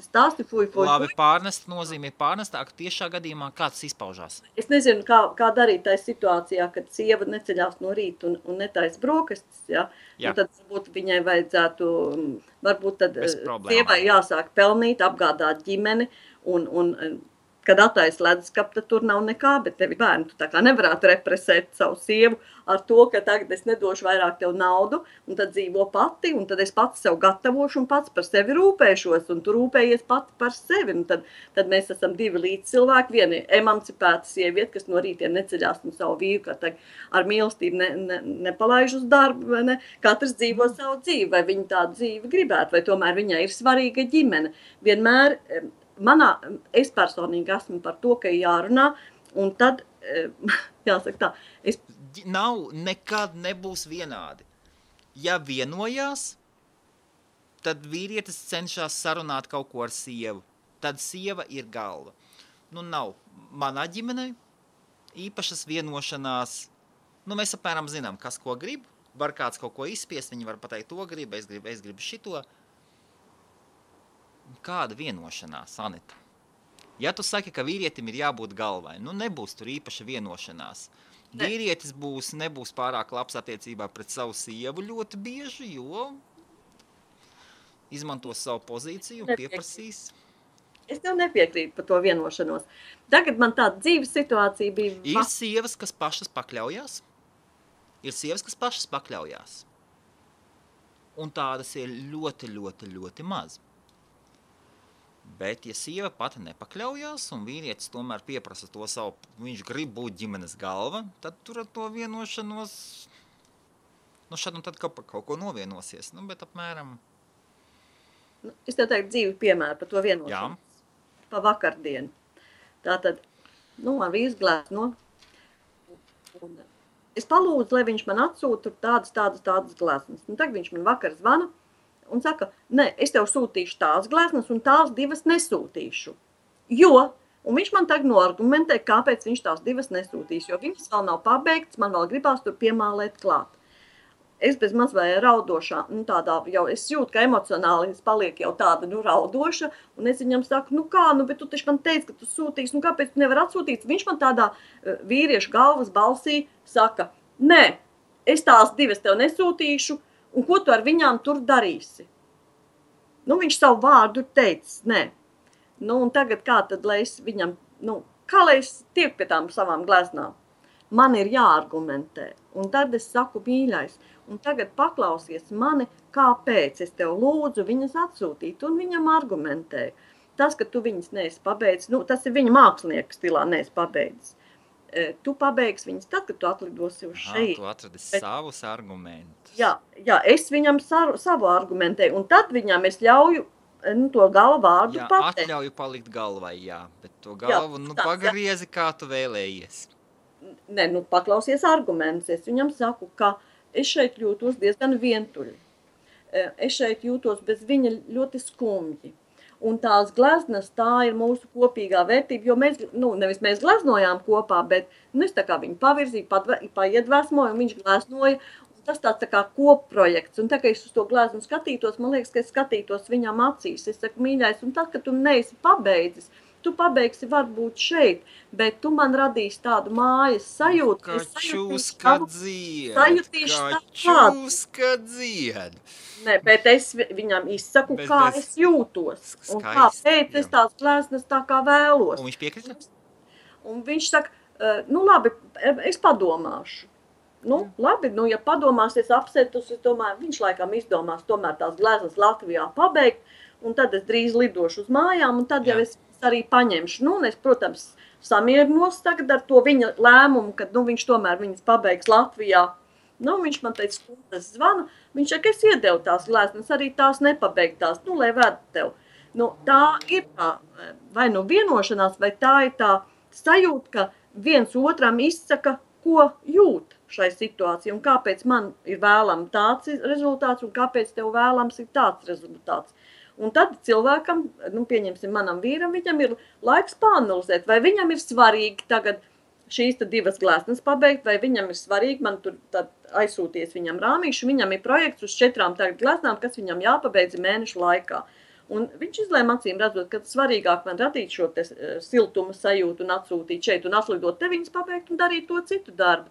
stāsti, fuj. Labi, pārnest nozīmē pārnestā, ka tiešā gadījumā kāds izpaužās. Es nezinu, kā darīt tajā situācijā, kad sieva neceļās no rīta un netaisa brokastis, un tad varbūt viņai vajadzētu, varbūt tad sievai jāsāk pelnīt, apgādāt ģimeni, un kad attaisa leduskapu, tad tur nav nekā, bet tevi bērni, tu tā kā nevarētu represēt savu sievu ar to, ka tagad es nedošu vairāk tev naudu, un tad dzīvo pati, un tad es pats sev gatavošu un pats par sevi rūpēšos, un tu rūpējies pati par sevi, un tad mēs esam divi līdzcilvēki, viena emancipēta sieviete, kas no rītiem neceļās no savu vīru, kā tagad ar mīlestību nepalaiž uz darbu, vai ne? Katrs dzīvo savu dzīvi, vai viņa tādu dzīvi gribētu, vai tomēr viņai ir svarīga ģimene. Vienmēr es personīgi esmu par to, ka jārunā, un tad, jāsaka tā, nekad nebūs vienādi. Ja vienojās, tad vīrietis cenšas sarunāt kaut ko ar sievu. Tad sieva ir galva. Nav manā ģimenē īpašas vienošanās. Mēs apmēram zinām, kas ko grib. Var kāds kaut ko izspiest, viņi var pateikt to grib, es gribu šito. Kāda vienošanās, Anita? Ja tu saki, ka vīrietim ir jābūt galvai, nebūs tur īpaša vienošanās. Vīrietis nebūs pārāk labs attiecībā pret savu sievu ļoti bieži, jo izmantos savu pozīciju un pieprasīs. Es tev nepiekrītu par to vienošanos. Tagad man tāda dzīves situācija bija... Ir sievas, kas pašas pakļaujās. Un tādas ir ļoti, ļoti, ļoti maz. Bet, ja sieva pati nepakļaujās un vīrietis tomēr pieprasa to savu, viņš grib būt ģimenes galva, tad tur ar to vienošanos, šad un tad kaut ko novienosies, bet apmēram... Es tev teiktu dzīvi piemēru par to vienošanos. Jā. Pa vakardienu. Tātad, vīrs glēs, es palūdzu, lai viņš man atsūta tādas glēsnes. Tagad viņš man vakar zvana, un saka, es tev sūtīšu tās glēsnes un tās divas nesūtīšu. Un viņš man tagad noargumentē, kāpēc viņš tās divas nesūtīs, jo viņas vēl nav pabeigts, man vēl gribās tur piemālēt klāt. Es bez maz vai raudošā, es jūtu, ka emocionāli es paliek jau tāda, raudoša, un es viņam saku, bet tu taču man teici, ka tu sūtīsi, kāpēc tu nevar atsūtīt? Viņš man tādā vīriešu galvas balsī saka, es tās divas tev nesūtīšu, un ko tu ar viņām tur darīsi? Viņš savu vārdu teicis, Nu, un tagad kā tad, lai es viņam, kā lai es tiek pie tām savām gleznām? Man ir jāargumentē. Un tad es saku, mīļais, un tagad paklausies mani, kāpēc es tev lūdzu viņas atsūtīt, un viņam argumentēju. Tas, ka tu viņas neesi pabeidzis, tas ir viņa mākslinieka stilā neesi pabeidzis. Tu pabeigsi viņas tad, kad tu atlidosi uz šeit. Tu atradi savus argumentus. Jā, es viņam savu argumentēju, un tad viņam es ļauju to galvu vārdu pateikt. Jā, atļauju palikt galvai, jā, bet to galvu, pagriezi, kā tu vēlējies. Nē, paklausies argumentus. Es viņam saku, ka es šeit jūtos diezgan vientuļi. Es šeit jūtos bez viņa ļoti skumji. Un tās gleznas, tā ir mūsu kopīgā vērtība, jo mēs, nevis mēs gleznojām kopā, bet es tā kā viņu pavirzīju, paiedvesmoju, un viņš gleznoja. Tas tāds tā kā kopprojekts, un tā, ka es uz to gleznu skatītos, man liekas, ka es skatītos viņam acīs. Es saku, mīļais, un tad, kad tu neesi pabeidzis, tu pabeigsi varbūt šeit, bet tu man radīsi tādu mājas sajūtu. Kačuska dzied, Nē, bet es viņam izsaku, kā es jūtos, un kāpēc es tās gleznas tā kā vēlos. Un viņš piekrita? Un viņš saka, labi, es padomāšu. Labi, ja padomāsies apsētus, es domāju, viņš laikam izdomās tomēr tās gleznas Latvijā pabeigt, un tad es drīz lidošu uz mājām, un tad jau es arī paņemšu. Es, protams, samierinos tagad ar to viņa lēmumu, kad viņš tomēr viņas pabeigs Latvijā. Viņš man teica, skundas zvana, viņš saka, es iedevu tās gleznas, arī tās nepabeigtās, lai ved tev. Tā ir tā, vai vienošanās, vai tā ir tā sajūta, ka viens otram izsaka, ko jūt šai situācijai, un kāpēc man ir vēlams tāds rezultāts, un kāpēc tev vēlams ir tāds rezultāts. Un tad cilvēkam, pieņemsim manam vīram, viņam ir laiks pāanalizēt, vai viņam ir svarīgi tagad šīs divas gleznas pabeigt, vai viņam ir svarīgi, man tur tad aizsūties viņam rāmīšu, viņam ir projekts uz 4 tagad gleznām, kas viņam jāpabeidz mēnešu laikā. Un viņš izlēma acīm redzot, ka svarīgāk man radīt šo te siltuma sajūtu un atsūtīt šeit un atlidot te viņas pabeigt un darīt to citu darbu.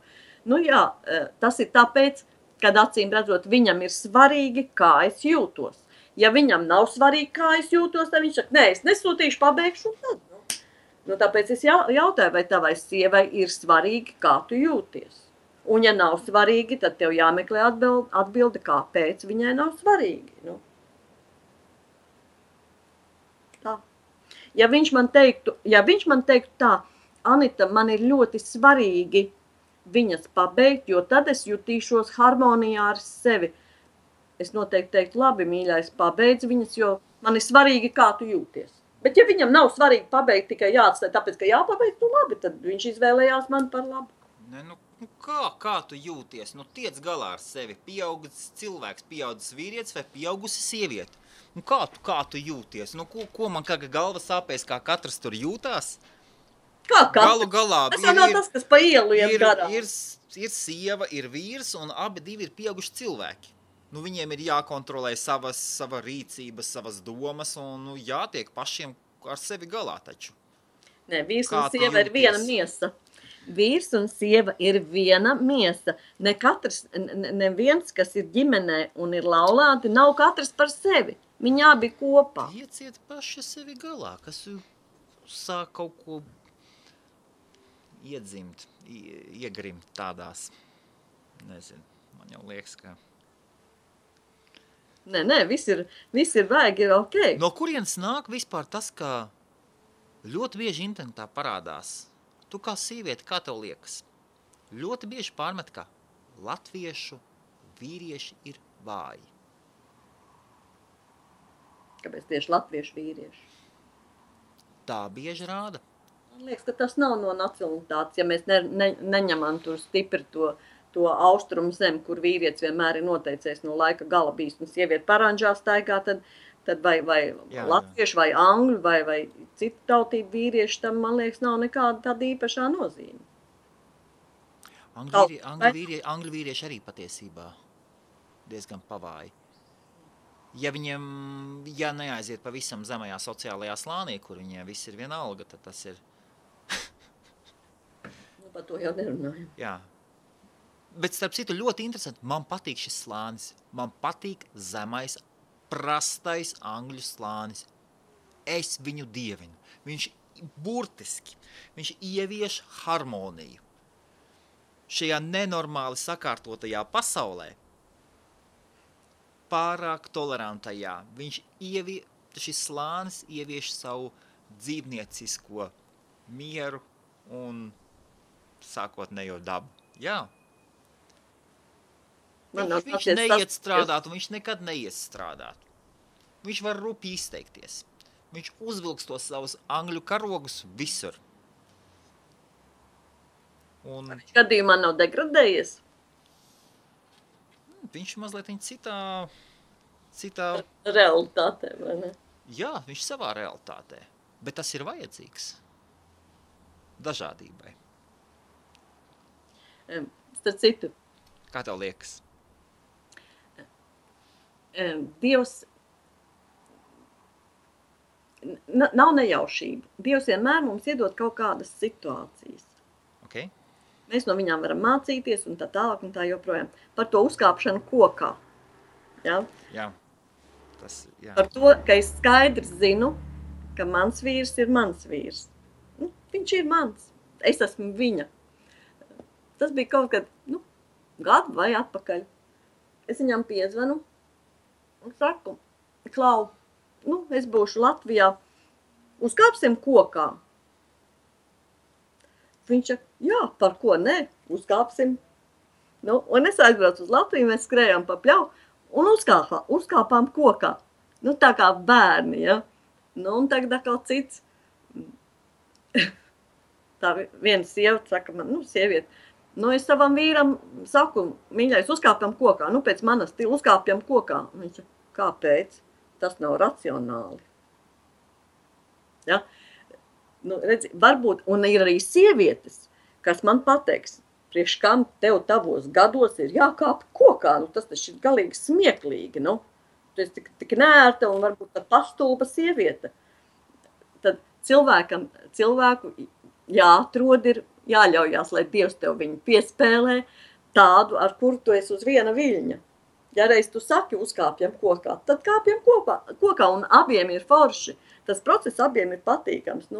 Tas ir tāpēc, kad acīm redzot, viņam ir svarīgi, kā es jūtos. Ja viņam nav svarīgi, kā es jūtos, tad viņš saka, nē, es nesūtīšu, pabeigšu un tad. Tāpēc es jautāju, vai tavai sievai ir svarīgi, kā tu jūties. Un ja nav svarīgi, tad tev jāmeklē atbilde, kāpēc viņai nav svarīgi. Tā. Ja viņš man teiktu tā, Anita, man ir ļoti svarīgi viņas pabeigt, jo tad es jutīšos harmonijā ar sevi. Es noteikti teiktu, labi, mīļais, pabeidz viņas, jo man ir svarīgi, kā tu jūties. Bet ja viņam nav svarīgi pabeigt, tikai jāatstāj, tāpēc, ka jāpabeigt, labi, tad viņš izvēlējās man par labu. Kā tu jūties? Tiec galā ar sevi. Pieaugusi cilvēks, pieaugusi vīrietis vai pieaugusi sieviete. Kā tu jūties? Ko man kā galva sāpēs, kā katrs tur jūtās? Kā katrs? Galu galā. Tas nav tas, kas pa ielu iet garām. Ir sieva, ir vīrs un abi divi ir pieauguši cilvēki. Viņiem ir jākontrolē sava rīcība, savas domas un jātiek pašiem ar sevi galā taču. Nē, vīrs un sieva ir viena miesa. Vīrs un sieva ir viena miesa. Neviens, kas ir ģimenē un ir laulāti, nav katrs par sevi. Viņi abi kopā. Ieciet paši sevi galā, kas sāk kaut ko iedzimt, iegrimt tādās, nezinu, man jau liekas, ka... Nē, viss ir vajag, ir ok. No kurienes nāk vispār tas, ka ļoti bieži internetā parādās, tu kā sīvieti, kā tev liekas, ļoti bieži pārmet, ka latviešu vīrieši ir vāji. Kāpēc tieši latviešu vīrieši? Tā bieži rāda. Man liekas, ka tas nav no nacionalitātes, ja mēs neņemam tur stipri to austrumu zemi, kur vīrietis vienmēr ir noteicējis no laika gala bijis, un sievieti paranžā staigā, tad vai latvieši, vai angļu, vai citu tautību vīrieši, tam, man liekas, nav nekāda tāda īpašā nozīme. Angļu vīrieši arī patiesībā diezgan pavāji. Ja viņiem, neaiziet pavisam zemajā sociālajā slānī, kur viņiem viss ir vienalga, tad tas ir... Par to jau nerunājam. Jā. Bet starp citu ļoti interesanti, man patīk šis slānis. Man patīk zemais, prastais angļu slānis. es viņu dievinu. Viņš burtiski, viņš ievieš harmoniju. Šajā nenormāli sakārtotajā pasaulē, pārāk tolerantajā, šis slānis ievieš savu dzīvniecisko mieru un sākotnējo dabu. Jā. Viņš neiet strādāt, un viņš nekad neies strādāt. Viņš var rupi izteikties. Viņš uzvilks tos savus angļu karogus visur. Un gadījumā nav degradējies? Viņš mazliet citā realitātē, vai ne? Jā, viņš savā realitātē. Bet tas ir vajadzīgs dažādībai. Starp citu. Kā tev liekas? Dievs nav nejaušība. Dievs vienmēr mums iedod kaut kādas situācijas. Okay. Mēs no viņām varam mācīties un tā tālāk un tā joprojām. Par to uzkāpšanu kokā. Ja? Jā. Par to, ka es skaidrs zinu, ka mans vīrs ir mans vīrs. Viņš ir mans. Es esmu viņa. Tas bija kaut kad, gadu vai atpakaļ. Es viņam piezvanu un saku, Klau, es būšu Latvijā, uzkāpsim kokā. Viņš saka, jā, par ko ne, uzkāpsim. Un es aizbraucu uz Latviju, mēs skrējām pa pļauju un uzkāpām kokā. Tā kā bērni, ja. Un tagad atkal cits. Tā viena sieva saka man, sieviete, es savam vīram saku, mīļais, uzkāpjam kokā. Pēc manas stila uzkāpjam kokā. Viņš saka, kāpēc? Tas nav racionāli. Ja? Redzi, varbūt, un ir arī sievietes, kas man pateiks, priekš kam tev tavos gados ir jākāp kokā. Tas taču ir galīgi smieklīgi. Tu esi tik nērta un varbūt tā pastulba sieviete. Tad cilvēku jāatrod ir, jāļaujās, lai Dievs tev viņu piespēlē tādu, ar kuru tu esi uz viena viļņa. Ja reiz tu saki, uzkāpjam kokā, tad kāpjam kokā un abiem ir forši. Tas process abiem ir patīkams.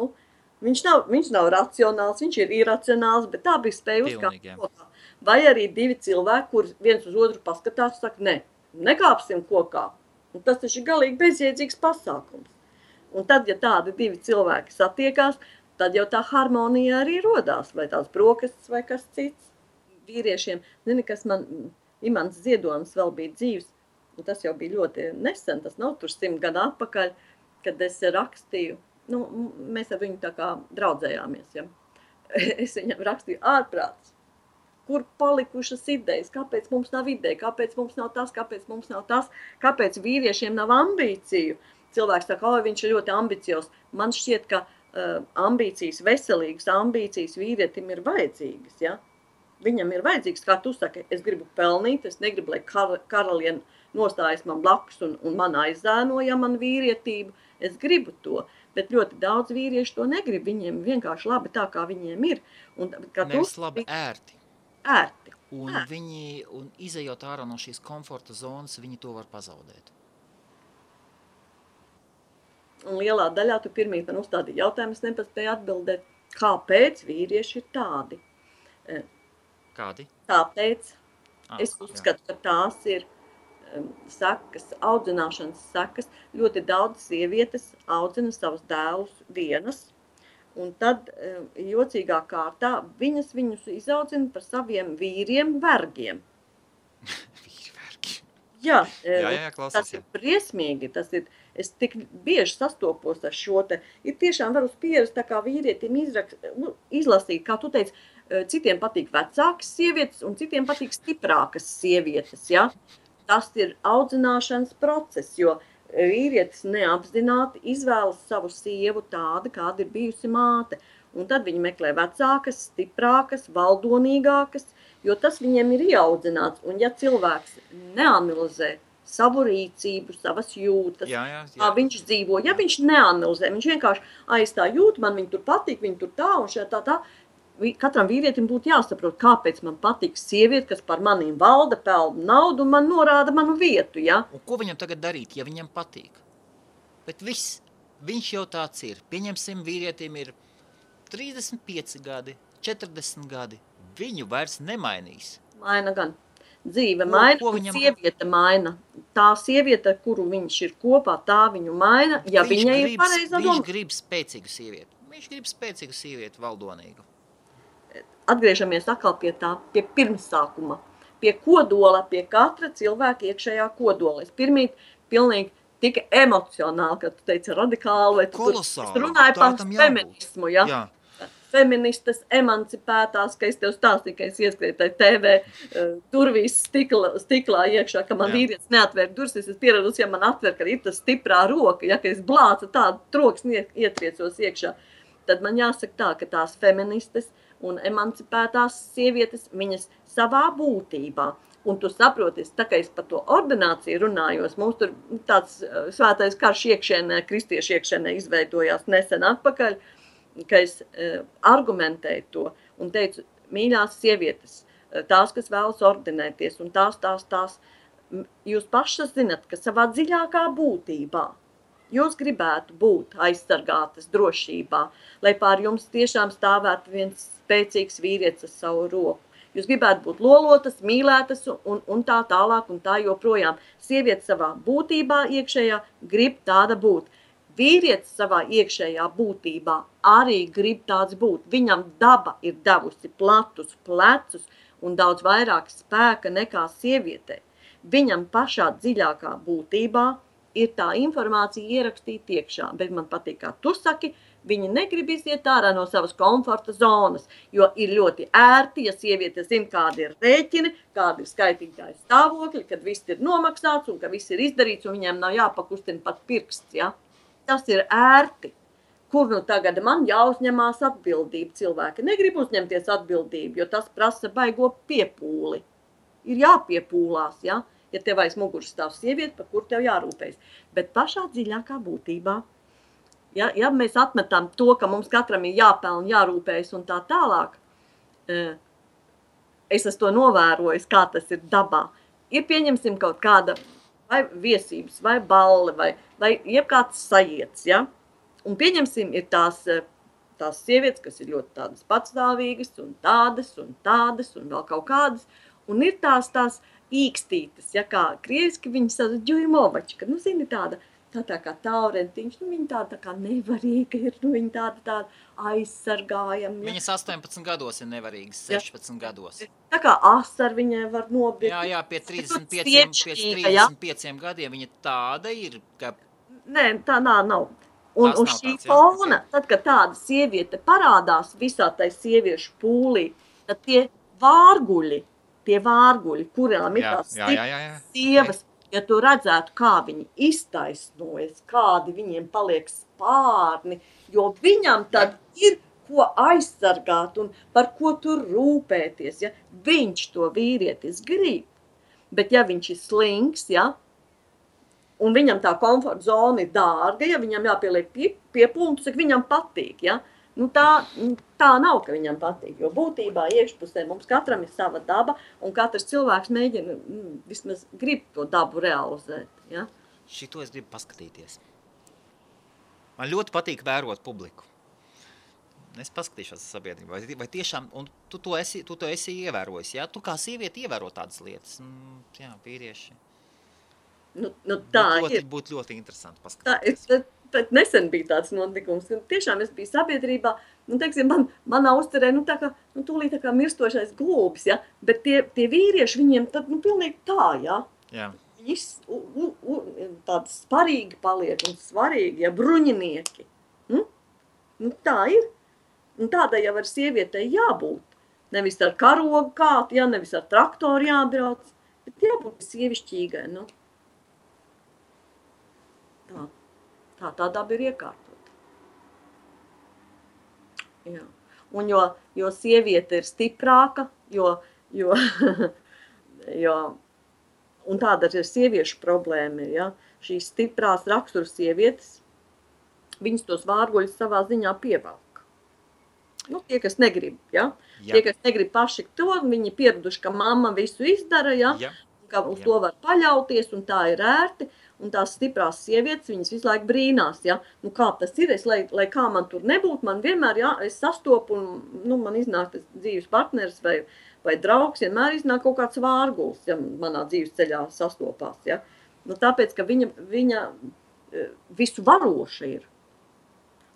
Viņš nav racionāls, viņš ir iracionāls, bet tā bija spēja uzkāpt kokā. Vai arī divi cilvēki, kur viens uz otru paskatās un saka, nekāpsim kokā. Un tas taču ir galīgi bezjēdzīgs pasākums. Un tad, ja tādi divi cilvēki satiekās, tad jau tā harmonija arī rodās, vai tās brokastis vai kas cits. Vīriešiem, kas man, Imants Ziedonis vēl bija dzīvs, un tas jau bija ļoti nesen, tas nav tur 100 gadu atpakaļ, kad es rakstīju, mēs ar viņu tā kā draudzējāmies, ja. Es viņam rakstīju ārprāts, kur palikušas idejas, kāpēc mums nav ideja, kāpēc mums nav tas, kāpēc vīriešiem nav ambīciju. Cilvēks saka, viņš ir ļoti ambiciozs. Man šķiet, ka ambīcijas, veselīgas ambīcijas vīrietim ir vajadzīgas, ja? Viņam ir vajadzīgs, kā tu saki, es gribu pelnīt, es negribu, lai karaliene nostājas man blakus un man aizzēnoja man vīrietību, es gribu to, bet ļoti daudz vīrieši to negrib, viņiem vienkārši labi tā, kā viņiem ir. Nevis labi, ērti. Ērti. Un izejot ārā no šīs komforta zonas, viņi to var pazaudēt. Un lielā daļā tu pirmīt man uzstādīji jautājumu, es nepaspēju atbildēt, kāpēc vīrieši ir tādi. Kādi? Tāpēc es uzskatu, ka tās ir sekas, audzināšanas sekas. Ļoti daudz sievietes audzina savus dēlus vienas, un tad jocīgā kārtā viņus izaudzina par saviem vīriem vergiem. Vīri vergi. Jā, klausies, tas ir briesmīgi, es tik bieži sastopos ar šo te, ir tiešām var uz pieres tā kā vīrietim izlasīt, kā tu teici, citiem patīk vecākas sievietes un citiem patīk stiprākas sievietes, ja? Tas ir audzināšanas process, jo vīrietis neapzināti izvēlas savu sievu tādu, kāda ir bijusi māte. Un tad viņi meklē vecākas, stiprākas, valdonīgākas, jo tas viņiem ir ieaudzināts. Un ja cilvēks neanalizē savu rīcību, savas jūtas, kā viņš dzīvo, ja viņš neanalizē, viņš vienkārši es tā jūtu, man viņi tur patīk, viņi tur tā un šeit tā. Katram vīrietim būtu jāsaprot, kāpēc man patīk sieviete, kas par maniem valda, pelna naudu un man norāda manu vietu, ja? Un ko viņam tagad darīt, ja viņam patīk? Bet viss, viņš jau tāds ir. Pieņemsim, vīrietim ir 35 gadi, 40 gadi. Viņu vairs nemainīs. Maina gan. Dzīve maina, ko un viņam- sieviete maina. Tā sieviete, ar kuru viņš ir kopā, tā viņu maina, ja viņai ir pareizā Viņš doma. grib spēcīgu sievieti. Viņš grib spēcīgu sievieti, valdonīgu. Atgriežamies atkal pie tā, pie pirmsākuma, pie kodola, pie katra cilvēka iekšējā kodola. Es pirmīt pilnīgi tik emocionāli, kad tu teici radikāli, vai tu Kolosāli. tur runāji Tā par tam jābūt. feminismu, ja? Jā. Feministas emancipētās, ka es tev stāstīju, ka es ieskrēju tai TV durvīs stiklā iekšā, ka man Jā. vīrietis neatvēr durvis, es esmu pieradusi, ja man atver, ka ir tas stiprā roka, ja, ka es blācu tādu troksni ietriecos iekšā, tad man jāsaka tā, ka tās feministas un emancipētās sievietes, viņas savā būtībā, un tu saproties, tā kā es par to ordināciju runājos, mums tur tāds svētais karš iekšēnē, kristiešu iekšēnē izveidojās nesen atpakaļ, ka es argumentēju to un teicu, mīļās sievietes, tās, kas vēlas ordinēties, un tās, jūs pašas zinat, ka savā dziļākā būtībā jūs gribētu būt aizsargātas drošībā, lai pār jums tiešām stāvētu viens spēcīgs vīrietis ar savu roku. Jūs gribētu būt lolotas, mīlētas un tā tālāk un tā joprojām. Sieviete savā būtībā iekšējā grib tāda būt. Vīrietis savā iekšējā būtībā arī grib tāds būt. Viņam daba ir devusi platus plecus un daudz vairāk spēka nekā sievietei. Viņam pašā dziļākā būtībā ir tā informācija ierakstīta iekšā, bet man patīk, kā tu saki, viņi negrib iziet ārā no savas komforta zonas, jo ir ļoti ērti, ja sieviete zina, kādi ir rēķini, kādi ir skaitītāji stāvokļi, kad viss ir nomaksāts un ka viss ir izdarīts un viņiem nav jāpakustina pat pirksts, ja? Tas ir ērti. Kur nu tagad man jāuzņemās atbildība? Cilvēki negrib uzņemties atbildību, jo tas prasa baigo piepūli. Ir jāpiepūlās, ja? Ja tev aiz muguras stāv sieviete, par kur tev jārūpējas. Bet pašā dziļākā būtībā, ja mēs atmetam to, ka mums katram ir jāpelna, jārūpējas un tā tālāk, es esmu to novērojis, kā tas ir dabā. Ir pieņemsim kaut kāda vai viesības, vai balle, vai jebkāds sajiets, ja? Un pieņemsim ir tās sievietes, kas ir ļoti tādas patstāvīgas un tādas un vēl kaut kādas, un ir tās īkstītes, ja kā krieviski viņi sauc ģujmovačka, nu zini tāda kā taurentiņš, nu viņa tāda kā nevarīga ir, nu viņa tāda aizsargājama. Ja. Viņas 18 gados ir nevarīgas, 16 gados. Tā kā asar viņai var nobirt. Jā, pie 35 gadiem viņa tāda ir, ka... Nē, tā nav. Un uz šī fona, tad, kad tāda sieviete parādās visā tai sieviešu pūlī, tad tie vārguļi, kurām ir tās sievas, ja tu redzētu, kā viņi iztaisnojas, kādi viņiem paliek spārni, jo viņam tad ir ko aizsargāt un par ko tur rūpēties, ja viņš to vīrietis grib. Bet ja viņš ir slings, ja, un viņam tā komforta zona ir dārga, ja viņam jāpieliek piepultu, cik viņam patīk, ja, nu tā nav, ka viņam patīk, jo būtībā iekšpusē mums katram ir sava daba, un katrs cilvēks mēģina, vismaz grib to dabu realizēt, ja. Šito es gribu paskatīties. Man ļoti patīk vērot publiku. Es paskatīšos sabiedrībā, vai tiešām, un tu to esi ievērojis, ja? Tu kā sievieti ievēro tādas lietas, jā, vīrieši. Tā būtu ļoti interesanti paskatīties. Tad nesen bija tāds notikums, un tiešām es biju sabiedrībā, teiksim, manā uzcerē, tūlīt tā kā mirstošais glūbis, ja, bet tie vīrieši viņiem tad, pilnīgi tā, ja. Jā. Viņi tādi sparīgi paliek un svarīgi, ja, bruņinieki. Tā ir. Un tādai jau ar sievietei jābūt. Nevis ar karogu kātu, ja, nevis ar traktoru jābrauc, bet jābūt sievišķīgai, Tā daba ir iekārtota. Jā. Un jo sieviete ir stiprāka, un tāda ir sieviešu problēma, ja, šīs stiprās rakstura sievietes, viņas tos vārguļus savā ziņā pievelk. Tie, kas negrib, ja? Tie, kas negrib paši to, viņi pieraduši, ka mamma visu izdara, ja? ka uz to var paļauties, un tā ir ērti, un tās stiprās sievietes, viņas visu laiku brīnās, ja, nu kā tas ir, lai kā man tur nebūtu, man vienmēr, ja, es sastopu, un, nu, man iznāk tas dzīves partneris vai draugs, vienmēr iznāk kaut kāds vārguls, ja manā dzīves ceļā sastopās, ja. Nu, tāpēc, ka viņa visu varoša ir.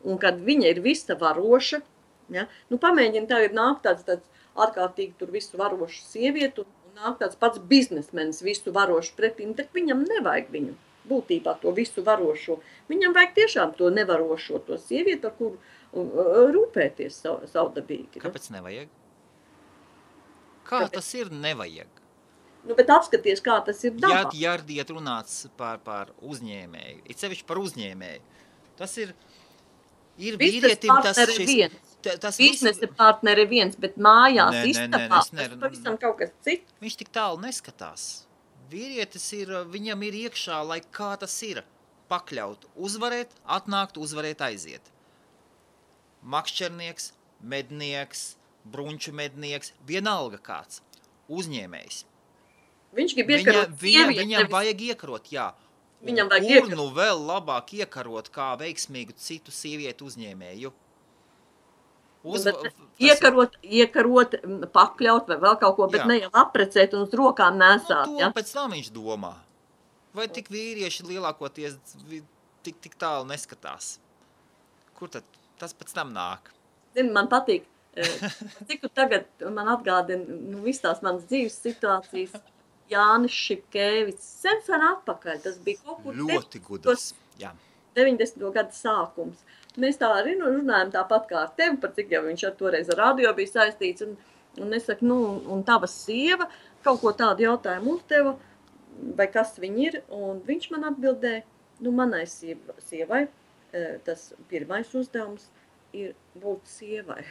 Un kad viņa ir visa varoša, ja, nu pamēģina tagad nāk tāds ārkārtīgi tur visu varošu sievietu, un nāk tāds pats biznesmenis visu varošu pretim, tad viņam nevajag viņu, būtībā to visu varošo. Viņam vajag tiešām to nevarošo, to sievieti, ar kuru rūpēties savdabīgi. Kāpēc nevajag? Kā tas ir nevajag? Nu, bet apskaties, kā tas ir dabā. Ja runāts par uzņēmēju, it sevišķi par uzņēmēju, tas ir vīrietim tas šis... Biznesa partneri viens, bet mājās istabā, tas pavisam kaut kas cits. Viņš tik tālu neskatās. Vīrietis viņam ir iekšā, lai kā tas ir, pakļaut, uzvarēt, atnākt, uzvarēt, aiziet. Makšķernieks, mednieks, brunču mednieks, vienalga kāds, uzņēmējs. Viņš grib iekarot sievieti. Viņam vajag iekarot, jā. Viņam vajag iekarot. Nu vēl labāk iekarot kā veiksmīgu citu sievietu uzņēmēju. Iekarot, pakļaut vai vēl kaut ko, bet ne jau aprecēt un uz rokām nesāt. Nu, to pēc tam viņš domā. Vai tik vīrieši lielākoties tik tālu neskatās? Kur tad tas pēc tam nāk? Zini, man patīk, cik tagad man atgādina, nu, viss tās manas dzīves situācijas, Jānis Šipkēvics, sen atpakaļ, tas bija kaut kur ļoti gudrs, jā. 90. gada sākums. Mēs tā arī runājam tāpat kā ar tevi, par cik jau viņš toreiz ar radio bija saistīts, un es saku, nu, un tava sieva kaut ko tādu jautājumu uzdeva, vai kas viņi ir, un viņš man atbildēja, nu, manai sievai, tas pirmais uzdevums ir būt sievai.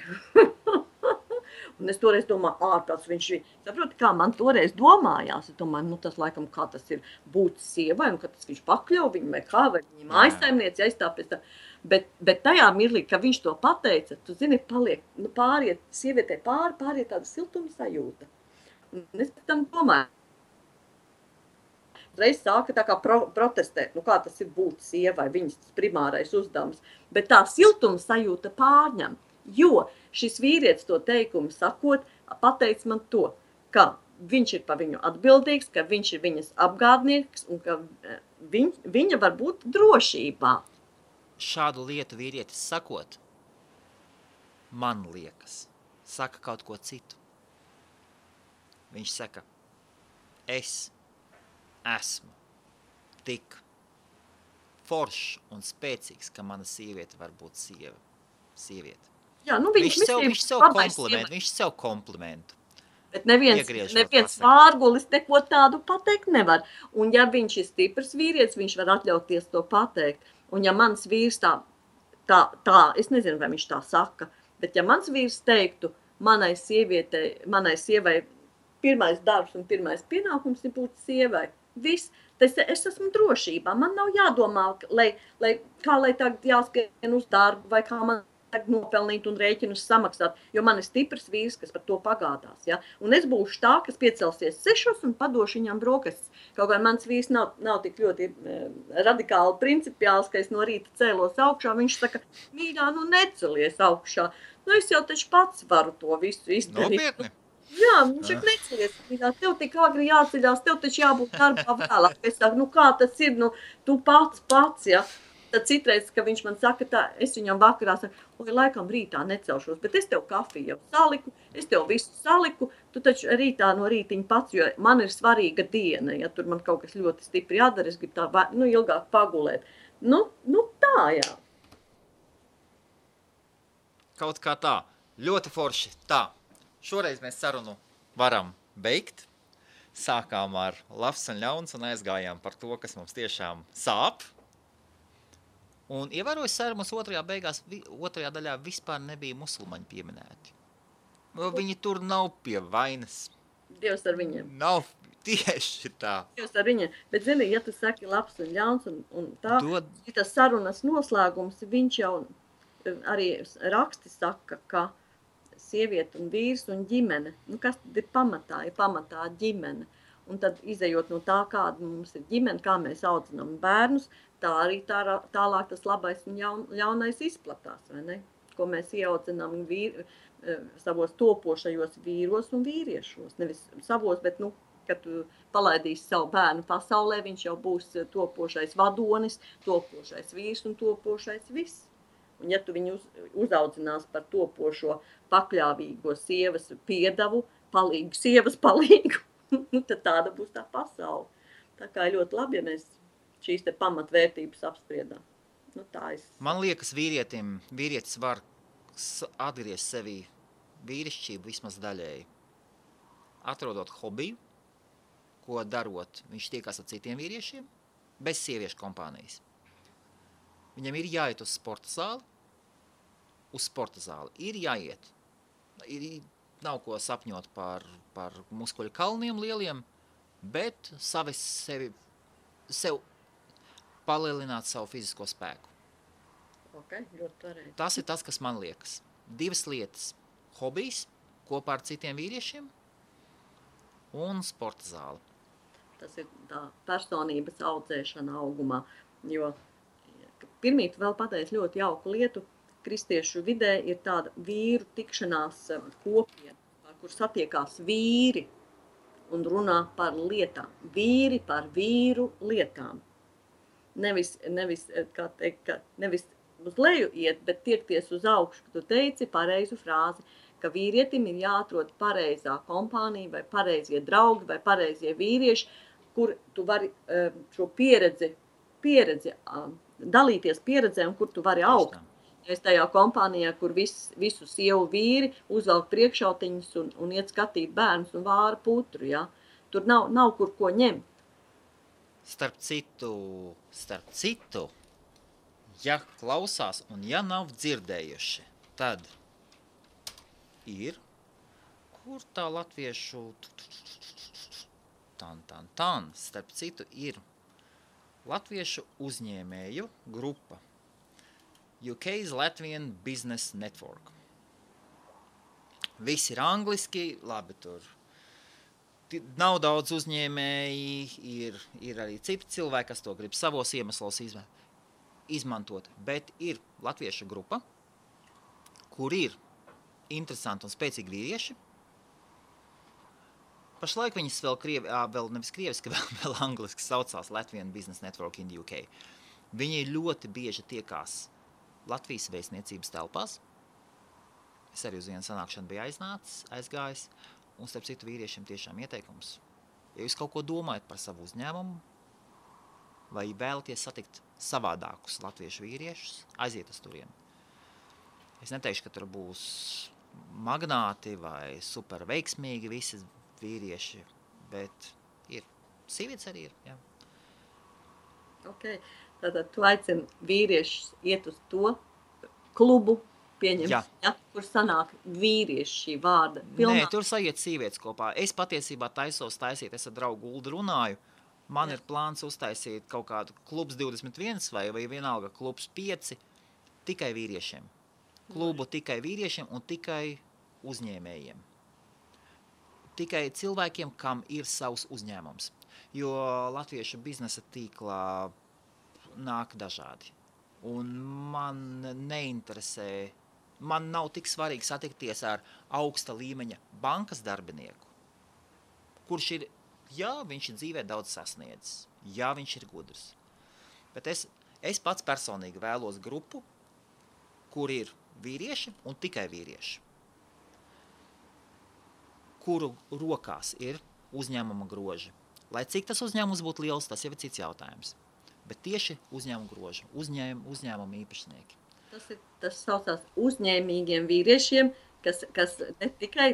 Un es toreiz domāju, ārprāts viņš ir. Saproti, kā man toreiz domājās. Es domāju, nu tas laikam, kā tas ir būt sievai, un ka tas viņš pakļauj viņu, vai kā, vai viņa mājsaimnieci aizstāpēc tā. Bet tajā mirlī, ka viņš to pateica, tu zini, paliek, nu pāriet, sievietē pāriet tāda siltuma sajūta. Un es pēc tam domāju, reiz sāka tā kā protestēt, nu kā tas ir būt sievai, viņas primārais uzdevums. Bet tā siltuma sajūta pārņem. Jo šis vīrietis to teikumu sakot, pateic man to, ka viņš ir par viņu atbildīgs, ka viņš ir viņas apgādnieks un ka viņa var būt drošībā. Šādu lietu vīrietis sakot, man liekas, saka kaut ko citu. Viņš saka, es esmu tik foršs un spēcīgs, ka mana sieviete var būt sieviete. Jā, nu viņš sev komplimentu. Bet neviens vārgulis neko tādu pateikt nevar. Un ja viņš ir stiprs vīrietis, viņš var atļauties to pateikt. Un ja mans vīrs tā, es nezinu, vai viņš tā saka, bet ja mans vīrs teiktu, manai sievai pirmais darbs un pirmais pienākums ir būt sievai. Viss, es esmu drošībā. Man nav jādomā, kā lai tagad jāskrien uz darbu, vai kā man nopelnīt un rēķinus samaksāt, jo man ir stiprs vīrs, kas par to pagādās. Ja? Un es būšu tā, kas piecelsies 6 un padošu viņam brokastis. Kaut kā mans vīrs nav tik ļoti radikāli principiāls, ka es no rīta cēlos augšā. Viņš saka, mīļā, nu necelies augšā. Nu es jau taču pats varu to visu izdarīt. Nopietni? Jā, viņš saka, necelies, mīļā, tev tik agri jāceļās, tev taču jābūt darbā vēlāk. Es saku, nu kā tas ir, nu tu pats, ja. Tad citreiz, ka viņš man saka tā, es viņam vakarā saku, oi, laikam rītā necelšos, bet es tev kafiju jau saliku, es tev visu saliku, tu taču rītā no rītiņa pats, jo man ir svarīga diena, ja tur man kaut kas ļoti stipri jādara, es gribu tā, ilgāk pagulēt. Nu tā, jā. Kaut kā tā, ļoti forši, tā. Šoreiz mēs sarunu varam beigt. Sākām ar labs un ļauns un aizgājām par to, kas mums tiešām sāp. Un ievēroju sarunas otrajā daļā vispār nebija musulmaņi pieminēti. Viņi tur nav pie vainas. Dievs ar viņiem. Nav tieši tā. Dievs ar viņiem. Bet, zini, ja tu saki labs un ļauns un tā, tas sarunas noslēgums, viņš jau arī raksti saka, ka sieviete un vīrs un ģimene, nu kas tad ir pamatā ģimene. Un tad, izejot no tā, kāda mums ir ģimene, kā mēs audzinām bērnus, tā arī tālāk tas labais un ļaunais izplatās, vai ne? Ko mēs ieaudzinām savos topošajos vīros un vīriešos. Nevis savos, bet, kad tu palaidīsi savu bērnu pasaulē, viņš jau būs topošais vadonis, topošais vīrs un topošais viss. Un ja tu viņu uzaudzinās par topošo pakļāvīgo sievas piedavu, sievas palīgu, tad tāda būs tā pasaule. Tā kā ļoti labi, ja mēs šīs te pamatvērtības apspriedām. Man liekas, vīrietis var atgriezt sevi vīrišķību vismaz daļēji. Atrodot hobiju, ko darot, viņš tiekās ar citiem vīriešiem, bez sieviešu kompānijas. Viņam ir jāiet uz sporta zāli. Uz sporta zāli ir jāiet. Nav ko sapņot par muskuļu kalniem lieliem, bet sev palielināt savu fizisko spēku. Okay, ļoti pareizi. Tas ir tas, kas man liekas. 2 lietas. Hobijs kopā ar citiem vīriešiem un sporta zāli. Tas ir tā personības audzēšana augumā, jo pirmīt vēl pateicu ļoti jauku lietu. Kristiešu vidē ir tāda vīru tikšanās kopiena, kur satiekās vīri un runā par lietām. Vīri par vīru lietām. Nevis uz leju iet, bet tiekties uz augšu. Tu teici pareizu frāzi, ka vīrietim ir jāatrod pareizā kompānija vai pareizie draugi vai pareizie vīrieši, kur tu vari šo pieredzi dalīties pieredzē un kur tu vari augt. Es tajā kompānijā, kur visu sievu vīri uzvelk priekšautiņus un iet skatīt bērnus un vāra putru, ja? Tur nav kur ko ņemt. Starp citu, ja klausās un ja nav dzirdējuši, tad ir, kur tā latviešu starp citu ir latviešu uzņēmēju grupa UK's Latvian Business Network. Viss ir angliski, labi tur. Nav daudz uzņēmēji, ir arī citi cilvēki, kas to grib savos iemeslos izmantot, bet ir latviešu grupa, kur ir interesanti un spēcīgi vīrieši. Pašlaik viņas vēl nevis krieviski, vēl angliski saucās Latvian Business Network in the UK. Viņi ļoti bieži tiekās Latvijas vēstniecības telpās. Es arī uz vienu sanākšanu biju aizgājis, un starp citu vīriešiem tiešām ieteikums. Ja jūs kaut ko domājat par savu uzņēmumu, vai vēlaties satikt savādākus latviešu vīriešus, aiziet uz turieni. Es neteikšu, ka tur būs magnāti vai super veiksmīgi visi vīrieši, bet ir. Sievietes arī ir, jā. Ok, tātad tu aicini vīriešus iet uz to klubu, kur sanāk vīrieši šī vārda pilnā. Nē, tur sajiet sievietes kopā. Es patiesībā taisos taisīt, es ar draugu Uldu runāju. Man ir plāns uztaisīt kaut kādu klubs 21 vai vienalga klubs 5 tikai vīriešiem. Klubu tikai vīriešiem un tikai uzņēmējiem. Tikai cilvēkiem, kam ir savs uzņēmums. Jo latviešu biznesa tīklā nāk dažādi. Un man neinteresē, man nav tik svarīgi satikties ar augsta līmeņa bankas darbinieku, kurš ir, viņš ir dzīvē daudz sasniedzis, viņš ir gudrs. Bet es pats personīgi vēlos grupu, kur ir vīrieši un tikai vīrieši, kuru rokās ir uzņēmuma groži. Lai cik tas uzņēmums būtu liels, tas jau ir cits jautājums. Bet tieši uzņēmuma groži, uzņēmuma īpašnieki. Tas saucās uzņēmīgiem vīriešiem, kas ne tikai,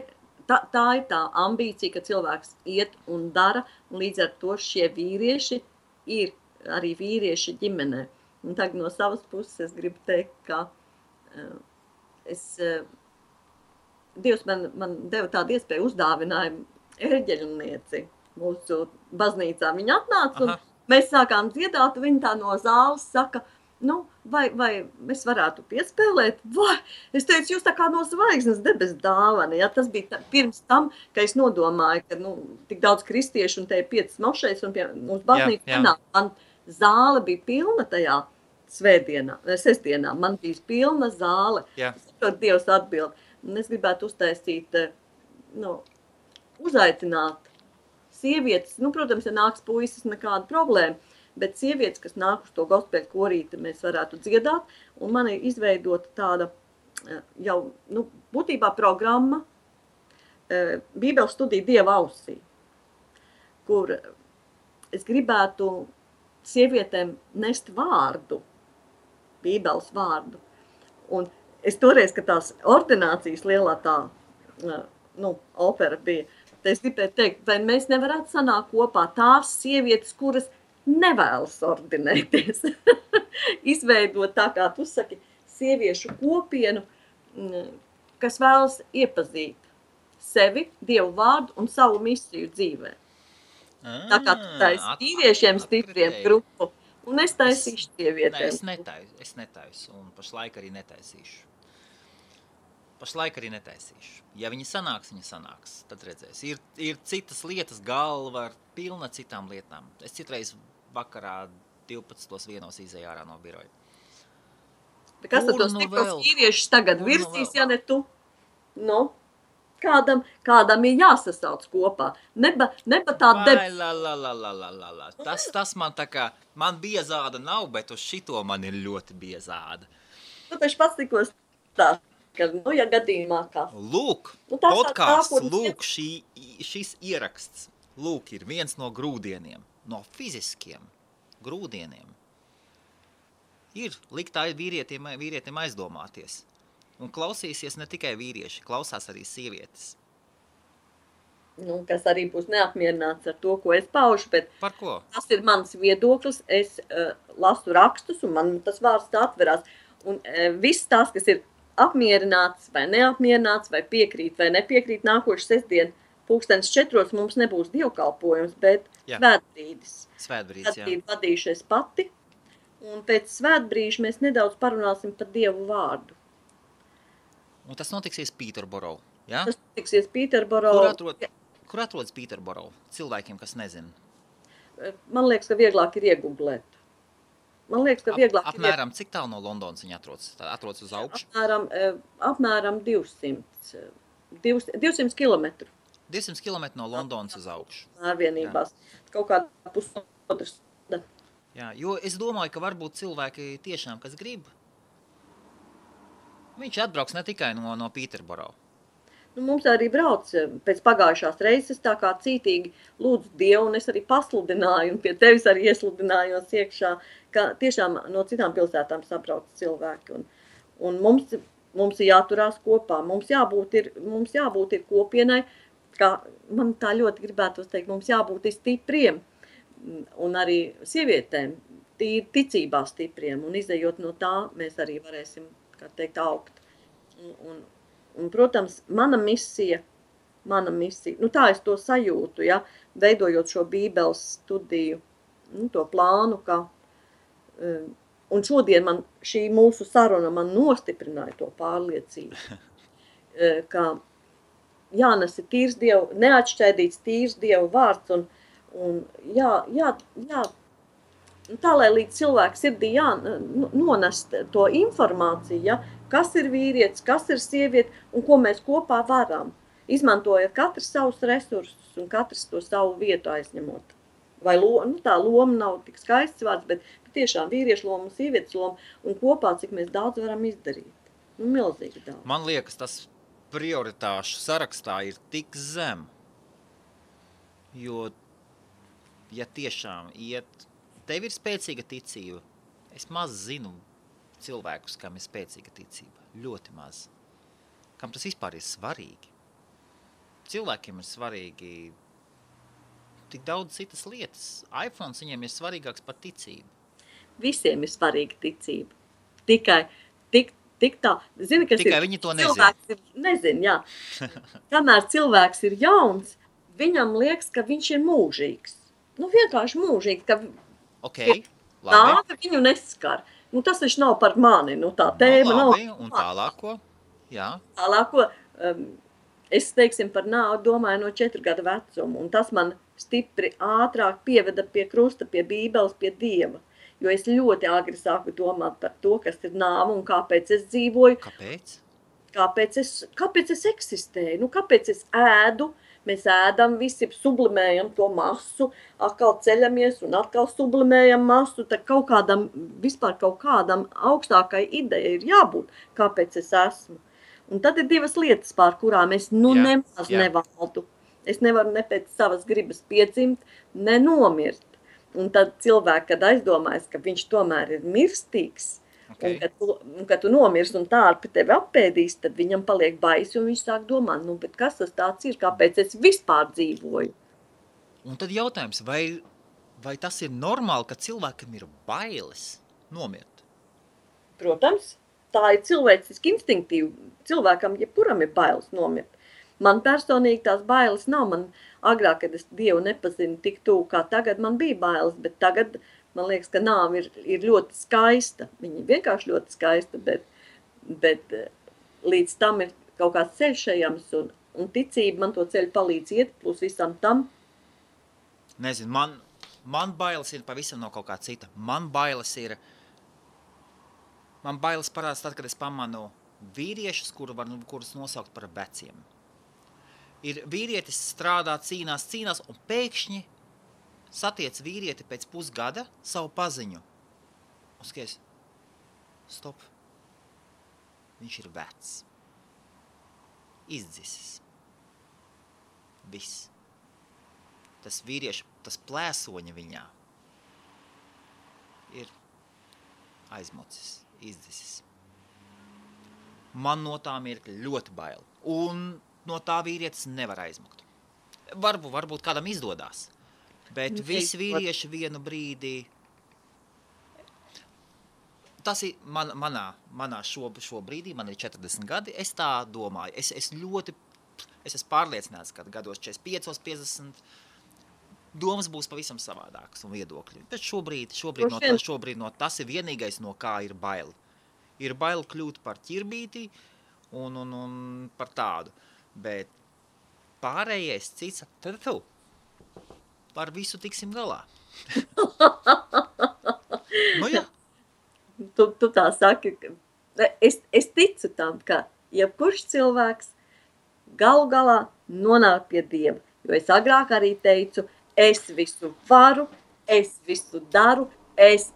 tā ir tā ambīcija, ka cilvēks iet un dara, un līdz ar to šie vīrieši ir arī vīrieši ģimenē. Un tagad no savas puses es gribu teikt, ka Dievs man deva tādu iespēju uzdāvinājumu erģeļnieci mūsu baznīcā. Viņa atnāca un mēs sākām dziedāt, viņa tā no zāles saka, Nu, vai es varētu piespēlēt? Vai? Es teicu, jūs tā kā no zvaigznes debes dāvana. Ja? Tas bija pirms tam, ka es nodomāju, ka tik daudz kristiešu un te ir 5 mošais un pie mums baznīca nenāk. Man zāle bija pilna tajā sestdienā. Man bija pilna zāle. Tad Dievs atbild. Un es gribētu uztaisīt, uzaicināt sievietes. Protams, ja nāks puisis, nekāda problēma. Bet sievietes, kas nāk uz to gospēļu korīti, mēs varētu dziedāt. Un man ir izveidota tāda jau, būtībā programma Bībeles studija Dieva ausī, kur es gribētu sievietēm nest vārdu, Bībeles vārdu. Un es toreiz, kad tās ordinācijas lielā tā, opera bija, tad es gribēju teikt, vai mēs nevarētu sanākt kopā tās sievietes, kuras nevēlas ordinēties. Izveidot tā, kā tu saki, sieviešu kopienu, kas vēlas iepazīt sevi, Dievu vārdu un savu misiju dzīvē. Tā kā tu taisi vīriešiem stipriem grupu, un es taisīšu sievietēm. Es netaisu, un pašlaik arī netaisīšu. Ja viņi sanāks, tad redzēs. Ir citas lietas, galva ar pilna citām lietām. Es citreiz vakarā 12.1 izēju ārā no biroja. Kas tad tos stipros vīriešus tagad virsīs, ja ne tu? Kādam ir jāsasauc kopā. Neba tā Tas man tā kā, man biezāda nav, bet uz šito man ir ļoti biezāda. Tu taču pats tikos tā, ka, ja gadījumā kā. Lūk, podcasts, šis ieraksts, ir viens no grūdieniem. No fiziskiem grūdieniem ir liktā vīrietim aizdomāties. Un klausīsies ne tikai vīrieši, klausās arī sievietes. Kas arī būs neapmierināts ar to, ko es paužu, bet par ko? Tas ir mans viedoklis. Es lasu rakstus un man tas vārds tā atverās. Un viss tās, kas ir apmierināts vai neapmierināts, vai piekrīt vai nepiekrīt, nākošu sestdienu 4:00 mums nebūs dievkalpojums, bet svētbrīdis. Svētbrīdi vadīšu es pati, un pēc svētbrīža mēs nedaudz parunāsim par Dievu vārdu. Un tas notiksies Pīterboro, ja? Tas notiksies Pīterboro. Kur atrodas Pīterboro? Cilvēkiem, kas nezina. Man liekas, ka vieglāk ir iegooglēt. Apmēram cik tālu no Londonas viņa atrodas? Atrodas uz augšu? Apmēram 200 kilometru. 200 km no Londonas uz augšu. Ārvienībās. Kaut kādā pusotras. Jā, jo es domāju, ka varbūt cilvēki tiešām, kas grib, viņš atbrauks ne tikai no Pīterboro. Mums arī brauc pēc pagājušās reizes tā kā cītīgi lūdzu Dievu, un es arī pasludināju, un pie tevis arī iesludinājos iekšā, ka tiešām no citām pilsētām sabrauc cilvēki. Un mums ir jāturās kopā, mums jābūt ir kopienai, kā man tā ļoti gribētos teikt, mums jābūt ir stipriem un arī sievietēm, ticībā stipriem, un izejot no tā, mēs arī varēsim, kā teikt, augt. Un protams, mana misija, tā es to sajūtu, ja, veidojot šo Bībeles studiju, to plānu, ka, un šodien šī mūsu saruna man nostiprināja to pārliecību, ka jānes ir tīrs Dievu, neatšķaidīts tīrs Dievu vārds, un tā, lai līdz cilvēku sirdī nonest to informāciju, ja, kas ir vīrietis, kas ir sieviete un ko mēs kopā varam, izmantojot katrs savus resursus un katrs to savu vietu aizņemot. Vai tā loma nav tik skaists vārds, bet tiešām vīriešu loma un sievietes loma un kopā, cik mēs daudz varam izdarīt. Milzīgi daudz. Man liekas, tas prioritāšu sarakstā ir tik zem, jo, ja tiešām tev ir spēcīga ticība, es maz zinu cilvēkus, kam ir spēcīga ticība, ļoti maz. Kam tas vispār ir svarīgi? Cilvēkiem ir svarīgi tik daudz citas lietas. iPhones viņiem ir svarīgāks par ticību. Visiem ir svarīga ticība. Tik tā. Zini, kas tikai viņi to nezina. Nezin, jā. Kamēr cilvēks ir jauns, viņam liekas, ka viņš ir mūžīgs. Vienkārši mūžīgs, ka okay, nāve viņu neskar. Nu, tas taču nav par mani, nu tā tēma nav. Labi, un tālāko? Jā. Tālāko, es, teiksim, par nāvi domāju no 4 gadu vecuma, un tas man stipri ātrāk pieveda pie krusta, pie Bībeles, pie Dieva. Jo es ļoti agri sāku domāt par to, kas ir nāve un kāpēc es dzīvoju. Kāpēc? Kāpēc es eksistēju? Nu, kāpēc es ēdu? Mēs ēdam, visi sublimējam to masu, atkal ceļamies un atkal sublimējam masu, tad vispār kaut kādam augstākai ideja ir jābūt, kāpēc es esmu. Un tad ir 2 lietas, pār kurām es nemaz nevaldu. Es nevaru ne pēc savas gribas piedzimt, ne nomirt. Un tad cilvēki, kad aizdomājas, ka viņš tomēr ir mirstīgs, Okay. Un kad tu nomirs un tārpi tevi apēdīs, tad viņam paliek baisi un viņš sāk domāt, nu, bet kas tas tāds ir, kāpēc es vispār dzīvoju? Un tad jautājums, vai tas ir normāli, ka cilvēkam ir bailes nomirt? Protams, tā ir cilvēciski instinktīva. Cilvēkam, jebkuram ir bailes nomirt. Man personīgi tās bailes nav. Man agrāk, kad es Dievu nepazinu tik tuvu kā tagad, man bija bailes, bet tagad man liekas, ka nāve ir ļoti skaista. Viņa vienkārši ļoti skaista, bet līdz tam ir kaut kāds ceļš ejams, un ticība man to ceļu palīdz iet, plus visam tam. Nezinu, man bailes ir pavisam no kaut kā cita. Man bailes parādās tad, kad es pamanu vīriešus, kurus nosaukt par veciem. Ir vīrietis strādā, cīnās, un pēkšņi satiec vīrieti pēc pusgada savu paziņu. Un skaties, stop. Viņš ir vecs. Izdzisis. Viss. Tas vīrieši, tas plēsoņa viņā ir aizmocis, izdzisis. Man no tā mirkļa ļoti bail. Un no tā vīrietis nevar aizmukt. Varbūt kādam izdodās. Bet visi vīrieši vienu brīdi, tas ir manā šo brīdī, man ir 40 gadi, es tā domāju. Es esmu pārliecināts, ka gados 45, 50 domas būs pavisam savādākas un viedokļi. Bet šobrīd no tas ir vienīgais, no kā ir bail. Ir bail kļūt par ķirbīti un par tādu. Bet pārējais cits, tad tu. Par visu tiksim galā. Nu jā. Tu tā saki, es ticu tam, ka jebkurš cilvēks galu galā nonāk pie Dieva. Jo es agrāk arī teicu, es visu varu, es visu daru, es,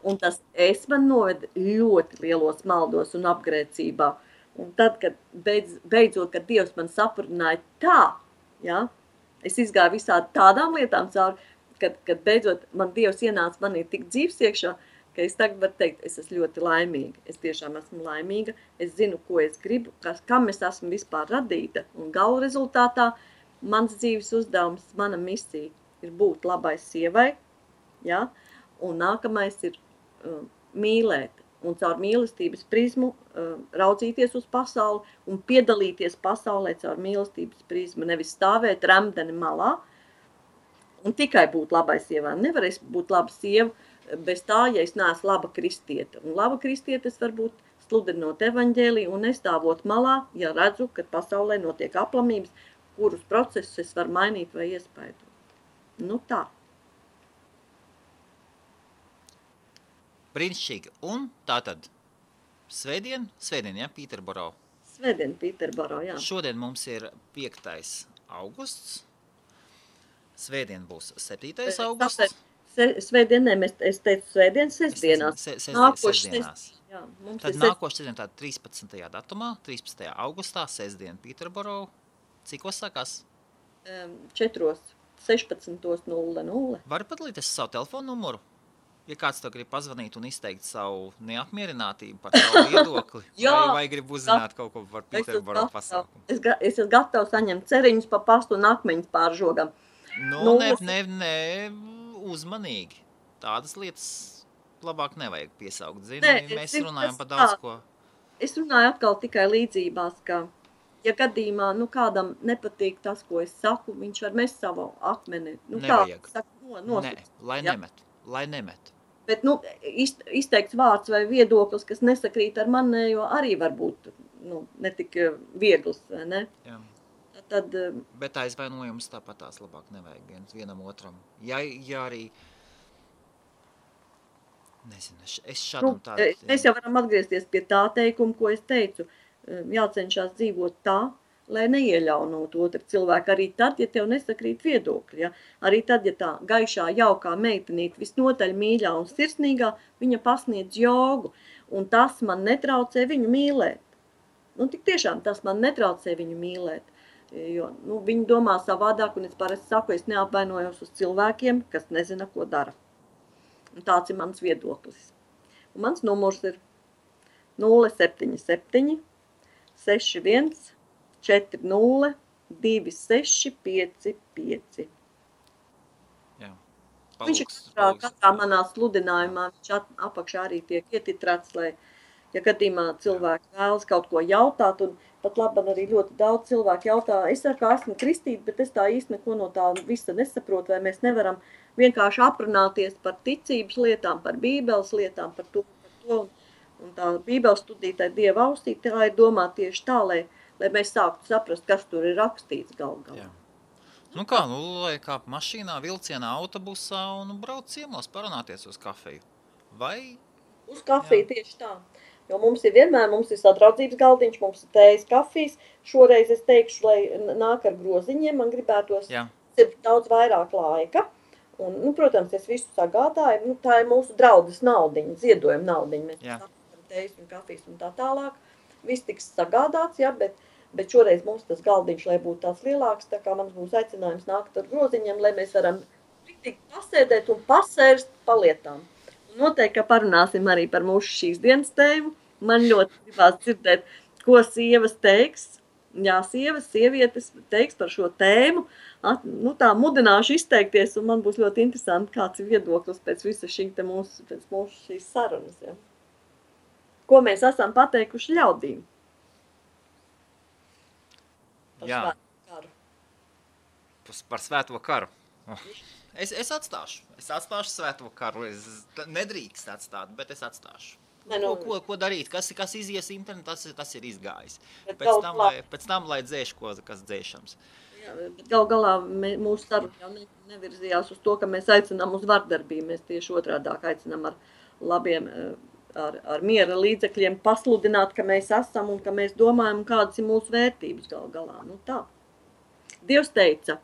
un tas es man noved ļoti lielos maldos un apgrēcībā. Un tad, kad beidzot, kad Dievs man saprināja tā, ja, es izgāju visādi tādām lietām cauri, kad beidzot man Dievs ienāca manī tik dzīves iekšā, ka es tagad varu teikt, es esmu ļoti laimīga. Es tiešām esmu laimīga, es zinu, ko es gribu, kam es esmu vispār radīta. Un galu rezultātā mans dzīves uzdevums, mana misija ir būt labai sievai, ja? Un nākamais ir mīlēt. Un caur mīlestības prizmu raudzīties uz pasauli un piedalīties pasaulē caur mīlestības prizmu, nevis stāvēt remdeni malā un tikai būt labai sievai. Nevar es būt laba sieva bez tā, ja es neesmu laba kristiete. Un laba kristiete es var būt sludinot evaņģēliju un nestāvot malā, ja redzu, ka pasaulē notiek aplamības, kurus procesus es varu mainīt vai iespaidot. Nu tā. Brīnišķīgi. Un tātad svētdien, ja, Pīterboro. Svētdien, Pīterboro, jā. Šodien mums ir 5. augusts. Svētdien būs 7. augusts. Svētdien, es teicu svētdien, sestdienās. Sestdienās. Jā, tad nākošais sestdien tāda 13. datumā, 13. augustā, sestdien Pīterboro. Cikos sākās? 4:16:00. Vari padalīties savu telefonu numuru? Ja kāds tev grib pazvanīt un izteikt savu neapmierinātību par savu viedokli, vai grib uzzināt kaut ko par Pīterboro pasākumu? Es esmu gatavs saņemt ceriņus pa pastu un akmeņus pāržogam. Nu, ne, uzmanīgi. Tādas lietas labāk nevajag piesaukt. Mēs runājam par daudz ko. Es runāju atkal tikai līdzībās, ka, ja gadījumā kādam nepatīk tas, ko es saku, viņš var mest savu akmeni. Nevajag. Lai nemet. Bet, izteikts vārds vai viedoklis, kas nesakrīt ar manējo, arī var būt, netik viegls, vai ne? Jā. Tad, bet aizvainojums tāpat tās labāk nevajag vienam otram. Ja arī, nezinu, es šādam tādu... Mēs jau varam atgriezties pie tā teikuma, ko es teicu. Jācenšās dzīvot tā, lai neieļaunot otru cilvēku. Arī tad, ja tev nesakrīt viedokļi. Ja? Arī tad, ja tā gaišā, jaukā meitenīte visnotaļ mīļā un sirsnīgā, viņa pasniedz jogu. Un tas man netraucē viņu mīlēt. Tik tiešām tas man netraucē viņu mīlēt. Jo viņi domā savādāk, un es parasti saku, es neapvainojos uz cilvēkiem, kas nezina, ko dara. Un tāds ir mans viedoklis. Un mans numurs ir 077 61 40 2655. Jā. Viņš ir katrā manā sludinājumā, viņš apakšā arī tiek ietitrāts, lai, ja gadījumā cilvēki vēlas kaut ko jautāt, un pat labam arī ļoti daudz cilvēku jautā, es esmu kristīta, bet es tā īsti neko no tā visa nesaprotu, vai mēs nevaram vienkārši aprunāties par ticības lietām, par bībeles lietām, par to, un tā bībeles studītāja Dieva ausī, tā ir domā tieši tā, lai mēs sāktu saprast, kas tur ir rakstīts galā. Lai kāp mašīnā, vilcienā, autobusā un brauc ciemos parunāties uz kafeju. Vai? Uz kafiju tieši tā. Jo mums ir sadraudzības galdiņš, mums ir tējas kafijas. Šoreiz es teikšu, lai nāk ar groziņiem, man gribētos ir daudz vairāk laika. Un, protams, es visu sagādāju. Tā ir mūsu draudzes naudiņa, ziedojuma naudiņa. Mēs sapratām tējas un kafijas un tā tālāk. Viss tiks sagādāts, bet šoreiz mums tas galdiņš, lai būtu tāds lielāks, tā kā mums būs aicinājums nākt ar groziņiem, lai mēs varam riktīgi pasēdēt un pasērst palietām. Un noteikti, ka parunāsim arī par mūsu šīs dienas tēmu. Man ļoti gribās dzirdēt, ko sievas teiks. Jā, sievietes teiks par šo tēmu. Tā mudināšu izteikties, un man būs ļoti interesanti, kāds ir viedoklis pēc visa mūsu šīs sarunas. Ja. Ko mēs esam pateikuši ļaudīm? Par svēto karu. Es atstāšu svēto karu. Es nedrīkst atstāt, bet es atstāšu. Ko darīt? Kas izies internetā, tas ir izgājis. Pēc tam, lai dzēš, kas dzēšams. Jā, bet galā mūsu saruna jau nevirzījās uz to, ka mēs aicinām uz vardarbību. Mēs tieši otrādāk aicinām ar labiem, ar miera līdzekļiem pasludināt, ka mēs esam un ka mēs domājam, kādas ir mūsu vērtības galā. Tā. Dievs teica,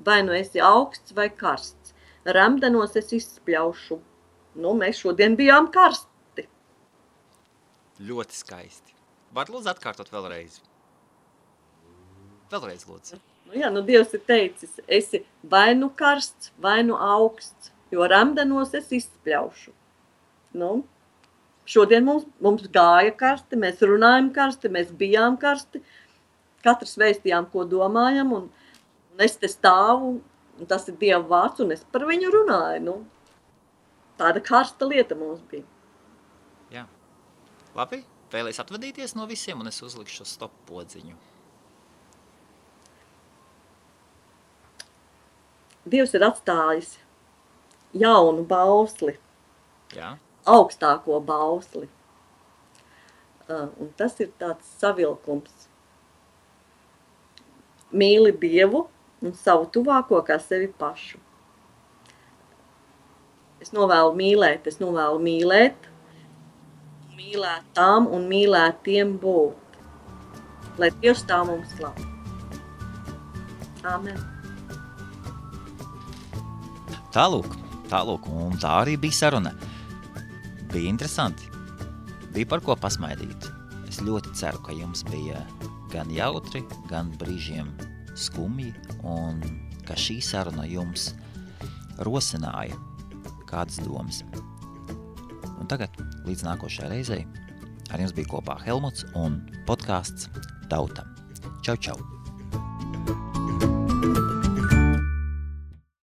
vai nu esi augsts vai karsts. Remdenos es izspļaušu. Mēs šodien bijām karsti. Ļoti skaisti. Var lūdzu atkārtot vēlreiz? Vēlreiz lūdzu. Dievs ir teicis, esi vai nu karsts, vai nu augsts, jo remdenos es izspļaušu. Šodien mums gāja karsti, mēs runājam karsti, mēs bijām karsti, katrs vēstījām, ko domājam, un es te stāvu, un tas ir Dieva vārds, un es par viņu runāju. Tāda karsta lieta mums bija. Jā. Labi, vēlēs atvadīties no visiem, un es uzlikšu stop podziņu. Dievs ir atstājis jaunu bausli, augstāko bausli. Un tas ir tāds savilkums. Mīli Dievu un savu tuvāko kā sevi pašu. Es novēlu mīlēt, mīlēt tām un mīlēt tiem būt. Lai Dievs tā mums slav. Āmen. Tālūk, un tā arī bija saruna. Bija interesanti, bija par ko pasmaidīt. Es ļoti ceru, ka jums bija gan jautri, gan brīžiem skumji, un ka šī saruna jums rosināja kādas domas. Un tagad, līdz nākošajai reizei, ar jums bija kopā Helmuts un podcasts Tauta. Čau, čau!